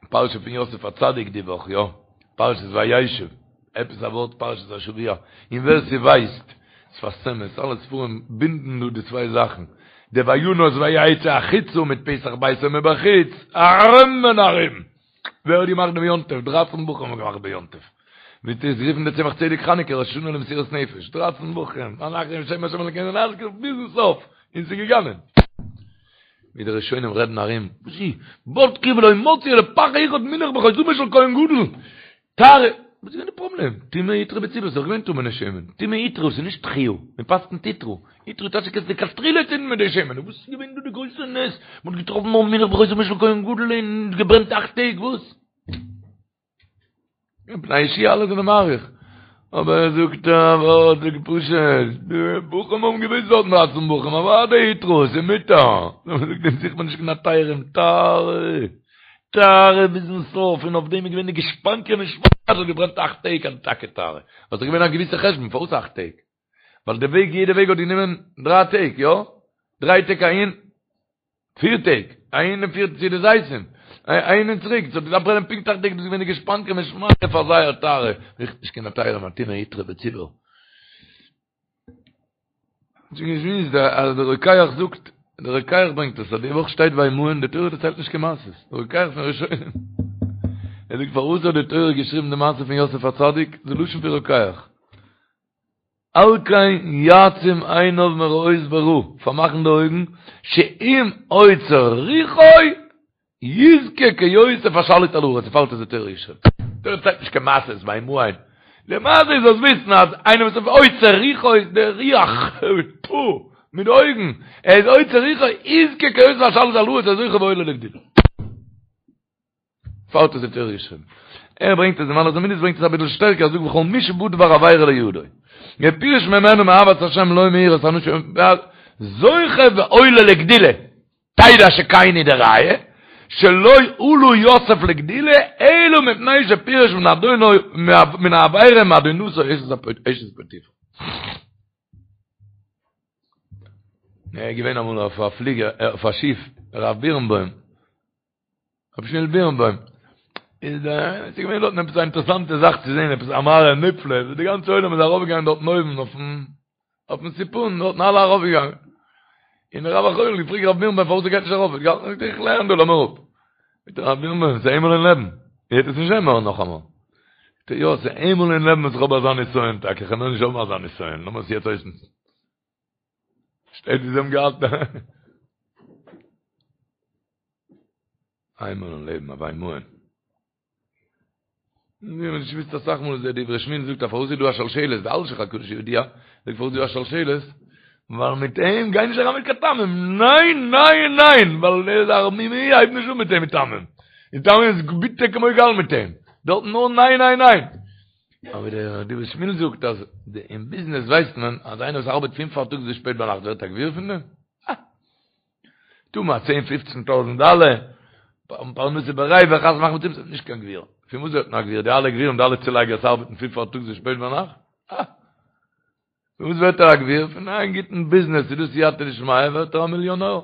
פרשה פון יוסף הצדיק די וואך, יא, פרשת וישב, עפעס א ווארט פרשת השבוע, און ווער ס'ווייסט, שפת אמת, אלע ספרים בינדן דא די צוויי זאכן, די וינס ויצא החוצה מיט פתח ביתו מבחוץ, ארום און ארום. ווער האט געמאכט דעם יום טוב? דרייצן בחורים האבן געמאכט די יום טוב. ווי האט עס גערופן דער צמח צדק חנוכה ראש השנה למסירות נפש. דרייצן בחורים, אנחנו בשם השם אלקינו נזכיר ביזן סוף, און ס'איז געגאנגען. ווי די ראשונים רעדן ארום, וואס איז? בדקו ולא מצאו אלא פך אחד מונח בחותמו של כהן גדול. טהרה, וואס איז געווען די פראבלעם? טומאה הותרה בציבור, ס'איז דאך געווען טמא'נע שמן. טומאה הותרה, ס'איז נישט דחויה, מען פסק'נט הותרה. הותרה טייטש קענסט לכתחילה צינדן מיט די שמן. וואס איז געווען דא די גרויסע נס? מען האט געטראפן נאר מונח בחותמו של כהן גדול און געברענט אכט טעג, וואס? פני יהושע אלע זענען מאריך. אבער ער זאגט א ווארט זאגט פשוט, די בחורים האבן געוואוסט דארטן דרייצן בחורים, אוודאי הותרה, ס'איז מותר. זאגט אים זוכט מען נישט קיין היתרים, טהרה. טהרה ביזן סוף, און אויף דעם איז געווען די גושפנקא משמים אז ס'האט געברענט אכט טעג אז טאקע טהרה. ווייל ס'איז געווען א געוויסע חשבון פארוואס אכט טעג. ווייל די וועג יעדע וועג האט גענומען דריי טעג, יא? דריי טעג אהין, פיר טעג, אהין און פיר צו די זיתים, אהין און צוריק, ס'האט געדארפט ברענען פונקט אכט טעג, דאס איז געווען די גושפנקא משמים פאר זייער טהרה, זוכט נישט קיין היתרים טומאה הותרה בציבור. שוין געשמועסט אז דער רוקח זאגט, דער רוקח ברענגט עס אז די וואך שטייט וימאן, די תורה דערציילט נישט קיין מעשות, דער רוקח פון ראשונים. ער זאגט פארוואס האט די תורה געשריבן די מעשה פון יוסף הצדיק, די לשון פון רוקח. על כן יעצום עיניו מראות ברע, פארמאכן די אויגן, שאם עוצר רוחו יזכה כיוסף השליט על הארץ, דערפאר איז די תורה געשריבן. תורה דערציילט נישט קיין מעשה'ס וימאן. למעשה איז זאלסט וויסן אז איינער וואס איז עוצר רוחו איז דער רוח, טפו, מיט די אויגן, ער איז עוצר רוחו, יזכה כיוסף השליט על הארץ, ער איז זוכה ועולה לגדולה. פארט איז די תורה געשריבן. ער ברענגט עס, די מעלות המידות ברענגט עס אביסל שטערקער, ער זאגט וכל מי שבא דבר עבירה לידו. ופירש ממנו מאהבת השם לא מיראת אנשים, זוכה ועולה לגדולה. תדע שכן הוא די ראיה, שלא עלה יוסף לגדולה, אלא מפני שפירש מן אדונו, מן העבירה מאדונתו אשת פוטיפר. ער איז געווען אמאל אויף א פליגער, אויף א שיף, הרב בירנבוים, רבי שמואל בירנבוים, איז דער, עס איז געווען דארטן עפעס א אינטערעסאנטע זאך צו זען, עפעס א מראה נפלא, די גאנצע עולם איז ארויפגעגאנגען דארטן אויבן אויפן, אויפן סיפון, דארטן אלע ארויפגעגאנגען. און דער רב החובל האט געפרעגט רב בירנבוים פארוואס ער גייט נישט ארויף, ער האט געהאלטן, איך לערן דא, לאז מיר אפ. זאגט ער, רב בירנבוים, עס איז איינמאל אין לעבן, איר וועט עס נישט זען מער נאכאמאל. זאגט ער, יא, עס איז איינמאל אין לעבן וואס איך האב אזא נסיון טאקע, איך וועל מער נישט האבן אזא נסיון, לאמיר עס יעצט אויסנוצן. שטייט ווי זיי האבן געהאלטן. איינמאל אין לעבן א וימאן. מיר האבן נישט געוואוסט אסאך מאל איז דער דברי שמואל זאגט אז פארוואס איז דא א שלשלת, די אלשיך הקדוש ידוע, זאגט פארוואס איז דא א שלשלת, ווייל מיט אים גיי נישט אריין מיט קיין טעמים, ניין ניין ניין, ווייל ער איז א ערמומי, הייב נישט אן מיט אים מיט טעמים, און טעמים איז ביטער כמו גאל מיט אים, דארט נאר ניין ניין ניין. אבער דער דברי שמואל זאגט אז אין ביזנעס ווייסט מען אז איינער וואס ארבעט פון פארטאגס ביז שפעט ביינאכט ווערט א גביר פון דעם? אה! טו מיר א צען פופצן טויזנט דאלער, פרנסה בריווח, חתונה מאכן מיט אים, נישט קיין גביר. פון וואס ווערט מען א גביר? די אלע גבירים, די אלע צולייגערס ארבעטן פון פארטאגס ביז שפעט ביינאכט? אה! פון וואס ווערט ער א גביר? פון איין גוטן ביזנעס, איז דא סייעתא דשמיא, ווערט ער א מיליאנער.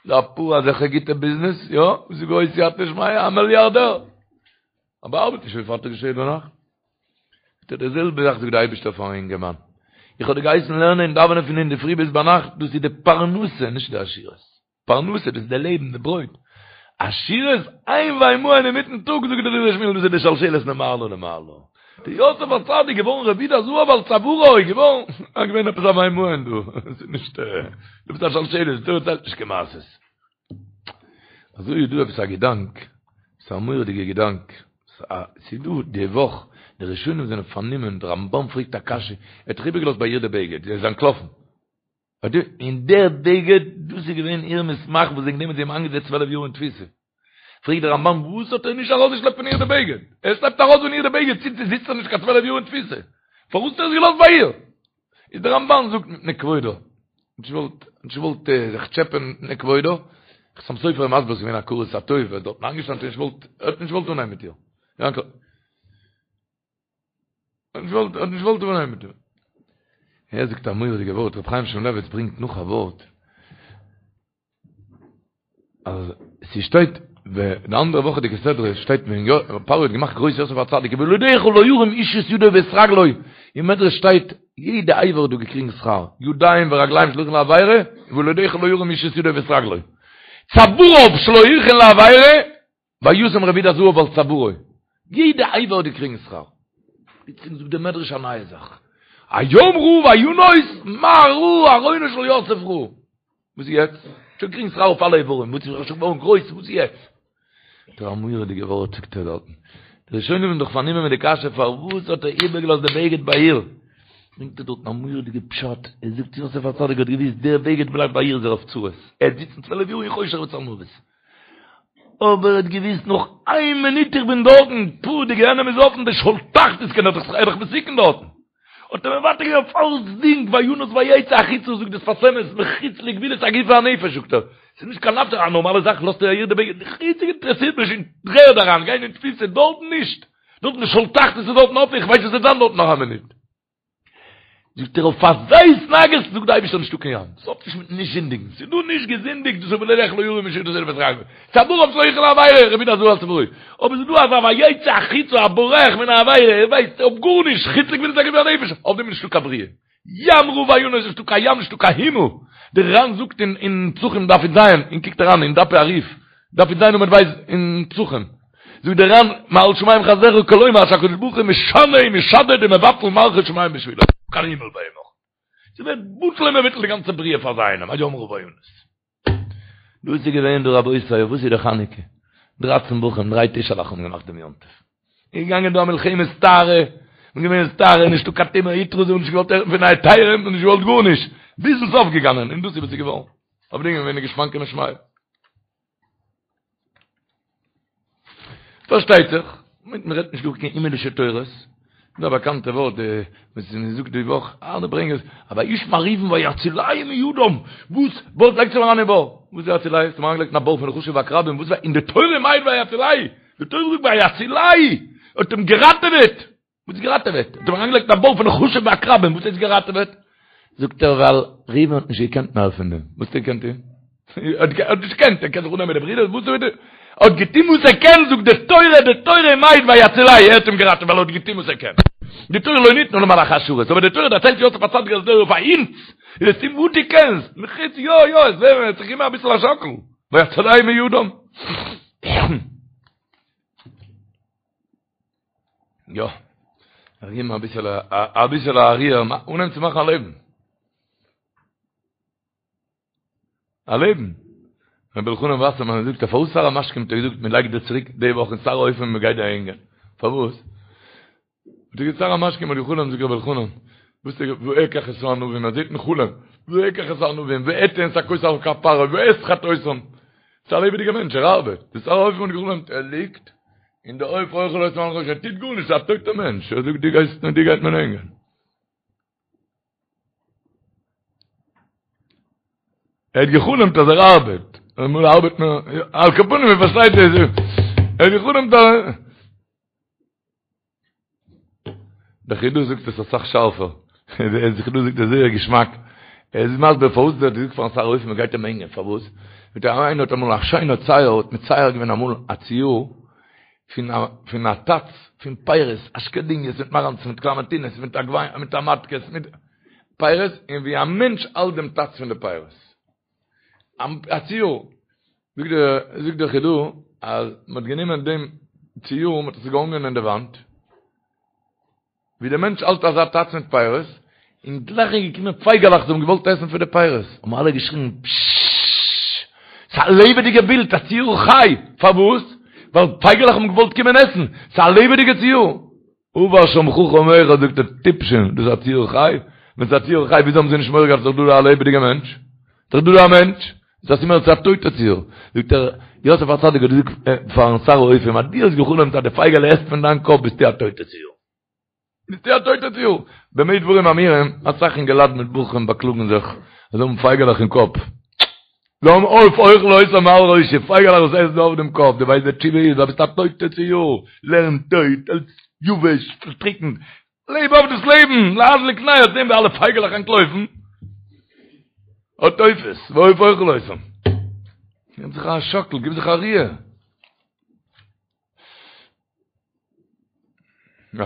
דא אפאר אזעלכע גוטע ביזנעס, יא, וואס איז גרויס סייעתא דשמיא, א מיליארדער. אבער ארבעט נישט פון פארטאגס ביז שפעט ביינאכט. זאגט ער די זעלבע זאך זאגט די אייבערשטער פארן אינגערמאן, איך האב דיר געהייסן לערנען און דאווענען פון אינדערפרי ביז ביינאכט, דאס איז די פרנסה, נישט די עשירות, פרנסה דאס איז די לעבן, די ברויט, עשירות, איין וימאן אינמיטן טאג, זאגט דער דברי שמואל, דאס איז די שלשלת ממעלה למעלה, די יוסף הצדיק געווארן רביד הזהב על צווארו, געווארן, איז געווען עפעס א וימאן דא, עס איז נישט, דו ביסט א שלשלת, דו דערציילסט נישט קיין מעשה'ס. אזוי איז דא עפעס א געדאנק, ס'איז א מורא'דיגע געדאנק, ס'איז דא די וואך, די ראשונים זענען פארנומען, די רמב"ן פרעגט א קשיא, ער האט דאך איבערגעלאזט ביי איר די בגד, ער איז אנטלאפן, און דער בגד, דאס איז געווען איר מסמך וואס וועגן דעם האט זי אים איינגעזעצט 12 יאר אין תפיסה. פרעגט דער רמב"ן, וואס האט ער נישט ארויסגעשלעפט פון איר די בגד? ער שלעפט ארויס פון איר די בגד, ציט זי זיצט ער נישט קיין 12 יאר אין תפיסה. פארוואס האט ער עס געלאזט ביי איר? איז דער רמב"ן זאגט מפני כבודו, נישט געוואלט, נישט געוואלט זיך טשעפען מפני כבודו, חתם סופר איז מסביר ס'איז געווען הכרת הטוב, ער איז דארטן איינגעשטאנען, נישט געוואלט, ער האט נישט געוואלט אנהייבן מיט איר. יאנקל. ער האט נישט געוואלט, ער האט נישט געוואלט אנהייבן מיט איר. ער זאגט א מורא'דיגע ווארט, רבי חיים שמואלעוויץ ברענגט נאך א ווארט, אז ס'שטייט די אנדערע וואכעדיגע סדרה שטייט ווען פרעה האט געמאכט גרויס יוסף הצדיק ובלעדיך לא ירים איש את ידו ואת רגלו אין מדרש שטייט יעדע אבר האט דא געקריגן שכר ידיים ורגליים שלא הכין לעבירה ובלעדיך לא ירים איש את ידו ואת רגלו צוואריו שלא הכין לעבירה וישם רביד הזהב על צווארו יעדע אבר האט געקריגן שכר פלוצלינג זאגט דער מדרש א נייע זאך הים ראה וינוס מה ראה ארונו של יוסף ראה וואס איז יעצט? שוין געקריגן שכר אויף אלע איברים, וואס איז שוין געווארן גרויס, וואס איז יעצט? זאגט ער א מורא'דיגע ווארט זאגט ער דארטן. די ראשונים זענען דאך פארנומען מיט די קשיא פארוואס האט ער איבערגעלאזט די בגד ביי איר? ברענגט ער דארטן א מורא'דיגע פשט, ער זאגט יוסף הצדיק האט געוואוסט דער בגד בלייבט ביי איר איז ער אויף צרות, ער וועט זיצן צוועלף יאר אין חושך וצלמוות. אבער ער האט געוואוסט נאך איין מינוט איך בין דארטן, פו די גיהנום איז אפן, די שאול תחתית קען ער דאך ער איז דאך מסוכן דארטן. האט ער מוותר געווען אויף אלצדינג, וינוס ויצא החוצה, זאגט דער שפת אמת, מחוץ לגבולות הגוף והנפש, זאגט ער, ס'איז נישט קיין נפש, א נארמאלע זאך לאזט ער איר די בגד, חוץ אינטערעסירט מיך אין דר'ערד אריין, גיין אין תפיסה, דארטן נישט, דארטן די שאול תחתית איז דארטן אפן, איך ווייס וואס וועט זיין דארט נאך א מינוט. זאגט ער אויף אזא התנהגות זאגט די אייבערשטער נישטא קיין ים, ס'האט נישט מיט נישט זינדיגן, ס'איז דא נישט געזינדיגט דאס איז ובלעדיך לא ירים איש את ידו ואת רגלו, צוואריו שלא הכין לעבירה, רביד הזהב על צווארו, אבער ס'איז דא אזא ויצא החוצה א בורח מן העבירה, ער ווייסט אויף גארנישט, חוץ לגבולות הגוף והנפש, אויף דעם איז נישטא קיין בריאה. ים ראה וינוס נישטא קיין ים נישטא קיין הימל, דער ר"ן זאגט אין פסחים דף י"ז, און קוקט אריין אין דפי הרי"ף, דף י"ז עמוד ב' אין פסחים, זאגט דער ר"ן מעל שמים חסדך כלומר שהקדוש ברוך הוא משנה ומשדד ומבטל מערכות שמים בשבילו, קיין הימל ביי אים נאך. ס'ווערט בטל ומבוטל די גאנצע בריאה פאר זיי איינעם, הים ראה וינוס. דאס איז געווען דא רבותי, וואס איז די חנוכה? דרייצן בחורים, דריי טישעלעך האבן געמאכט דעם יום טוב. איז געגאנגען דא א מלחמת טהרה, און געווען טהרה, נישטא קיין טומאה הותרה, זיי האבן נישט געוואלט הערן פון היתרים, און נישט געוואלט גארנישט, ביזן סוף געגאנגען, און דאס איז וואס איז געווארן. אויף דעם איז געווען די גושפנקא משמיא. פארשטייט זיך, מען רעדט נישט דא קיין הימלישע תורות, דא א באקאנטע ווארט וואס מען זאגט די וואך, אלע ברענגען עס, אבער וישמע ראובן ויצילהו מידם, וואס? וואס לייגט זיך אריין אין בור? וואס איז ויצילהו? האסט אים אריינגעלייגט אין א בור פון נחשים ועקרבים, וואס אין די תורה מיינט ויצילהו? די תורה זאגט ויצילהו, האט אים געראטעוועט! וואס איז געראטעוועט? האט אים אריינגעלייגט אין א בור פון נחשים ועקרבים, וואס הייסט געראטעוועט? זאגט ער ווייל ראובן האט נישט געקענט מער פון דעם, וואס האט ער געקענט טון? ער האט נישט געקענט, ער קען זיך אננעמען די ברידער, וואס האט ער האט געטון וואס ער קען, זאגט די תורה, די תורה מיינט ויצילהו, ער האט אים געראטעוועט ווייל ער האט געטון וואס ער קען. די תורה לא ניתנה למלאכי השרת, אבער די תורה דערציילט יוסף הצדיק אז דער פאר אונז, איז עס טון וואס דו קענסט, מחוץ יא יא, עס ווערט זיך אימער אביסל א שאקל, ויצילהו מידם. יא, איך גיב מיר אביסעלע, אביסעלע א ריר, אנהייבן צו מאכן א לעבן. א לעבן. רבי אלחנן וואסערמאן זאגט אז פארוואס שר המשקים האט ער געזאגט מען לייגט דיר צוריק די וואך אין שר האופים מען גייט דיר הענגען. פארוואס? האט ער געזאגט שר המשקים האט געחלומט זאגט רבי אלחנן, וואס איז ואקח את הענבים, ער זעט אין חלום, ואקח את הענבים, ואתן את הכוס על כף פרעה, ואסחט אותם. ס'איז א לעבעדיגער מענטש, ער ארבעט. די שר האופים האט געחלומט, ער ליגט, און די עוף אוכל אותם מעל ראשו, ער טוט גארנישט, ס'איז א טויטער מענטש, ער זאגט דו גייסט, דיר גייט מען הענגען. ער האט געחלומט אז ער ארבעט, אמאל ארבעט מען, על כל פנים מען פארשטייט עס, ער האט געחלומט אז דער חידא זאגט עס אסאך שארפער, דער חידא זאגט עס זייער געשמאק, ער איז מסביר פארוואס ער האט געזאגט פארן שר האופים מען גייט אים הענגען, פארוואס? מיט א איינער האט אמאל א שיינער צייר האט מצייר געווען אמאל א ציור פון א פון א טאץ פון פירות, אשקעדיניעס מיט מאראנצן מיט קלאמענטינעס מיט מיט טאמאטקעס מיט פירות, און ווי א מענטש האלט דעם טאץ פון די פירות. א ציור, זאגט דער זאגט דער חידא אז מען האט גענומען דעם ציור מען האט עס געהאנגען אין די וואנט, ווי דער מענטש האלט אזא טאץ מיט פירות, און גלייך איז געקומען פייגעלעך זיי האבן געוואלט עסן פון די פירות, האבן אלע געשריגן פששש, ס'איז א לעבעדיגע בילד, א ציור חי, פארוואס? ווייל פייגעלעך האבן געוואלט קומען עסן, ס'איז א לעבעדיגע ציור. עבר שם חכם אחד זאגט ער טיפשים, דאס איז א ציור חי? ווען ס'איז א ציור חי וויאזוי האבן זיי נישט מורא געהאט ס'איז דאך דא דא א לעבעדיגע מענטש? ס'איז דאך דא דא א מענטש? איז א סימן אז ס'איז א טויטע ציור. זאגט ער, יוסף הצדיק האט געזאגט פארן שר האופים אז דו האסט געחלומט אז די פייגעלע עסט פון דיין קאפ ביסטו א טויטע ציור. ביסטו א טויטע ציור. במה דברים אמורים, אסאך אינגעלייט מיט בחורים באקלאגן זיך אז זיי האבן פייגעלעך אין קאפ. זיי האבן עוף אוכל אותם מעל ראשי, פייגעלעך וואס עסן אויף דעם קאפ, דו ווייסט די תשובה איז, ווייל ביסט א טויטע ציור, לערן טויט, אלץ יבש, פארטריקנט, לעב אויף דאס לעבן, להדליק נר, זען ווי אלע פייגעלעך אנטלויפן, האט עופות, ועוף אוכל אותם. גיב זיך א שאקל, גיב זיך א ריר. יא.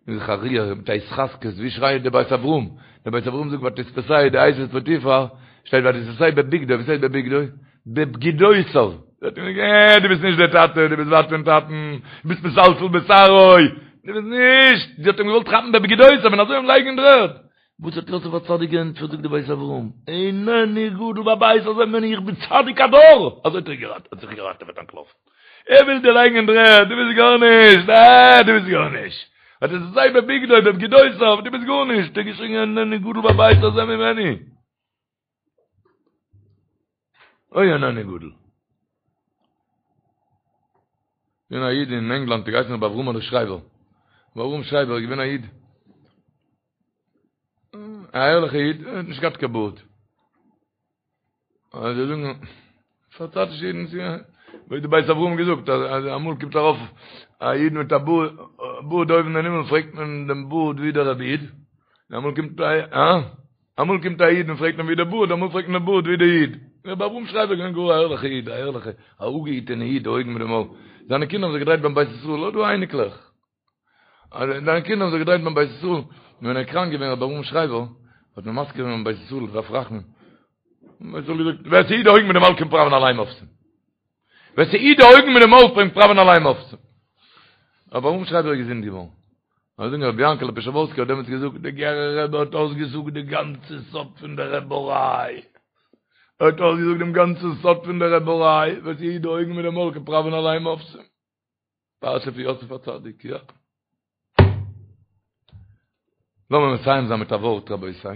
גיב זיך א ריר מיט א התחזקות, ווי שרייט דער בית אברהם? דער בית אברהם זאגט ותתפשהו די אשת פוטיפר, שטייט ותתפשהו בבגדו, וואס הייסט בבגדו? בבגידותיו. זאגט אים אה, דו ביסט נישט דער טאטע, דו ביסט ווייט פון טאטן, דו ביסט מסלסל בשערו, דו ביסט נישט, זי האט אים געוואלט כאפן בבגידותיו און אזוי אים לייגן אין דר'ערד. וואס האט יוסף הצדיק געענטפערט זאגט די בית אברהם, איננו גדול בבית הזה ממני איך בין צדיק הדור, אזוי האט ער האט זיך געראטעוועט אנטלאפן, ער וויל דיר לייגן אין דר'ערד, דו ביסט גארנישט, אה דו ביסט גארנישט, ותתפשהו בבגדו בבגידותיו, דו ביסט גארנישט, האט ער געשריגן איננו גדול בבית הזה ממני. אוי איננו גדול. געווען א איד אין ענגלאנד האט געהייסן רבי אברהמ'לע שרייבער. רבי אברהם שרייבער איז געווען א איד. א ערליכע איד, ער האט נישט געהאט קיין בארד. אז זיי זאגן פארצייטישע אידן ווי די בית אברהם געזאגט אז אמאל קומט ארויף א איד מיט א בארד אויבן אין הימל פרעגט מען דעם בארד ווי דער רבי איד אמאל קומט א אה אמאל קומט א איד און פרעגט אים ווי דער בארד אמאל פרעגט מען דעם בארד ווי דער איד רבי אברהם שרייבער געווען גאר א ערליכע איד א ערליכע א אפגעהיטענע איד די אויגן מיט די מויל זיינע קינדער האבן זיך געדרייט ביים בית ישראל האט דא אייניקלעך אז זיינע קינדער האבן זיך געדרייט ביים בית ישראל, און ווען ער איז קראנק געווען רבי אברהם שרייבער, האט מען מזכיר געווען ביים בית ישראל דארף רחמים, בית ישראל געזאגט, ווער ס'היט די אויגן מיט די מויל קען פראווען אליין מופתים. ווער ס'היט די אויגן מיט די מויל קען פראווען אליין מופתים. רבי אברהם שרייבער איז געזונט געווארן. זאגן רבי יענקעלע פשעווארסקער האט דעמאלטס געזאגט, די גערער רבי האט אויסגעזאגט די גאנצע סוד פון די רעבעריי. ער האט אויסגעזאגט דעם גאנצן סוד פון די רעבעריי, וואס היט די אויגן מיט די מויל קען פראווען אליין מופתים. פרשה פון יוסף הצדיק, יא. לאמיר מסיים זיין מיט א ווארט רבותי.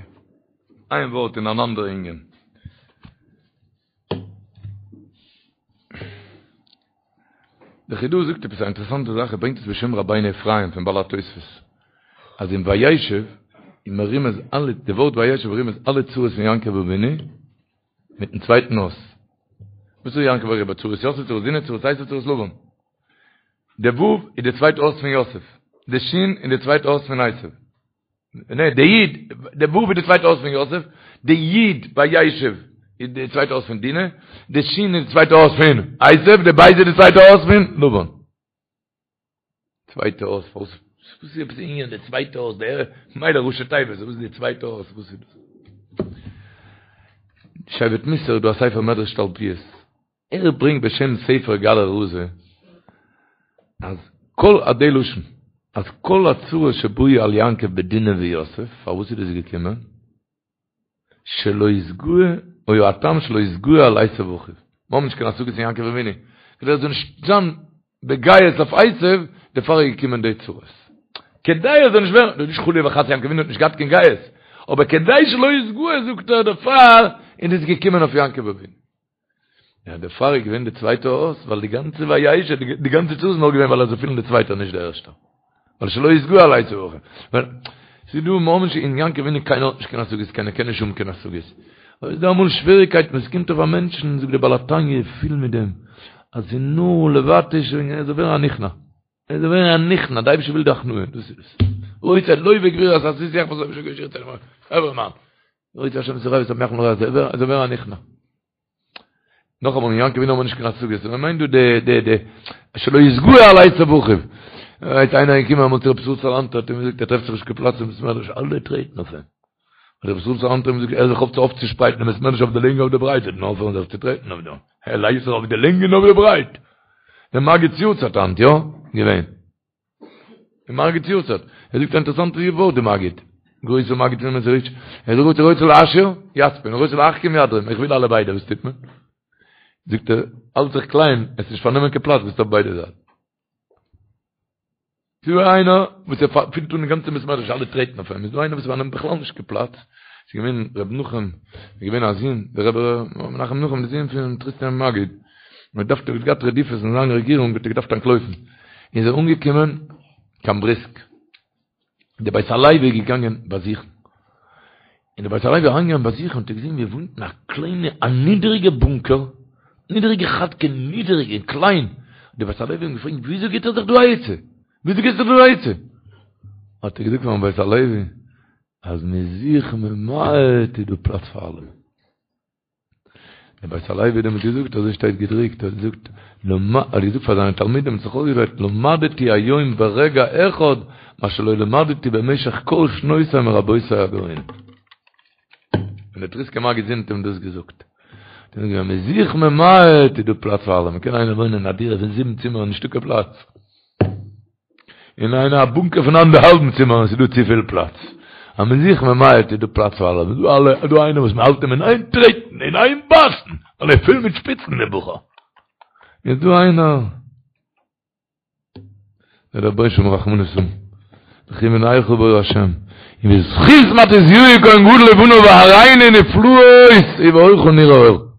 איין ווארט אין אן אנדערע ענין. דער חידא זאגט עפעס א אינטערעסאנטע זאך, ער ברענגט עס בשם רבינו אפרים פון בעלי התוספות, אז אין וישב איז מרומז אלע, די ווארט וישב מרומז אלע צרות פון יעקב אבינו מיטן צווייטן אות. וואס איז יעקב אריבער? צרות יוסף, צרות דינה, צרות עשו, צרות לבן. די ו' איז די צווייטע אות פון יוסף, די ש' איז די צווייטע אות פון עשו. נע, די י', די ו' איז די צווייטע אות פון יוסף, די י' וישב איז די צווייטע אות פון דינה, די ש' איז די צווייטע אות פון עשו, די ב' איז די צווייטע אות פון לבן. צווייטע אות, פארוואס וואס איז עפעס ענין די צווייטע אות, די מילא ראשי תיבות, וואס איז די צווייטע אות, וואס איז דאס? שבט מוסר איז דא א ספר מדרש תלפיות, ער ברענגט בשם ספר גלא רזא אז כל א די לשון אז כל הצרות שבאו על יעקב בדינה ויוסף פארוואס איז דאס געקומען שלא יתגאה היה הטעם שלא יתגאה על עשו אחיו מיר האבן נישט קיין השגות אין יעקב אבינו כדי ער זאל נישט זיין בגאות אויף עשו דערפאר איז געקומען די צרות כדי ער זאל נישט ווערן דאס איז נישט חלילה וחס יעקב אבינו האט נישט געהאט קיין גאות אבער כדי שלא יתגאה זאגט ער דערפאר איז דאס געקומען אויף יעקב אבינו יא, דערפאר איז געווען די צווייטע אות, ווייל די גאנצע וישב, די גאנצע צרה איז נאר געווען ווייל ער זאל פילן די צווייטע נישט די ערשטע. ווייל שלא יתגאה על עשו אחיו. ווייל ס'איז דא ממש אין יעקב אבינו קיינער האט נישט קיין השגות, קיינער קען נישט האבן קיין השגות. אבער איז דא אמאל שוועריקייטן וואס קומט אויף א מענטשן, זאגט דער בעל התניא פיל מיט דעם, אז ס'איז נאר לבטש און ער זאל ווערן א נכנע. ער זאל ווערן א נכנע, די אייבערשטער וויל די הכנעה, דאס איז עס. רוצה לוה גבורות עשיתי יחפץ חברה מאן. רוצה השם את הרע ושמח לרע, ער זאל ווערן א נכנע. נאכאמאל אין יעקב אבינו האבן מיר נישט קיין השגות, מען מיינט דא די די די שלא יתגאה על עשו אחיו. איז איינער געקומען אמאל צו רבי ישראל סאלאנטער האט אים געזאגט ער טרעפט זיך נישט קיין פלאץ אין בית מדרש אלע טרעטן אויף אים. האט רבי ישראל סאלאנטער אים געזאגט הער זיך אויף צו אויפצושפרייטן דעם בית מדרש אויף די לענג אויף די ברייט וועט מען אויפהערן זיך צו טרעטן אויף דעם. ער לייגט זיך אויף די לענג און אויף די ברייט. דער מגיד'ס יארצייט היינט, יא? געווען. דעם מגיד'ס יארצייט. ער זאגט א אינטערעסאנטע ווארט די מגיד. גרויסע מגיד פון מעזריטש. ער זאגט רוצה להעשיר יצפין, רוצה להחכים ידרים. איך וויל אלע ביידע, וואס טוט מען? זאגט ער, האלט זיך קליין, וועסט נישט פארנעמען קיין פלאץ, ביסט אויף ביידע זייטן. ס'איז דא איינער וואס ער פילט אן די גאנצע בית מדרש, אלע טרעטן אויף אים. איז דא איינער וואס פארנעמט בכלל נישט קיין פלאץ. ס'איז געווען ר' נחום, איז געווען א זון, דער רבי ר' מנחם נחום, די זון פון טריסקער מגיד. מען דארף ער האט געהאט רדיפות אין זיין רעגירונג האט ער געדארפט אנטלויפן איז ער אנגעקומען קיין בריסק די בית הלוי איז געגאנגען באזוכן און די בית הלוי איז אריינגעגאנגען באזוכן האט ער געזען ווי ער וואוינט אין א קליינע א נידעריגע בונקער נידעריגע כאטקע נידעריג און קליין די בית הלוי האט אים געפרעגט וויאזוי גיבט ער זיך דא א עצה וויאזוי גיבסטו זיך דא א עצה האט ער געזאגט פארן בית הלוי אז מען איז זיך ממעט איז דא פלאץ פאר אלעמען דער בית הלוי האט דעמאלט געזאגט, אזוי שטייט געדרוקט, ער האט געזאגט, ער האט געזאגט פאר זיינע תלמידים, האט זיך אויסגעדרייט, למדתי היום ברגע אחד מה שלא למדתי במשך כל שנותי מרבותי הגאונים. און דער טריסקער מגיד זון האט אים דאס געזאגט. האט ער געזאגט, ווען מ'איז זיך ממעט איז דא פלאץ פאר אלעמען, קען איינער וואוינען אין א דירה פון זיבן צימערן נישטא קיין פלאץ. אין איינע א בונקער פון אנדערהאלבן צימער און ס'איז דא צופיל פלאץ. אז מ'איז זיך ממעט איז דא פלאץ פאר אלע. דא אלע דא איינער וואס מ'האלט אים אין איין טרעטן אין איין בייסן ווייל ער איז פול מיט שפיצן דער בחור. איז דא איינער דער רבונו של עולם רחמנות האבן. לכו ונלכה באור השם. און בזכות מתתיהו כהן גדול ובניו והראינו נפלאות ובאורך נראה אור.